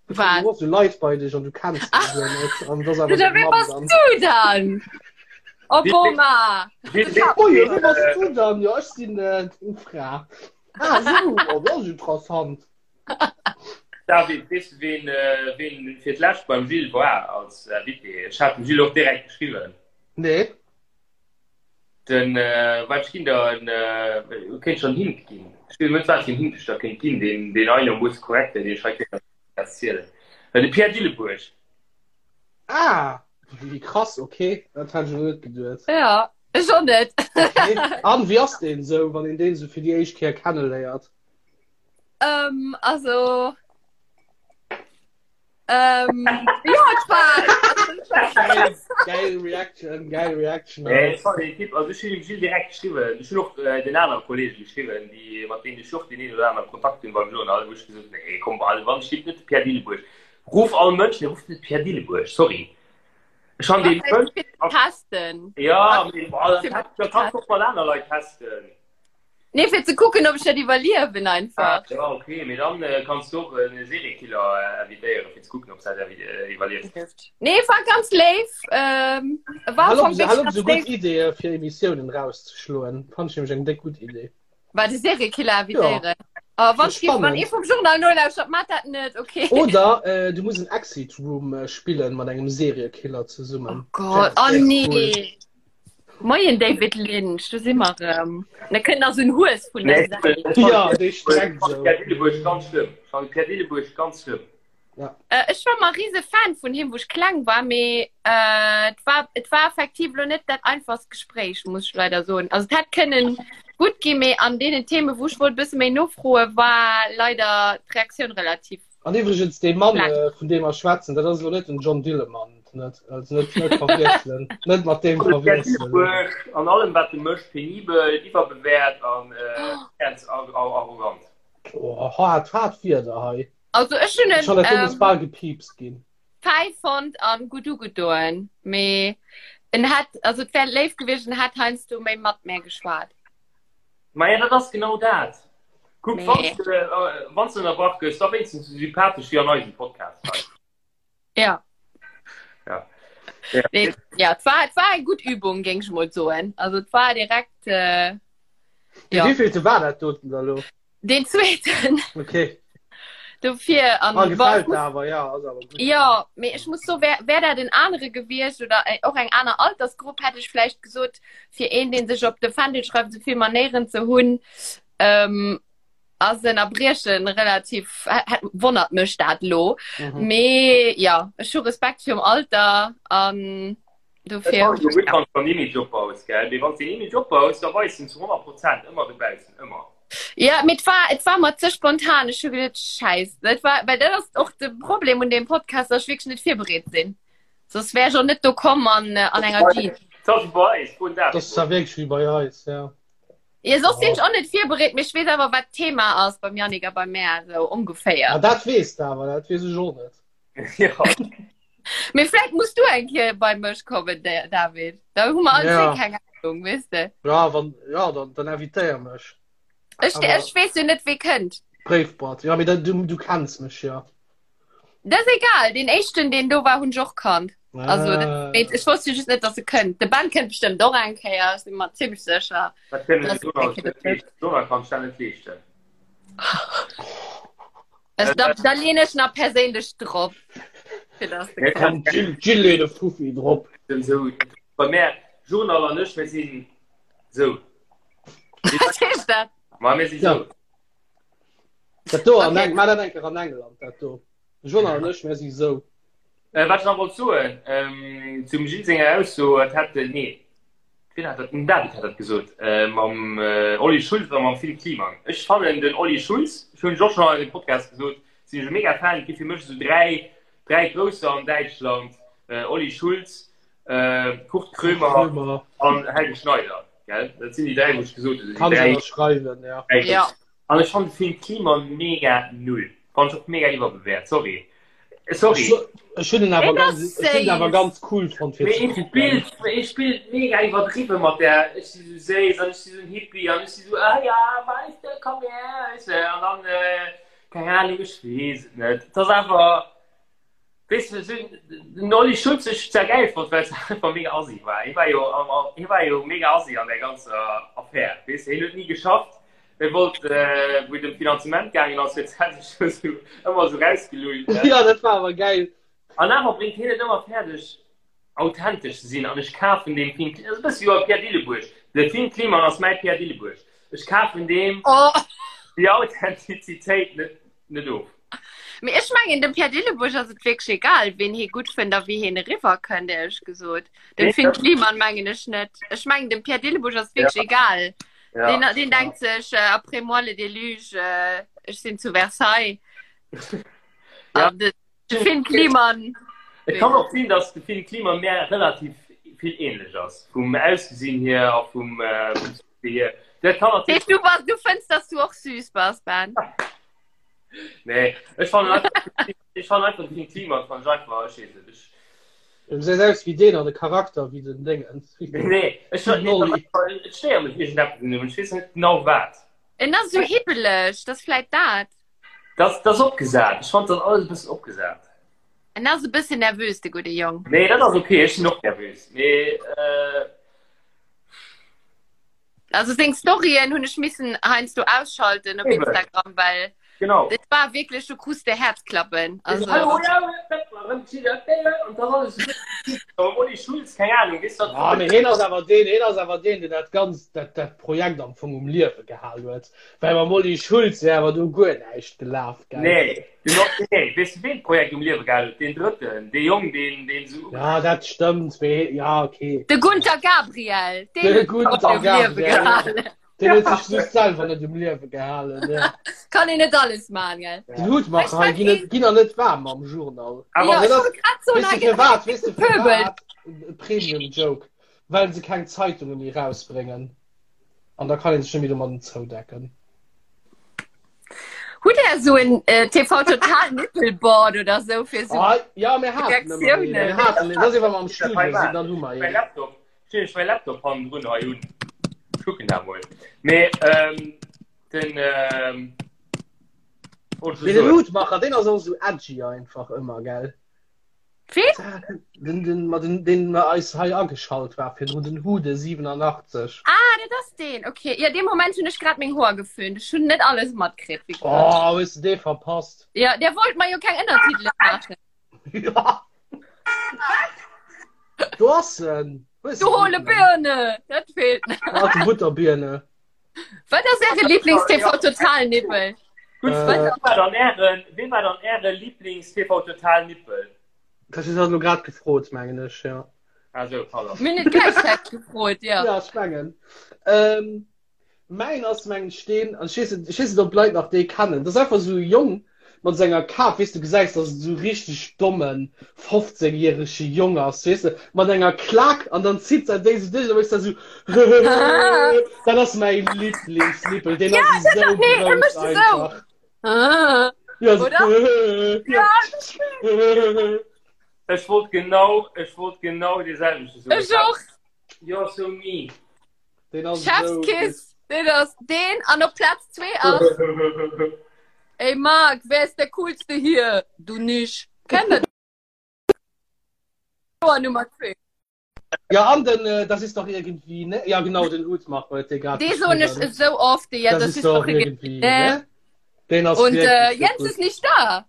Wat? Du hues Leit bei dech an du kenns déi guer net. An dat ass awer Oder deng wee Mamm bass dann. du dann? Obama! Oh jo, wee bass du dann? Jo, ech sinn äh, deng Fra. Ah, so, oh, dat ass interessant. David, weess du, ween, äh, ween fir d'lescht beim Gilles war als Invité? Ech hat dem Gilles och direkt geschriwwen. Nee. Den, äh, wat ech ginn der en, äh, kéint schon Hint ginn. Ech weess net, wat fir en Hint ech der kéint ginn, deen, deen einermoosse korrekt wär, deen ech hei kéint erzielen. Äh, de Pierre Dilleburg. Ah, wéi krass, okay, dat hat ech elo net geduet. Ja, ech och net. Okay. An wéi ass deen esou, wann een deen esou fir déi éischt Kéier kenneléiert? Ähm, also. Ähm, ja, et war. Geil, geil Reaction, geil Reaction. Nee, ech fand den Typ, also ech hunn dem Gilles direkt geschriwwen, ech hunn och äh, den anere Kollege geschriwwen, déi, mat deenen ech och den een oder anere Kontakt hunn beim Journal, wou ech gesot hunn, nee, komm, also wann ech net de Pierre Dilleburg, ruf all Mënsch, nee, ruf net Pierre Dilleburg, sorry. Ech han den Mënsch, Testen. ja, mee, boah, da kannst du och mat aner Leit testen. Nee, fir ze kucken, ob ech dat iwwerliewen einfach. Ah, ja, okay, mee dann äh, kanns du och en Seriekiller äh, invitéieren, fir ze kucken, ob dat äh, iwwerlieft. Nee, war ganz léif. Ähm, war Hallo, am Fong hallo, wirklich so ganz gutt léif. Ideeë fir Emissiounen rauszeschloen. Fand ich nämlich eng déck gutt Idee. War de Seriekiller invitéieren. Oh, wann Das ich wann spannend. ee vum Journal nolauschtert, mat dat net, okay. Oder äh, du muss en Exit Room äh, spillen mat engem Seriekiller Oh zesummen. Gott, oh Cool. nee. Moien David Lynch, do si mer erëm. Da kënnt nach esou en Hues vun der Säit. Ja, dee streckt esou. Pierre Dillebuerg ganz schlëmm. Ech fannen Pierre Dillebuerg ganz schlëmm. Ja. Äh, ech war mar rise Fan vun him, wou ech kleng war, mee äh, et war, et war effektiv lo net dat einfachst Gespréich, muss ech leider soen. Also et hätt kënnen gutt ginn, mee an deenen Themen, wou ech wollt e bësse méi nofroen, war leider d'Reaktioun relativ An iwwregens dee Mann Schlecht. äh, vun deem mer schwätzen, dat ass elo net den John Dillermand, net? Also net, net verwiesselen, net mat deem Pierre verwiesselen. Dillebuerg an allem wat e mécht, penibel, iwwerbewäert an äh, ganz ar- ar- arrogant. Oh, haart, haart Wierder hei. Also ech hunn Ech en han dat do muss ähm, bal gepiepst ginn. fäi fonnt an gutt ugedoen, mee en hätt, also et wär léif gewiescht, en hätt heiansdo méi mat mär geschwat. Maja, dat ass genau dat. Kuck, Nee. wann du, äh, wann du ënnerbrach gëss, da wéinstens sou sympathesch wéi an eisem Podcast hei. Ja. Ja. Ja. Nee, ja, et war, et war eng gutt Übung, géing ech mol soen. Also et war direkt äh, Ja. ja. Wéivillte war dat doten da lo? Den zweeten. Okay. Dofir an Ah, boah, ich gefällt muss, awer, ja, ass awer gut. ja, mee ech muss so wär, wär dat en anere gewiescht oder äh, och eng aner Altersgrupp, hätt ech vläicht gesot, fir een, deen sech op de Fändel schreift, esou vill Manéieren ze hunn, ähm, ass en Erbriechen relativ, hätt, wonnert mech dat lo. Mhm. Mee ja, ech hu Respekt virum Alter an Et dofir ass jo gutt, wann s de en Image opbaus, gell? Mee wann s de en Image opbaus, da weis en zu 100 Prozent ëmmer dobaussen, ëmmer. Ja, mee et war, et war mer ze spontan. Ech hu geduet, Schäiss, dat war, well dat ass och de Problem un deem Podcast, dass ech wierklech net virbereet sinn. Soss wär ech och net do komm an, an enger Jeans. Dat ass wéi bei eis, froen Dat ass zwar wierklech wéi bei eis, ja. Ja, soss sinn ech och net virbereet, mee ech weess awer, wat d'Thema ass beim Yannick a bei mär, esou ongeféier. Ah, dat weess de awer, dat weess ech och net. Ja. Mee vläicht muss du eng Kéier bei mech kommen, David. Da hu mer all Ja. zwee keng Ahnung, weess de. Ja, wann, ja, dann, dann invitéier mech. Ech, Aber- ech weess jo net, wee kënnt. Bréifboîte. Ja, mee da, du, du kenns mech ja. Dat ass egal. Deen éischten, deen do war, hunn ech och kannt. Also, dat, Ah. mee ech wosst jo just net, dass e kënnt. De Ben kënnt bestëmmt och eng Kéier, ech si mer zimmlech sécher. Dat kënnen Das de Donald ist net leeschten. Donald kann sech dat net leeschten. Also, da, da lehne ich nach perséinlech drop. Fir dass de Komm, Jill, Jill leet e Fuffi drop. Sou, bei mär, Journal an ech, mir sinn sou. Was heescht dat? Ma mir si sou. Dat do an Okay. Eng, ma dat enker an England, dat do. Journal an ech, mir si sou. Äh, wat ech nach wollt soen, ähm, zum Gilles senger Ausso, et hätt, nee, Wien hat dat? Den David hat dat gesot mam Olli Schulz a mam Phil Kliman. Ech fannen den Olli Schulz, ech hunn ech och schonn an engem Podcast gesot, sinn ech e mega Fan. Et gi fir mech esou 3, 3 Grousser an Däitschland, Olli Schulz, Kurt Krömer an Helge Schneider, gell? Dat sinn déi 3, wou ech gesot hunn, Kann déi ech 3. ënnerschreiwen, ja. Ja. An ech fannen de Phil Kliman mega null. Fannen ech och mega iwwerbewäert, sorry. Sorry. Ech hunn en awer Deen ass ganz, ech hunn en awer séiss. ganz cool fonnt fir Mee ze e kucken. spillt, e spillt mega iwwerdriwwe mat der ech si sou séiss an ech si sou en Hippie an ech si sou ah ja, weißt du, komm her, weißt du, an dann, keng Ahnung, ech weess et net. Et ass awer. Weess de, sou, den Olli Schulz ech zwar gäil fonnt, well se einfach mega assi war. Hie war jo, hie war jo mega assi an där ganzer Affär. Weess de, hien huet ni geschafft. Hie wollt, wou et ëm d'Finanzement gaangen ass, huet hie sech sou ëmmer sou rausgelullt. Jo, dat war awer gäil. An awer bréngt hien et ëmmer fäerdeg, authentesch ze sinn. An ech kafen deem Finn, dat ass e bësse wéi Pierre Dillebuerg. De Finn Kliman ass mäi Pierre Dillebuerg. Ech kafen deem déi Authentizitéit net, net of. Mee ech mengen dem Pierre Dillebuerg ass et wierklech egal, wien hie gutt fënnt a wéi hien eriwwer kënnt, éierlech gesot. Dem Finn Kliman mengen ech net. Ech mengen dem Pierre Dillebuerg ass et wierklech egal. Ja. Deen, deen denkt sech äh, après moi le déluge, äh, ech sinn zu Versailles. Ja. An de, de Finn Kliman. Et kann och sinn, dass de Finn Kliman mär relativ vill ähnlech ass, vum Ausgesinn hier a vum, äh, vum Succès hier. Dat kann Heescht, natierlech. du bass, du fënns, dass du och süß bass, Ben? Nee, ech fannen einfach, ech fannen einfach den Klima fan ich einfach, ech weess net, ech. Du gesäis aus wéi deen an de Charakter wéi den Déngens. Nee, ech nee, Nolli. et stéiert mech iergendeppes un him, ech weess net genau wat. En ass esou hibbeleg, dat ass vläit dat. Dat ass opgesat, ech fand dat alles e bëssen opgesat. En ass e bëssen nervös, de gudde Jong. Nee, dat ass ok, ech sinn och nervös, mee äh. Also seng Storyen hunn ech missen heiansdo ausschalten op Instagram, well genau. dat war wierklech, du krus de Häerzklappen. Also Olli Schulz, keng Ahnung, weess dat. Ah, mee hien ass awer deen, hien ass awer deen, deen dat ganzt, dat, dat Projekt am Fong um Liewe gehal huet. Well mam Olli Schulz wär awer do guer näischt gelaf, gell? Nee, den och, nee, weess du, ween d'Projekt um Liewe gehal huet? Deen Drëtten, dee Jong, deen, deen esou. Ja, dat stëmmt, mee, ja, okay. De Gunter Gabriel, deen De huet d'Projekt Gunter um Liewe Gabriel, gehalen. Deen huet sech just selwer net um Liewe gehalen, ja. Kann een net alles maachen, gell? Den Hutmacher hei ginn net, ginn der net waarm am Journal. Awer Ja, dat ech ass, wollt grad soen, weess hei du gëtt firwat, weess du gepöbelt. firwat? Premium Joke. Well se keng Zeitunge méi rausbréngen. An da kann een sech net méi domadden zoudecken. Hutt Där esou en äh, TV Total Nippelboard oder sou fir sou Ah, ja, mir haten ëmmer een. Reaktiounen? Mir haten een. Dat ass wa mer am Studio Studio sinn, dann hu mer Mein een. Laptop, stell ech mein Laptop hannendrun hei un. Kucken da mol. Mee ähm, den ähm, wollt ech Mee den soen. Hutmacher, deen ass och esou edgy einfach ëmmer, gell? Ween? Den, den, ma den, den mer eis hei ageschalt war virdrun, den Hude 87. Ah, dat ass deen. Okay. Ja, dee Moment hunn ech grad meng Hoer geföhnt. Ech hunn net alles matkritt. wéi gesagt. Oh, hues du dee verpasst? Ja, der wollt mer jo keng Ënnertitele maachen. Ja. Do ass en. Hues Du du hole den? Birne! Dat feelt nach. Alte Butterbirne. Wat ass Äre Lieblings-TV-Total-Nippel? Gutt, Äh. ween war dann Ären, ween war dann Äre Lieblings-TV-Total-Nippel? Dat hues du grad gefrot, mengen ech, ja. Ah sou, pardon. Mir hunn et gläichzäiteg gefrot, ja. Ja, ech mengen. Ähm, mäin ass mengen ech deen, an ech weess net, ech weess net, ob d'Leit nach dee kennen. Dat ass einfach esou e Jong mat senger Kap, weess du, gesäis, dass et esou richteg dommen 15 järege Jong ass, weess de, mat enger Klak an dann zitt se déi esou duerch an da méchs de esou Dat ass mäi Lieblingsnippel, deen ass esou nee, e grouss mécht esou. einfach. Ah, Ja, so, Oder? ja. Ech wollt genau, ech wollt genau dee selwechte soen. Ech och. You're so mean. Deen ass esou Chef's Kiss. Deen ass deen an op Platz 2 ass. Ey Marc, wer ist der coolste hier? Du nicht. Kennt der Joer Nummer 2. Ja, an den, äh, das ist doch irgendwie, ne? Ja, genau, den Hutmacher huet dee grad Dee soen ech geschriwwen. esou oft, ja, Das, das ist ist doch doch irgendwie. irgendwie, ne? Den ass Und wirklich äh, Jens gut. ist nicht da.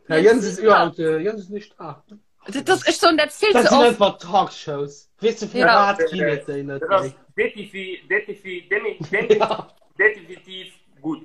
Ja, Jens ist überhaupt, äh, Jens ist nicht da. Das, das ist schon dat vill Das ze sind oft. einfach Talkshows. Weess du, fir Ja. wat ginn et déi net Dat ass méi? defi, defi, demi, demi, Ja. definitiv gutt.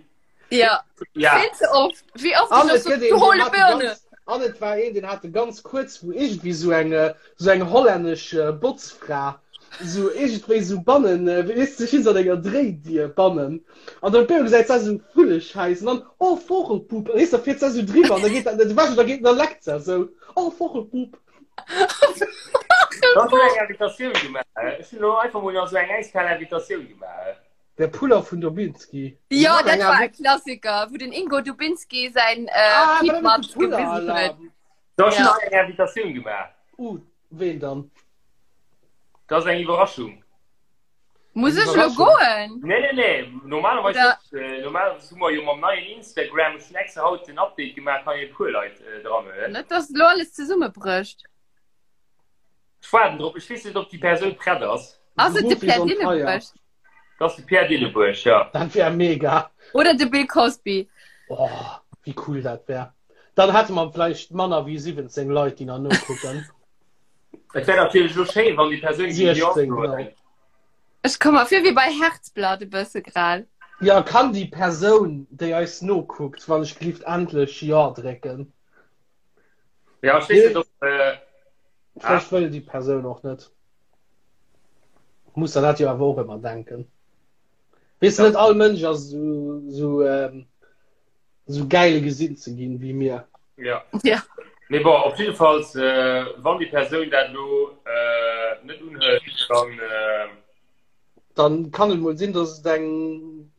Ja, Ja. vill ze oft. Wéi oft An ich et och so, gëtt een, du deen hole hat Birne. ganz, an et war een, deen hat ganz kuerz, wou iergendwéi sou eng, äh, sou eng hollännesch äh, Botzfra, sou iergendwéi sou bannen, äh, weess du, sech an enger Dréidier bannen. An dann op eemol gesäit se sou Vulleschäiss an dann, oh, Vogelpup. An weess du, da fiert se sou driwwer an da geet, da war da geet, da leckt se sou, oh, Vogelpup. Ech hunn eng Invitatioun gemaach. Ech hunn elo einfach mol nach sou eng äiskal Invitatioun gemaach. Der Puller vun Dubinski. Ja, dat war e Klassiker, wou den Ingo Dubinski säin äh, Piepmatz gewisen huet. Da ech hunn Ja. nach eng Invitatioun gemaach. Uh, ween dann? Dat ass eng Iwwerraschung. Muss ech lo goen? Nee, nee, nee. Normalerweis net. Äh, normalerweis hu mer jo mam neien Instagram, ech hunn extra haut den Update gemaach, kann ee puer Leit äh, dran huelen. Net, dass lo alles zesummebrécht. Ech waarden drop. Ech weess net, ob déi Persoun prett ass. Ass et de Ruf is Pierre on fire. Dillebuerg? Dat ass de Pierre Dillebuerg, ja. Dat wär mega. Oder de Bill Cosby? Oh, wéi cool dat wär. Dann hätte mer vläicht manner wéi 17 Leit, déi nach nokucken. Et wär natierlech lo schéin, wann déi Persoun géing Jo 16, soen. genau. Ech komm mer vir wéi bei Herzblatt e bësse grad. Ja, kann déi Persoun, déi eis nokuckt, wann ech gelift endlech Jo drécken? Ja, ech weess net, ob. Äh, Vläicht wëll déi Persoun och net. Muss der dat jo awer och ëmmer denken. Weess de, net all Mënsch ass esou, esou, ähm, esou gäil gesinn ze ginn wéi mir. Ja. Ja. Mee bon, op jiddefalls, äh, wann déi Persoun dat elo äh, net unhëlt, dann. Äh, Dann kann et mol sinn, dass et eng,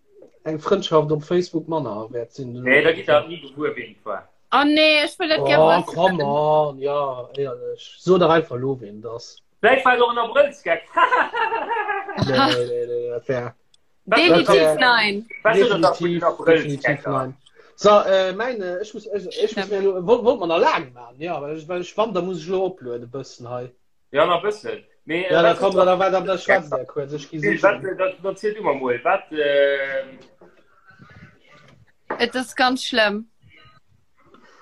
eng Frëndschaft op Facebook manner wäert sinn. Nee, da gitt der ni gewuer, ween et war. Oh nee, ech wëll dat gär Oh, wëssen. come on, ja, éierlech. So dach einfach elo, ween et ass. Vläicht war et och en Abrëllsgeck. Nee, nee, nee, dat wär. Definitiv nein. Definitiv, definitiv nein. So, äh, mein, äh, ech muss, ech, ech muss mir lo, wollt, wollt man nach laang machen, ja, well ech, well ech wann, da muss ech lo oplueden e bëssen hei. Ja, nach bëssen. Mee, äh, Ja, da wat- komm, da, da, da, da schwätzt der kurz, ech gi Gilles, wat, sichen. äh, dat, dat ziel du mer mol. Wat, äh, Et ass ganz schlëmm.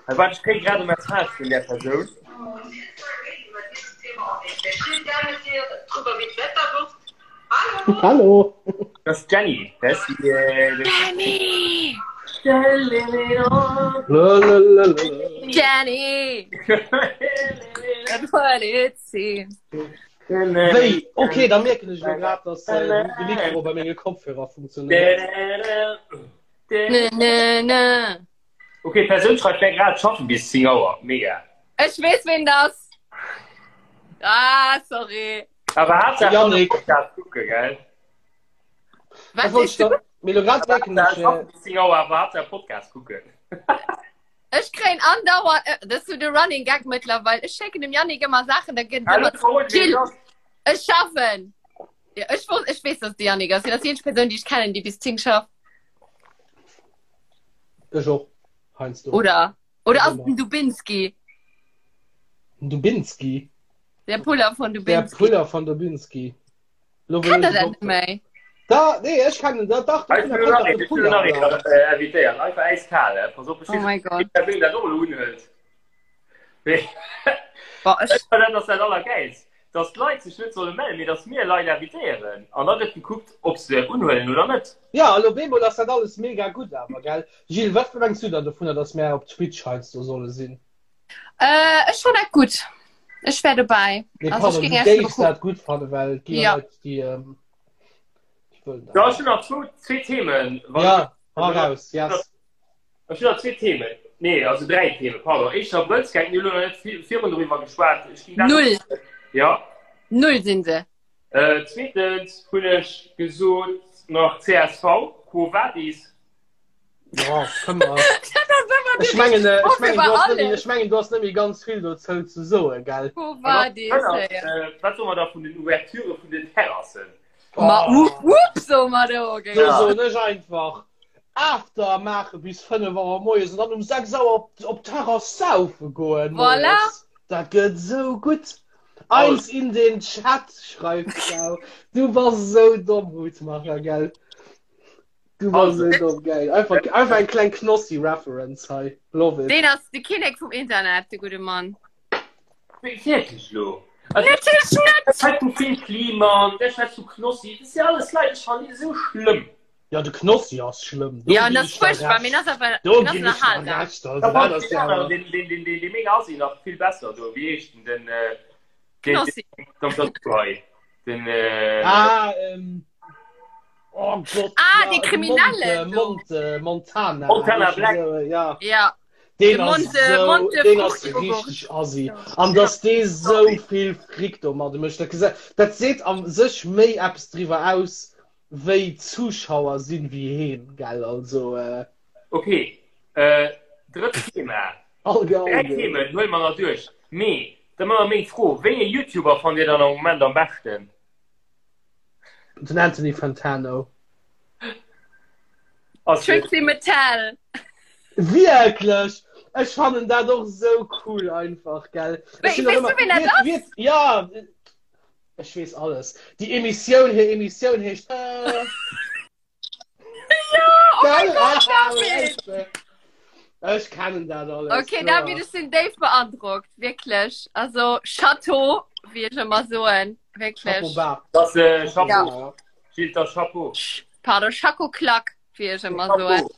Wat, ech kréie grad e Message vun där Persoun. Hallo! Dat ass d'Jenny. Dat ass déi, äh, déi- Jenny! Lalalala. Jenny! That's what it seems. Wéi? Okay, da mierken ech elo grad, dass äh, de Mikro bei menge Kopfhörer funktionéiert. Nö, nö, nö. Okay, d'Persoun schreift wär grad schaffen bis 10 Auer. Mega. Ech weess ween dat. Ah, sorry. Awer Haaptsaach Yannick. Podcast kucke, gell? Wat Dat wollt sees ich du? da, mir lo grad merken Haaptsaach ech, äh, schaffen bis 10 Auer, awer Haaptsaach Podcast kucken. Ech kréien andauernd, äh, dat ass so de Running Gag mëttlerweil. Ech schécken dem Yannick ëmmer Saachen, da gëtt Hallo, ëmmer verrot, ween Jill. dat ass. Ech schaffen. Ja, ech wosst, ech weess, dass de Yannick ass. Hien ass déi eenzeg Persoun, déi ech kennen, déi bis 10 schafft. Ech och, heiansdo. Oder? Oder ass et Immer. den Dubinski? Den Dubinski? Der Puller von Der Dubinski. Puller von Dubinski. Lo wëll Kennt der ech dat et net och. méi? Da, nee, ech kennen dat, dach, Ech de will Puller nach kennt een, de ech will nach Puller. een äh, invitéieren. Einfach eiskal, eh? Pass op, ech Oh mein Gott. die Persoun dat och elo unhëlt. Mee Boah, ech, ech fannen, dat ass dat Allergäilst, dass d'Leit sech net solle mellen, mee dass mir Leit invitéieren. An da gëtt gekuckt, ob se unhuelen oder net. Ja, elo bemol ass dat alles mega gutt awer, gell? Gilles, wat mengs du dann dovunner, dass mär op Twitch heiansdo solle sinn? äh, ech fann dat gutt. Ech wär dobäi. Nee, Also ech pardon, géing du Iech elo géifs kucken. dat gutt fannen, well et gi jo Ja. Leit, déi, ähm, déi wëllen dat Ja, ech net. hunn nach zwou, zwee Themen. Wann Ja, hau raus, yes. Ech hunn nach zwee Themen. Nee, also dräi Themen, pardon. Éischter Abrëllsgag, mir hunn elo nach net vi virun doriwwer geschwat. Ech ginn dat Null. Ja. Null sinn se. Äh, zweetens hunn ech gesot nach csv, Quo Vadis? Ja, kënne mer. Dat ass ëmmer Ech déi mengen, richteg äh, Fro ech mengen, fir du bei hast net méi, alles. ech mengen, du hast net méi ganz vill dozou ze soen, gell? Quo Vadis, An ja. äh, wat soe mer da vun den Ouverture vun den Terrassen? Ma Oh. wupp, wupp, soe mer do, Do gell? soen ech einfach, After maache bis 5 Auer moies an dann um 6 Auer op, op d'Terrass saufe goen Voilà. moies. Dat gëtt sou gutt. Eins in den Chat, schreift d'Frau. Du bass sou domm, Hutmacher, gell? Du bass Also. sou domm, geil. Einfach, einfach eng kleng Knossi-Reference hei. Love it. Deen ass de Kinnek vum Internet, de gudde Mann. Wierklech lo? Also, Natierlech net! Der schwätzt vu Phil Kliman, der schwätzt vu Knossi, dat si alles Leit, ech fannen déi esou schlëmm. Ja, de Knossi ass schlëmm. Do Ja, ginn dat ass ech der fuerchtbar, mee Recht. ass awer Do en ass ginn ech der ënnerhalsam. Recht. Also, Da dat fand ass ich ja den awer. anderen, den, den, den, den, den mega Assi nach vill besser do. Wéi heescht den? Den, äh, den, Knossi. den, den, den, den, äh, Ah, ähm. Oh Gott. Ah, ja, dee de Kriminellen Monte, do. Monte, Montana. Montana Black. Ja. Ja. Deen De ass Monte, sou, Monte deen ass Fruchtjoghurt. richteg assi. An dass dee sou vill Fric domadde mécht, dat gesa-, dat seet a sech méi eppes driwwer aus, wéi d'Zuschauer sinn, wéi heen, gell? Also, äh. Ok, äh, drëtt Thema. Alge, Dräi Alge. Themen huele mer nach duerch. Mee da mar meng Fro, Wéi ee YouTuber fannt Dir dann am Moment am beschten? Den Anthony Fantano. Trixie Mattel. Wierklech? Ech fannen dat och sou cool einfach, gell? Wéi, weess du, wien dat ass? Ja, ech weess alles. Déi Emissioun, hir Emissioun heescht. Äh... Ja, oh mein Gott, David! Ech kennen dat alles. Okay, David, ech sinn déif beandrockt, wierklech. Also, Chateau, wéi ech ëmmer soen, wierklech. Chapeau bas. Das äh, Chapeau. Ja. Gilles, das Chapeau. Pardon, Chaco Klack, wéi ech ëmmer soen.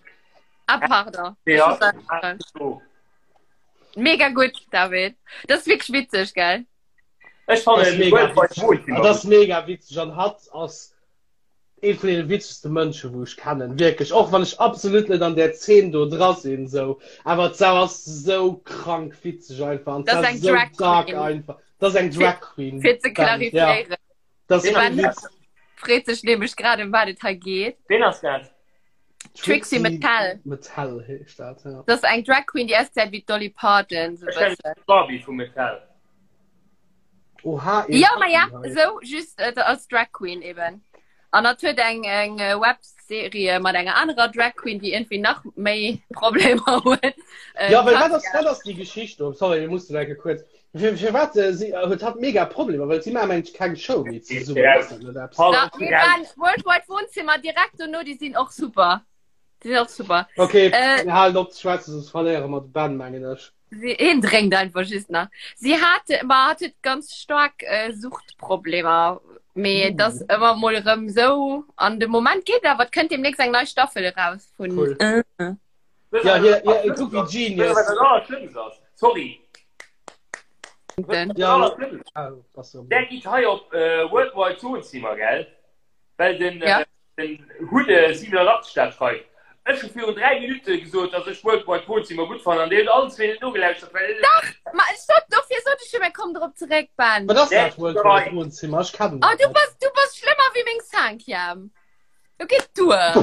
Ah, pardon. Ja. Mega gutt, David. Dat ass wierklech witzeg, gell? Ech fannen mega witzeg. Dat ass mega witzeg an hatt ass ee vun deene witzegste Mënsche wou ech kennen, wierklech, och wann ech absolut net an där Zeen do dra sinn sou, awer d'Sau ass sou krank witzeg einfach an Dat ass eng Drag dark Queen. einfach. Dat ass eng Drag Queen. Fir ze Band, ja. klarifiéieren. Dat ass Den kee Witz. Freet sech nämlech grad ëm wat et hei geet. Ween ass dat? Trixie Mattel. Mattel heescht dat, ja. Dat ass eng Drag Queen, déi ausgesäit wéi d'Dolly Parton, sou Ech kennen bëssen. d'Barbie vu Mattel. Oha, een Ja, ma ja, Happen hei. sou just äh, als Drag Queen eben. An dat huet eng eng äh, Webserie mat enger anerer Drag Queen, déi irgendwie nach méi Problemer huet. Äh, Ja, well wat ass, Katja. wat ass déi Geschicht do? Sorry, mir mussen enke kuerz. Fir, fir wat äh, si äh, huet hatt mega Problemer, well si maachen mengt keng Show méi zesummen. Ja. Ass dat net eppes? Paul, Da, mir waren Worldwide Wohnzimmer direkt dono, déi sinn och super. Déi sinn och super. Okay, Äh, mir halen op ze schwätzen, soss verléiere mer de Ben, mengen ech. Sie, hien drénkt einfach just nach. Sie hat, ma hat huet ganz stark äh, Suchtproblemer. Mee mm. das ëmmer mol erëm sou an de Moment geet awer, et kënnt demnächst eng nei Staffel eraus vun. Cool. Äh. Ja, hier, hier, kuck wie Genius. Sorry. Den. Ja, ah, Der geht hei op äh, Worldwide Wohnzimmer, gell? Well den, Ja. äh, den Hude 87 dat schreift. Ech hu virun 3 Minutte gesot, dass ech Worldwide Wohnzimmer gutt fannen an Dir huet allen zwee net nogelauschtert, well Ma stopp, dofir sot ech jo, mir kommen drop zeréck, Ben. Wat ass dat Der Worldwide Wohnzimmer? Ech kennen Oh, dat du net. bass, du bass schlëmmer wéi meng Cinquième. Du geet duer.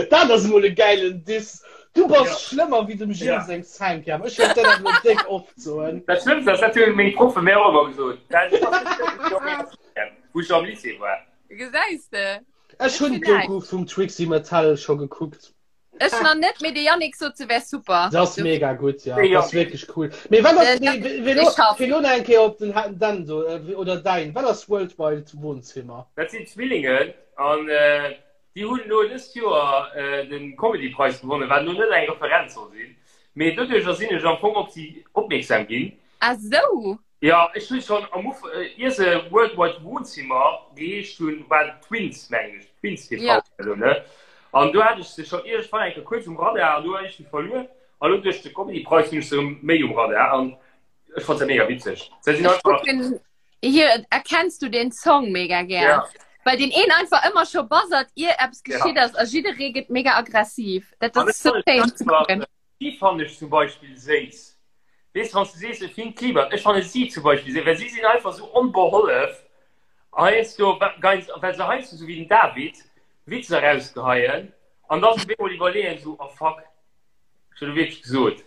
Dat ass mol e gäilen Diss. Du bass Ja. schlëmmer wéi dem Gilles Ja. seng Cinquième. Ech wëll dat awer déck oft soen. Dat Schlëmmst ass, dat hunn meng Proffe mir och ëmmer gesot. Dat ass net schlëmm wéi meng Cinquième, wou ech am Lycée war. Gesäis de? Ech hunn d'Doku vum Trixie Mattel scho gekuckt. Ech nach net, mee de Yannick sot se wär super. Se ass mega gutt, ja. Dat ass wierklech cool. Mee wat ass, mee elo, fir elo nach eng Kéier op den Dan do, oder däin, wat ass Worldwide Wohnzimmer? Dat sinn Zwillingen an déi hunn elo dëst Joer de Comedy-Preis gewonnen, wat elo net eng Referenz soll sinn, mee doduercher sinn ech am Fong op si opmierksam ginn. Ah sou! Jo, ech hunn schon am Uf ier se World Wide Wohnzimmer geheescht hunn, waren Twins mengen ech, Twins TV Ja. oder ne? An do hat ech se schon iergendwann eng Kéier kuerz um Radar an do hunn ech se verluer an elo duerch de Comedy Preis hunn ech se erëm méi um Radar an ech fonnt se mega witzeg. Se sinn Ech einfach kucken hier erkennst du den Song mega gär. Ja. Well deen een einfach ëmmer scho buzzert ier eppes Ja. geschitt ass a jidderee gëtt mega aggressiv. Dat An ass ech sou fannen schéin ze einfach kucken. Si fannen ech zum Beispill séiss. Weess wann s du sees e Finn Kliman, ech fanne si zum Beispill séiss, well si sinn einfach sou onbehollef heiansdo, well se heiansdo sou wéi den David Witzer erausgeheien an da sech op eemol iwwerleeën sou, oh fuck, ech hunn elo wierklech gesot.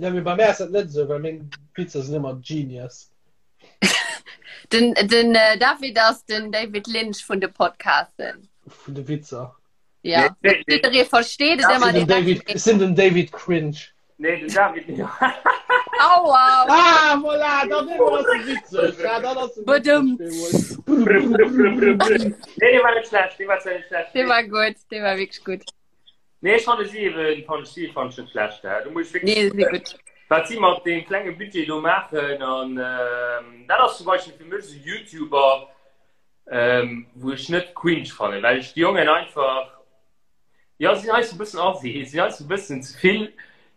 Jo, mee bei mär ass dat net esou, well meng Witzer sinn ëmmer genius. Den, den David ass den David Lynch vun de Podcasten. Vun de Witzer. Ja. Nee, nee. Jidderee versteet et ëmmer Den direkt. David, ech sinn den David Cringe. Nee, den David nicht. Aua! Ah, voilà, dann immer ass e witzeg. Ja, dann ass e Badum. witzeg. Nee, dee war net schlecht, dee war zwar net schlecht. Dee war gutt, dee war wierklech gutt. Nee, ech fanne si eben, fann ech si fann ech net schlecht. Hè. Do muss ech Nee, wierklech si gutt. wat si mat deem klenge Budget do maachen an ähm, dat ass zum Beispill fir mech esou YouTuber, ähm, wou ech net cringe fannen, well ech déi Jongen einfach, jo, si sinn heiansdo e bëssen assi, si sinn heiansdo e bëssen ze vill,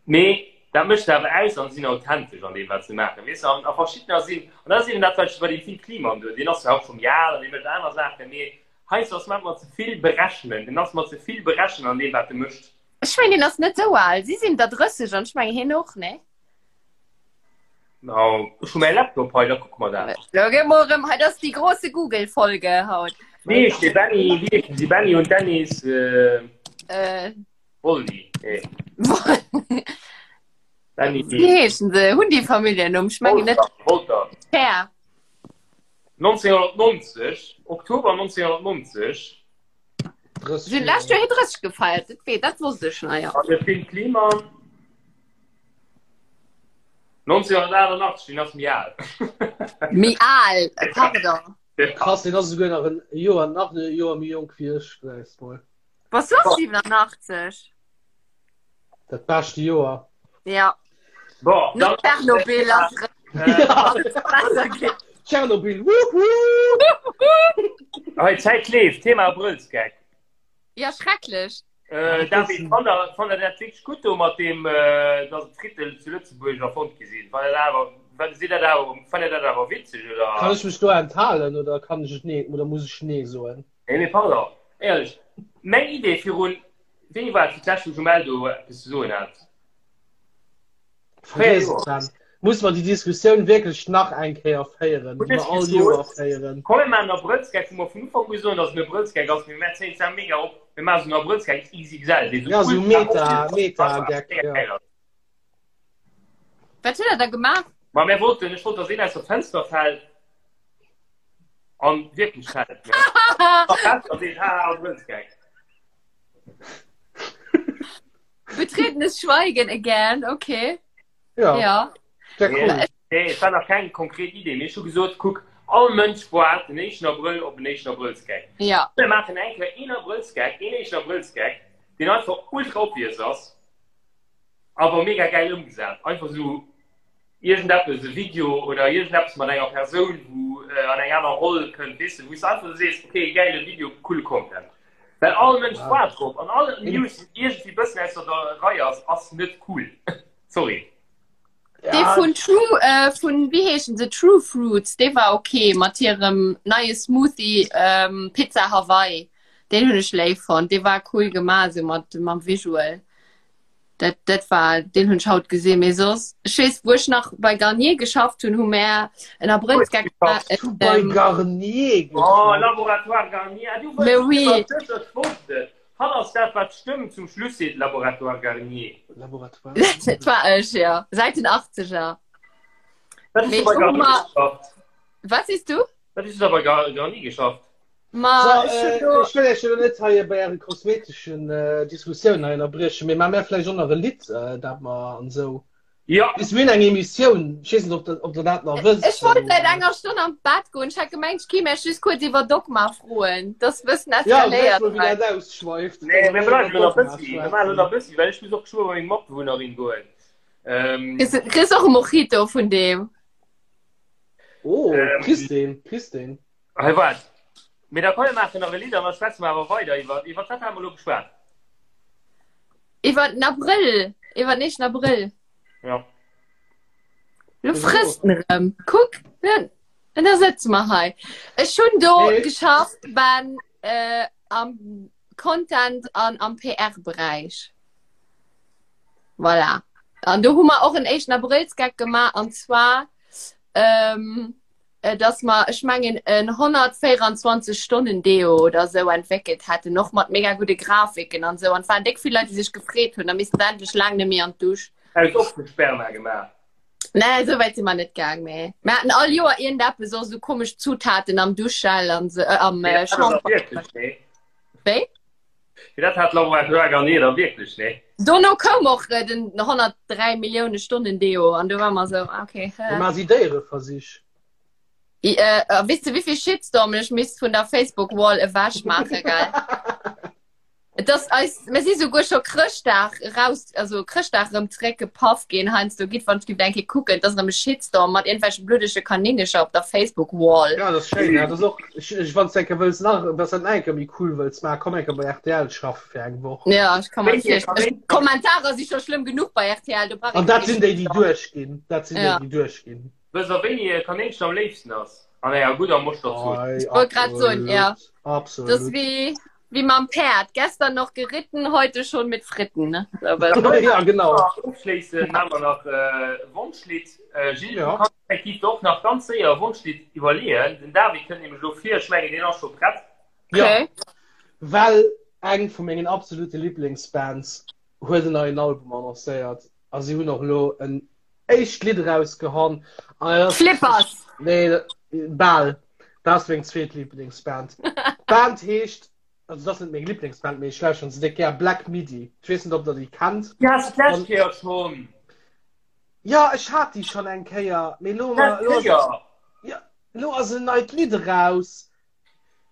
mee dat mécht se awer aus an si sinn authentesch an deem, wat se maachen, weess de. An a verschiddener sinn, an dat ass eben dat, wat ech bei deem Fynn Kliemann do, deen ass zwar och schonn méi al an dee mécht aner Saachen, mee heiansdo ass mer ze vill berechnen, en ass mer ze vill berechnen an deem, wat e mécht. Ech mengen, hien ass net esou al. Si sinn der 30 an ech mengen, hien och, nee? No, ech hu mäi Laptop hei, da kucke mer dat. Lo gi mer erëm, hei, dat ass déi grosse Google-Folge haut. Wéi heescht dee Benny? Wéi heeschen si? Benny und Dennis äh, Äh, Wolli. Nee. Benny. Wéi heeschen se? Hunn déi Familljennumm? Ech mengen net. Wolter. Herr. 1990, Oktober 1990. Sinn lescht Joer hir 30 gefeiert, dat wee, dat wosst ech nach, jo. An de Fynn Kliemann 1988, deen ass méi al. Méi al, pardon. Krass, deen ass esouguer nach en Joer, nach e Joer méi jonk wéi ech, gesäis mol. Bass du och 87? Dat beschte Joer. Ja. Bon, No Tschernobyl ass äh, Tschernobyl, wuhu! Hei, Zäit leeft, Thema Abrëllsgeck. Ja, schrecklech. Äh, David, fannt der, fannt der dat wierklech gutt do mat deem, äh, dass d'Frittel zu Lëtzebuerg erfonnt gi sinn? Fannt der dat awer, fannt sidd dat awer, fannt der dat awer witzeg oder? Kann ech mech do enthalen oder kann ech et nee oder muss ech nee soen? Nee, mee pardon, éierlech, meng Idee virun, wéini war et fir d'lescht wou Jumelle do eppes ze soen hat? Vergiess et dann. Muss mer déi Diskussioun wierklech nach eng Kéier féieren, déi mer all Joer féieren? Komm mir maachen en Abrëllsgeck, wou mer vun Ufank u soen, datt et en Abrëllsgeck ass, mee mir zéien zwar mega op, mir maachen esou en Abrëllsgeck XXL, dee Ja, esou Meta, Meta-Geck, ja. Wat hutt der da gemaach? Ma mir wollten, ech wollt, datt een aus der Fenster fält an wierklech fält, ne? A seet, haha, Abrëllsgeck. Betretenes Schweigen again, okay. Ja. Ja. Sehr cool. Nee, nee, et war nach keng konkret Idee. Mee ech hu gesot, kuck, all Mënsch waart den éischten Abrëll op en éischten Abrëllsgeck. Ja. Mir maachen eng Kéier een Abrëllsgeck, een éischten Abrëllsgeck, deen einfach ultra obvious ass, awer mega gäil ëmgesat. Einfach esou iergendeppes, e Video oder iergendeppes mat enger Persoun, wou an eng aner Roll kënnt, weess de, wou s de einfach esou sees, okay, gäile Video, coole Content. Well all Mënsch waart drop an all News, déi iergendwéi bëssen ausser der Rei ass, ass net cool. Sorry. Dee vun True, äh, vun, wéi heeschen se, True Fruits, dee war okay mat hirem neie Smoothie, ähm, Pizza Hawaii. Deen hunn ech léif fonnt. Dee war cool gemaach, esou mat, mam Visual. Dat, dat war, deen hunn ech haut gesinn, mee soss, ech weess, wou ech nach bei Garnier geschafft hunn, hu mär en Abrëllsgeck gemaach. Hues du bei Garnier geschafft? Oh, Laboratoire Garnier, ah, du Mais oui. Ech wosst et. Hatt ass dat, wat d'Stëmm zum Schluss seet, Laboratoire Garnier. Laboratoire. Dat war ech, jo, säit den Achtzeger. Wat hues du bei Garnier geschafft? Wat sees du? Wat hues du da bei Garnier geschafft? Ma So, ech hunn äh, do. ech wëll Iech jo net hei bei Äre kosmeteschen äh, Diskussioun hei ënnerbriechen, mee maa mär vläicht och nach e Lidd, äh, dat mer an esou. Ja. Bis mir hunn eng Emissioun, ech weess net, ob der, ob der dat nach wësst. Ech wollt säit enger Stonn an d'Bett goen. Ech hat gemengt, ech kéim Iech just kuerz iwwer Dogma froen. Dat ass e bëssen Ja, gesäis eskaléiert mol, wéi hei. dat ausschweift. Nee, mir Wa mer bleiwen iwwer elo nach Dogma bëssi. Mir maachen elo nach schwätzen. bëssi, well ech muss och geschwë bei meng Matbewunnerin goen. Ähm, Kriss kriss och e Mojito vun deem. Oh, Ähm, kriss deen, kriss deen. Hei waart. Mee da komm mir maachen nach e Lidd an da schwätze mer awer weider iwwer, iwwer wat hate mer elo geschwat? Iwwer den Abrëll, iwwer den éischten Abrëll. Ja. Lo frësst en erëm. Kuck, en da sëtze mer hei. Ech hunn do Nee. geschafft ben äh, am Content an am PR-Beräich. Voilà. An do hu mer och en éischten Abrëllsgeck gemaach an zwar ähm, dass mer, ech mengen, en 124 Stonnen Deo oder sou entwéckelt hätten, och mat mega gudde Grafiken an sou. An et waren déck vill Leit, déi sech gefreet hunn, da missten se endlech laang net méi an d'Dusch. Aus och vu Sperma gemaach? Nee, esou wäit si mer net gaang, mee mer haten all Joer iergendeppes, och sou komesch Zutaten am Duschgel an sou, am Shampoing. Wéi? Fir dat hat Laura Joa Garnier da wierklech, nee? Dono koum och äh, den 103 Millioune Stonnen Deo an du war mer sou, ah, okay. Äh. Ma si Déiereversich. I, äh, äh, wisst du, wéivill Shitstorm ech misst vun der Facebook-Wall ewech maache, gell? Et ass eis, mir si souguer scho Chrëschtdag raus, also Chrëschtdag erëm zeréckgepaff ginn heiansdo. Gitt wann ech giff eng Kéier kucken, et ass erëm e Shitstorm mat iergendwelche bluddege Kanéngercher op der Facebook-Wall. Ja, dat ass schéin. Ja, dat ass och, ech, ech, wann s de eng Kéier wëlls nach, wann s dat nach eng Kéier méi cool wëlls maachen, komm eng Kéier bei rtl schaffe fir eng Woch. Ja, ech ka mer Wéi virstellen. Kanéngercher? Kommentarer si scho schlëmm genuch bei rtl, do brauch An ee dat kee sinn déi, déi Shitstorm. duerchginn. Dat sinn déi, Ja. déi duerchginn. Wësst der, wéini e Kanéngchen am léifsten ass? An enger gudder Moschterzoos. Ei, Ich wollt grad soen, ja. Absolut. Das ist wie, wie mam Päerd. Gestern noch geritten, heute schon mit Fritten. Ne? So, aber- Ja, genau. Ofschléissen maache mer nach e Wonschlidd. Gilles, Ja. du kanns effektiv der och nach ganz séier e Wonschlidd iwwerleeën. Den David kënnt nämlech elo vir. Ech mengen, deen ass scho prett. Ja. Okay. Well eng vu mengen absolute Liblingsbands huet en neien Album annoncéiert a si hunn och elo en éischt Lidd erausgehann. Flippers! Nee, bal. Dat ass meng zweet Lieblingsband. D'Band heescht, also dat ass net meng Lieblingsband, mee ech lauschteren se déck gär, Black Midi. Ech weess net, ob der déi kennt. Déi has de d'lescht Kéier schonn. Jo, ech hat déi schonn eng Kéier, mee elo, elo ass, jo, elo ass en neit Lidd eraus.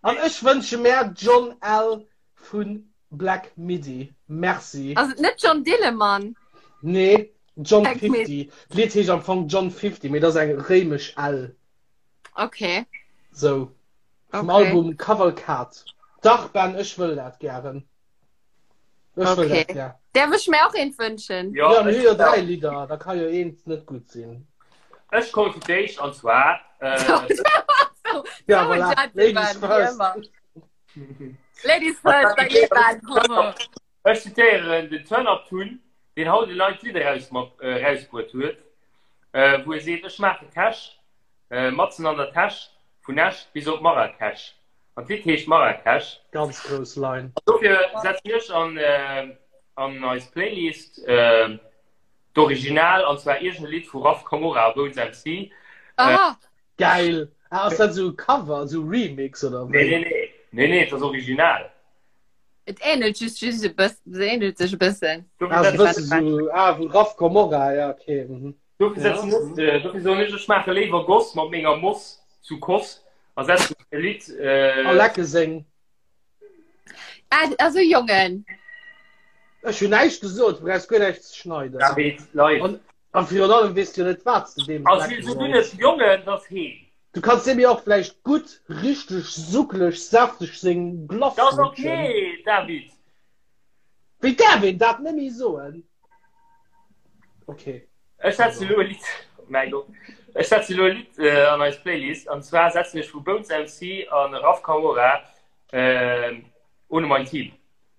An ech wënsche mär John L. Vu Black Midi. Merci. Ass et net John Dillemann? Nee, John 50. D'Lidd heescht am Fong John 50, mee dat ass eng réimesch L. Okay. Sou. Vum okay. Album Cavalcade. Dach, Ben, ech wëll dat gären. Ech wëll okay. dat gär. Därf ech mir och eent wënschen? Ja, ja mir hu jo dräi Lidder, da ka jo eent net gutt sinn. Ech komme fir d'éischt an zwar. Äh, so, ja, voilà. Ladies first. Ladies first, da geet dat. Ech zitéieren den Turn Up Tun, deen haut en neit Lidd erausbruet huet, wou e seet, Ech maache Cash, matzen an der Täsch, vun Esch bis op Marrakesch. An d'Lidd heescht Marrakesch. Ganz grouss Line. An dofir setzen ech an eis Playlist d'Original, an zwar iergend e Lidd vu Raf Camora a Bones MC. Aha! Geil! Ah, ass dat esou e Cover, esou Remix oder wéi? Nee, nee, nee. Nee, nee, et ass original. Et ähnelt just just e bëssen, se ähnelt sech e bëssen. Ah, e bësse sou, ah, vu Raf Camora, ja, okay. Mhm. Dofir setzen ja. ech, äh, dofir soen ech, ech maache léiwer Goss mat menger Moss zu Koss a setzen e Lidd. Äh, a lecke seng. Ah, also Jongen. Ech hunn näischt gesot, du brauchs guer näischt ze schneiden. David, live. An, a virun allem weess du jo net, wat s de deem Also, so du net Jongen, das heem. Du kanns deem jo och vläicht gutt, richteg suckeleg, säfteg seng Glace Das lutschen. okay, David. Wéi däerf een dat net méi soen? Okay. Ech setzen elo e Lidd, mäi Gott, ech setzen elo e Lidd äh, an eis Playlist, an zwar setzen ech vu Bones MC an Raf Camora äh, Ohne mein Team.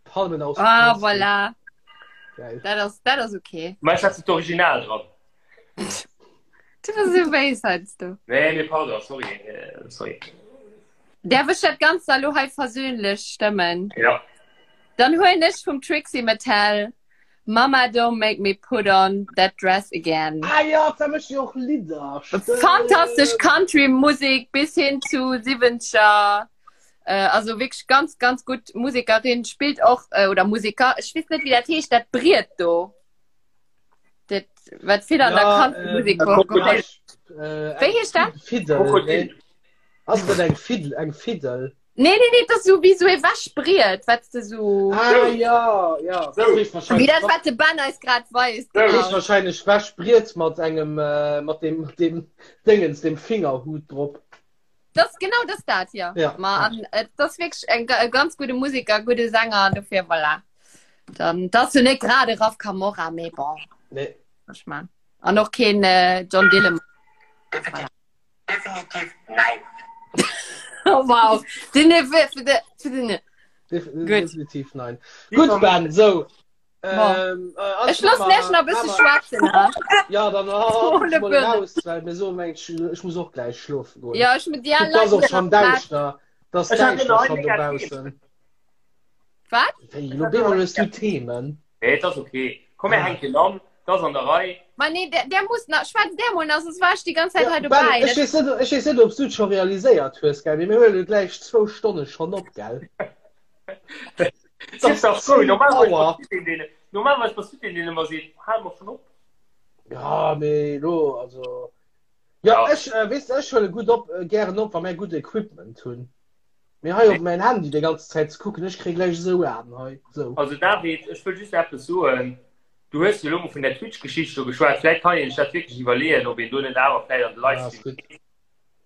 Palmen aus Ah, Plastik. voilà. Geil. Dat ass, dat ass okay. Mä ech setzen d'Original dran. Du bist so béis heiansdo. Nee, nee, pardon, sorry, äh, sorry. Därf ech dat Ganzt elo hei versöhnlech stëmmen? Ja. Dann huelen ech vum Trixie Mattel Mama don't make me put on that dress again. Ah ja, da mécht jo och Lidder. Stimmt. Fantastesch Country-Musik bis hin zu 70er. Äh, also wirklich ganz, ganz gut Musikerin, spielt och, äh, oder Musiker, ech weess net, wéi dat heescht, dat Briet do. Dat, wat vill an der Ja, Country-Musik ähm, geholt. Äh, Wéi heescht dat? Fiddel. Krokodil. Nee. Ass dat eng Fiddel? Eng Fiddel? Nee, nee, nee, dat ass sou wéi sou ee Wäschbriet, wat s de sou. Ah ja, ja. Sou. Dat heescht Wéi wahrscheinlech, dat, wat de Ben eis grad weist. dat heescht Genau. wahrscheinlech Wäschbriet mat engem, äh, mat dem, mat dem Déngens, dem Fingerhut drop. Das genau das dat ja. Ja. Ma an, äh, das wirklich en, e ganz gute Musiker, gute Sänger dofir voilà. Dann das du net grade Raf Camora mee bon. Nee. Ich mein. An och keen äh, John Dillemann. Definitiv, definitiv nein. Oh, wow. Den, den, Def Gut. definitiv nein. Gut, Ben, so. Ähm, äh, Ech lass lech nach bësse schwätzen. Ja, dann oh, Ohne mal Birne. raus, weil mir so mengt, ich, ich muss och gleich schlofen goen. Ja, ech mit dir Guck, das och schon däischter. Das Ich hab däischter genau schon ein dobaussen. Wat? Wéi, lo bemol hues du Themen. Nee, das okay. Komm, mir hänken an. Das an der Rei. Ma nee, der, der muss nach, schwätz der mol nach, sonst war ich die ganze Zeit Ja, hei Ben, dobäi. ech weess net, ech weess net, ob du et scho realiséiert hues, gell, mee mir huelen gläich zwou Stonne schonn op, gell? Sief dach frou, normalerweis Auer. bass du deen, deen, normalerweis bass du deen, deen ëmmer seet, hal mer schonn op. Ja, mee lo, also. Ja, Ja. ech, äh, weess de, ech huele gutt op, äh, gären op, wa mär gutt Equipment hunn. Mee hei op mäin Handy déi ganz Zäit ze kucken, ech kréie gläich esou Aen hei, esou. Also David, ech wëll just eppes soen. Du hues jo elo mol vun där Twitch-Geschicht do geschwat. Vläicht kann een sech dat wierklech iwwerleeën, ob een do net awer vläicht an de Ja, ass Livestream gutt. geet.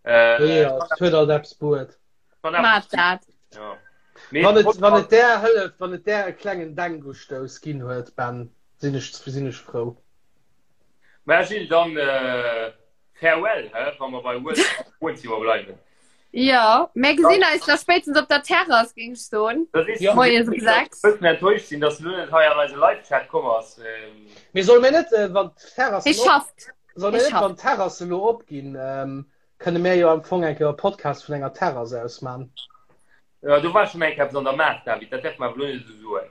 Äh, Jo, et huet alt eppes bruet. kann awer- Maat dat. Ja. Mee Wann et, wann et där hëlleft, wann et där e klengen Denkustouss ginn huet, Ben, sinn ech, sinn ech frou. Mä Gilles, dann äh, farewell, hä, wa mer bei World Wohnzimmer bleiwen. Ja, mir gesinn eis da spéitstens op der Terrass, géing ech soen. Das ist Ja. Moies um 6. bëssen enttäuscht sinn, dass du lo net hei an eise Live-Chat komm ass. Ähm, Mee solle mir net, äh, wann d'Terrassen Hie op, schafft. solle mir Hie net, schafft. wann d'Terrasse lo opginn, ähm, Kënne mär jo am Fong eng Kéier e Podcast vun enger Terrass aus man. Ja, do war schon eng Kéier eppes an der Maach, David, dat däerfe mer awer elo net esou soen.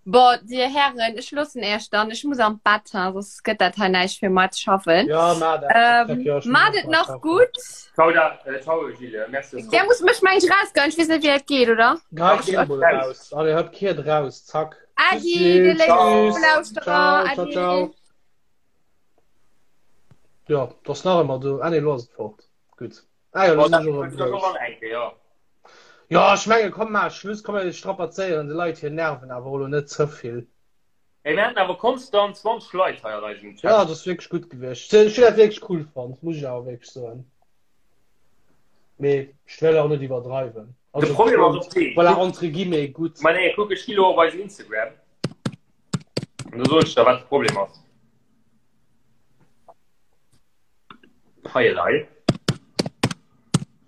Bon, Dir Hären, ech loossen Iech dann. Ech muss an d'Bett, ha, soss gëtt dat hei näischt fir mar ze schaffen. Ja, maach dat. Ähm, Ja, ech muss Maacht och et mar nach schaffen. gutt. Ciao, da, äh, ciao Gilles, merci. dass du Der muss mech meng ech rausgoen. Ech weess net, wéi dat geet, oder? Gei Ach, Geh mol raus. raus. Allez, hop, kehrt raus. Zack. Tschüss, Adi, dir Gilles. léif Tschüss. Lauschterer. Ciao, ciao, Adi. ciao. Ja, das nach ëmmer do. Ah, nee, lo ass et fort. Gutt. Ah, ja, lo Bon, sinn dat ech och erëm huet grouss. och eng Kéier, ja. Ja, ech menge komm maach Schluss, komm mir strapazéieren de Leit hir Nerven awer och lo net ze vill. Ey, mir haten awer konstant 20 Leit hei an eisem Ja, Chat. dat ass wierklech gutt gewiescht. Ech hunn dat wierklech cool fonnt, muss ech awer wierklech soen. Mee ech wëll och net iwwerdreiwen. De Also Problem ass och dee, voilà, kuck, entre guillemets gutt. ma nee, kuck, ech gi lo op eisen Instagram an do soen ech der, wat de Problem ass. Hei elei.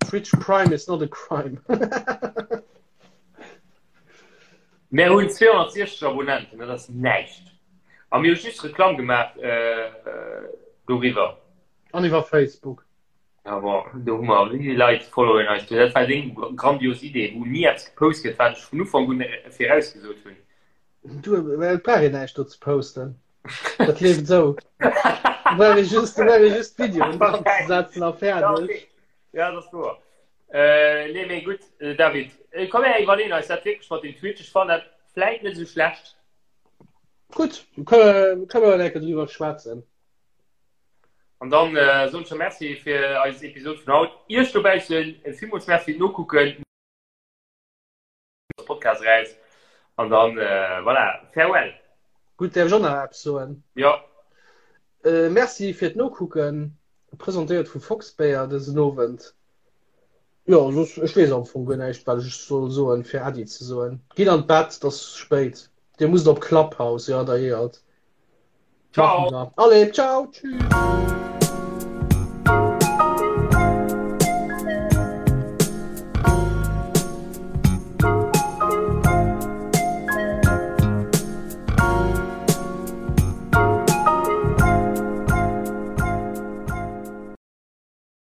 Twitch Prime is not a crime. Mir hunn 260 Abonnenten, dat ass näischt. A mir hu just Reklamm gemaach äh, doriwwer. An iwwer Facebook. Ja, bon, do hu mer wéi vill Leit followen eis do. Dat war deng grandios Idee, wou ni eppes gepost gëtt, wat ech vun Ufank un virausgesot hunn. Du, well et brauch een näischt do ze posten. Dat leeft esou. Brauch ee just, brauch ee just Videoen dran ze setzen a fäerdeg. Ja, dat ass wouer. Äh, nee, mee gutt, äh, David, äh, komm her, iwwerleeën eis dat wierklech mat dem Twitch. Ech fannen dat vläit net esou schlecht. Gutt, kënne kënne mer eng Kéier driwwer schwätzen. An dann äh, soen ech der Merci fir eis Episod vun haut. Iech dobaussen villmools Merci fir d'Nokucken. Podcast raus an dann äh, voilà, farewell. Gutt, däerf ech och nach eppes soen? Ja. Äh, merci fir d'Nokucken, presentéiert vu Foxbéier dësen Owend. Jo, soss, ech weess am Fong guer näischt, wat ech soll soen, fir Äddi ze soen. Gitt an d'Bett, et ass spéit. Dir musst op Clubhouse, jo, da jeeëlt. Ciao. Maache mer. Allez, ciao, tschüss.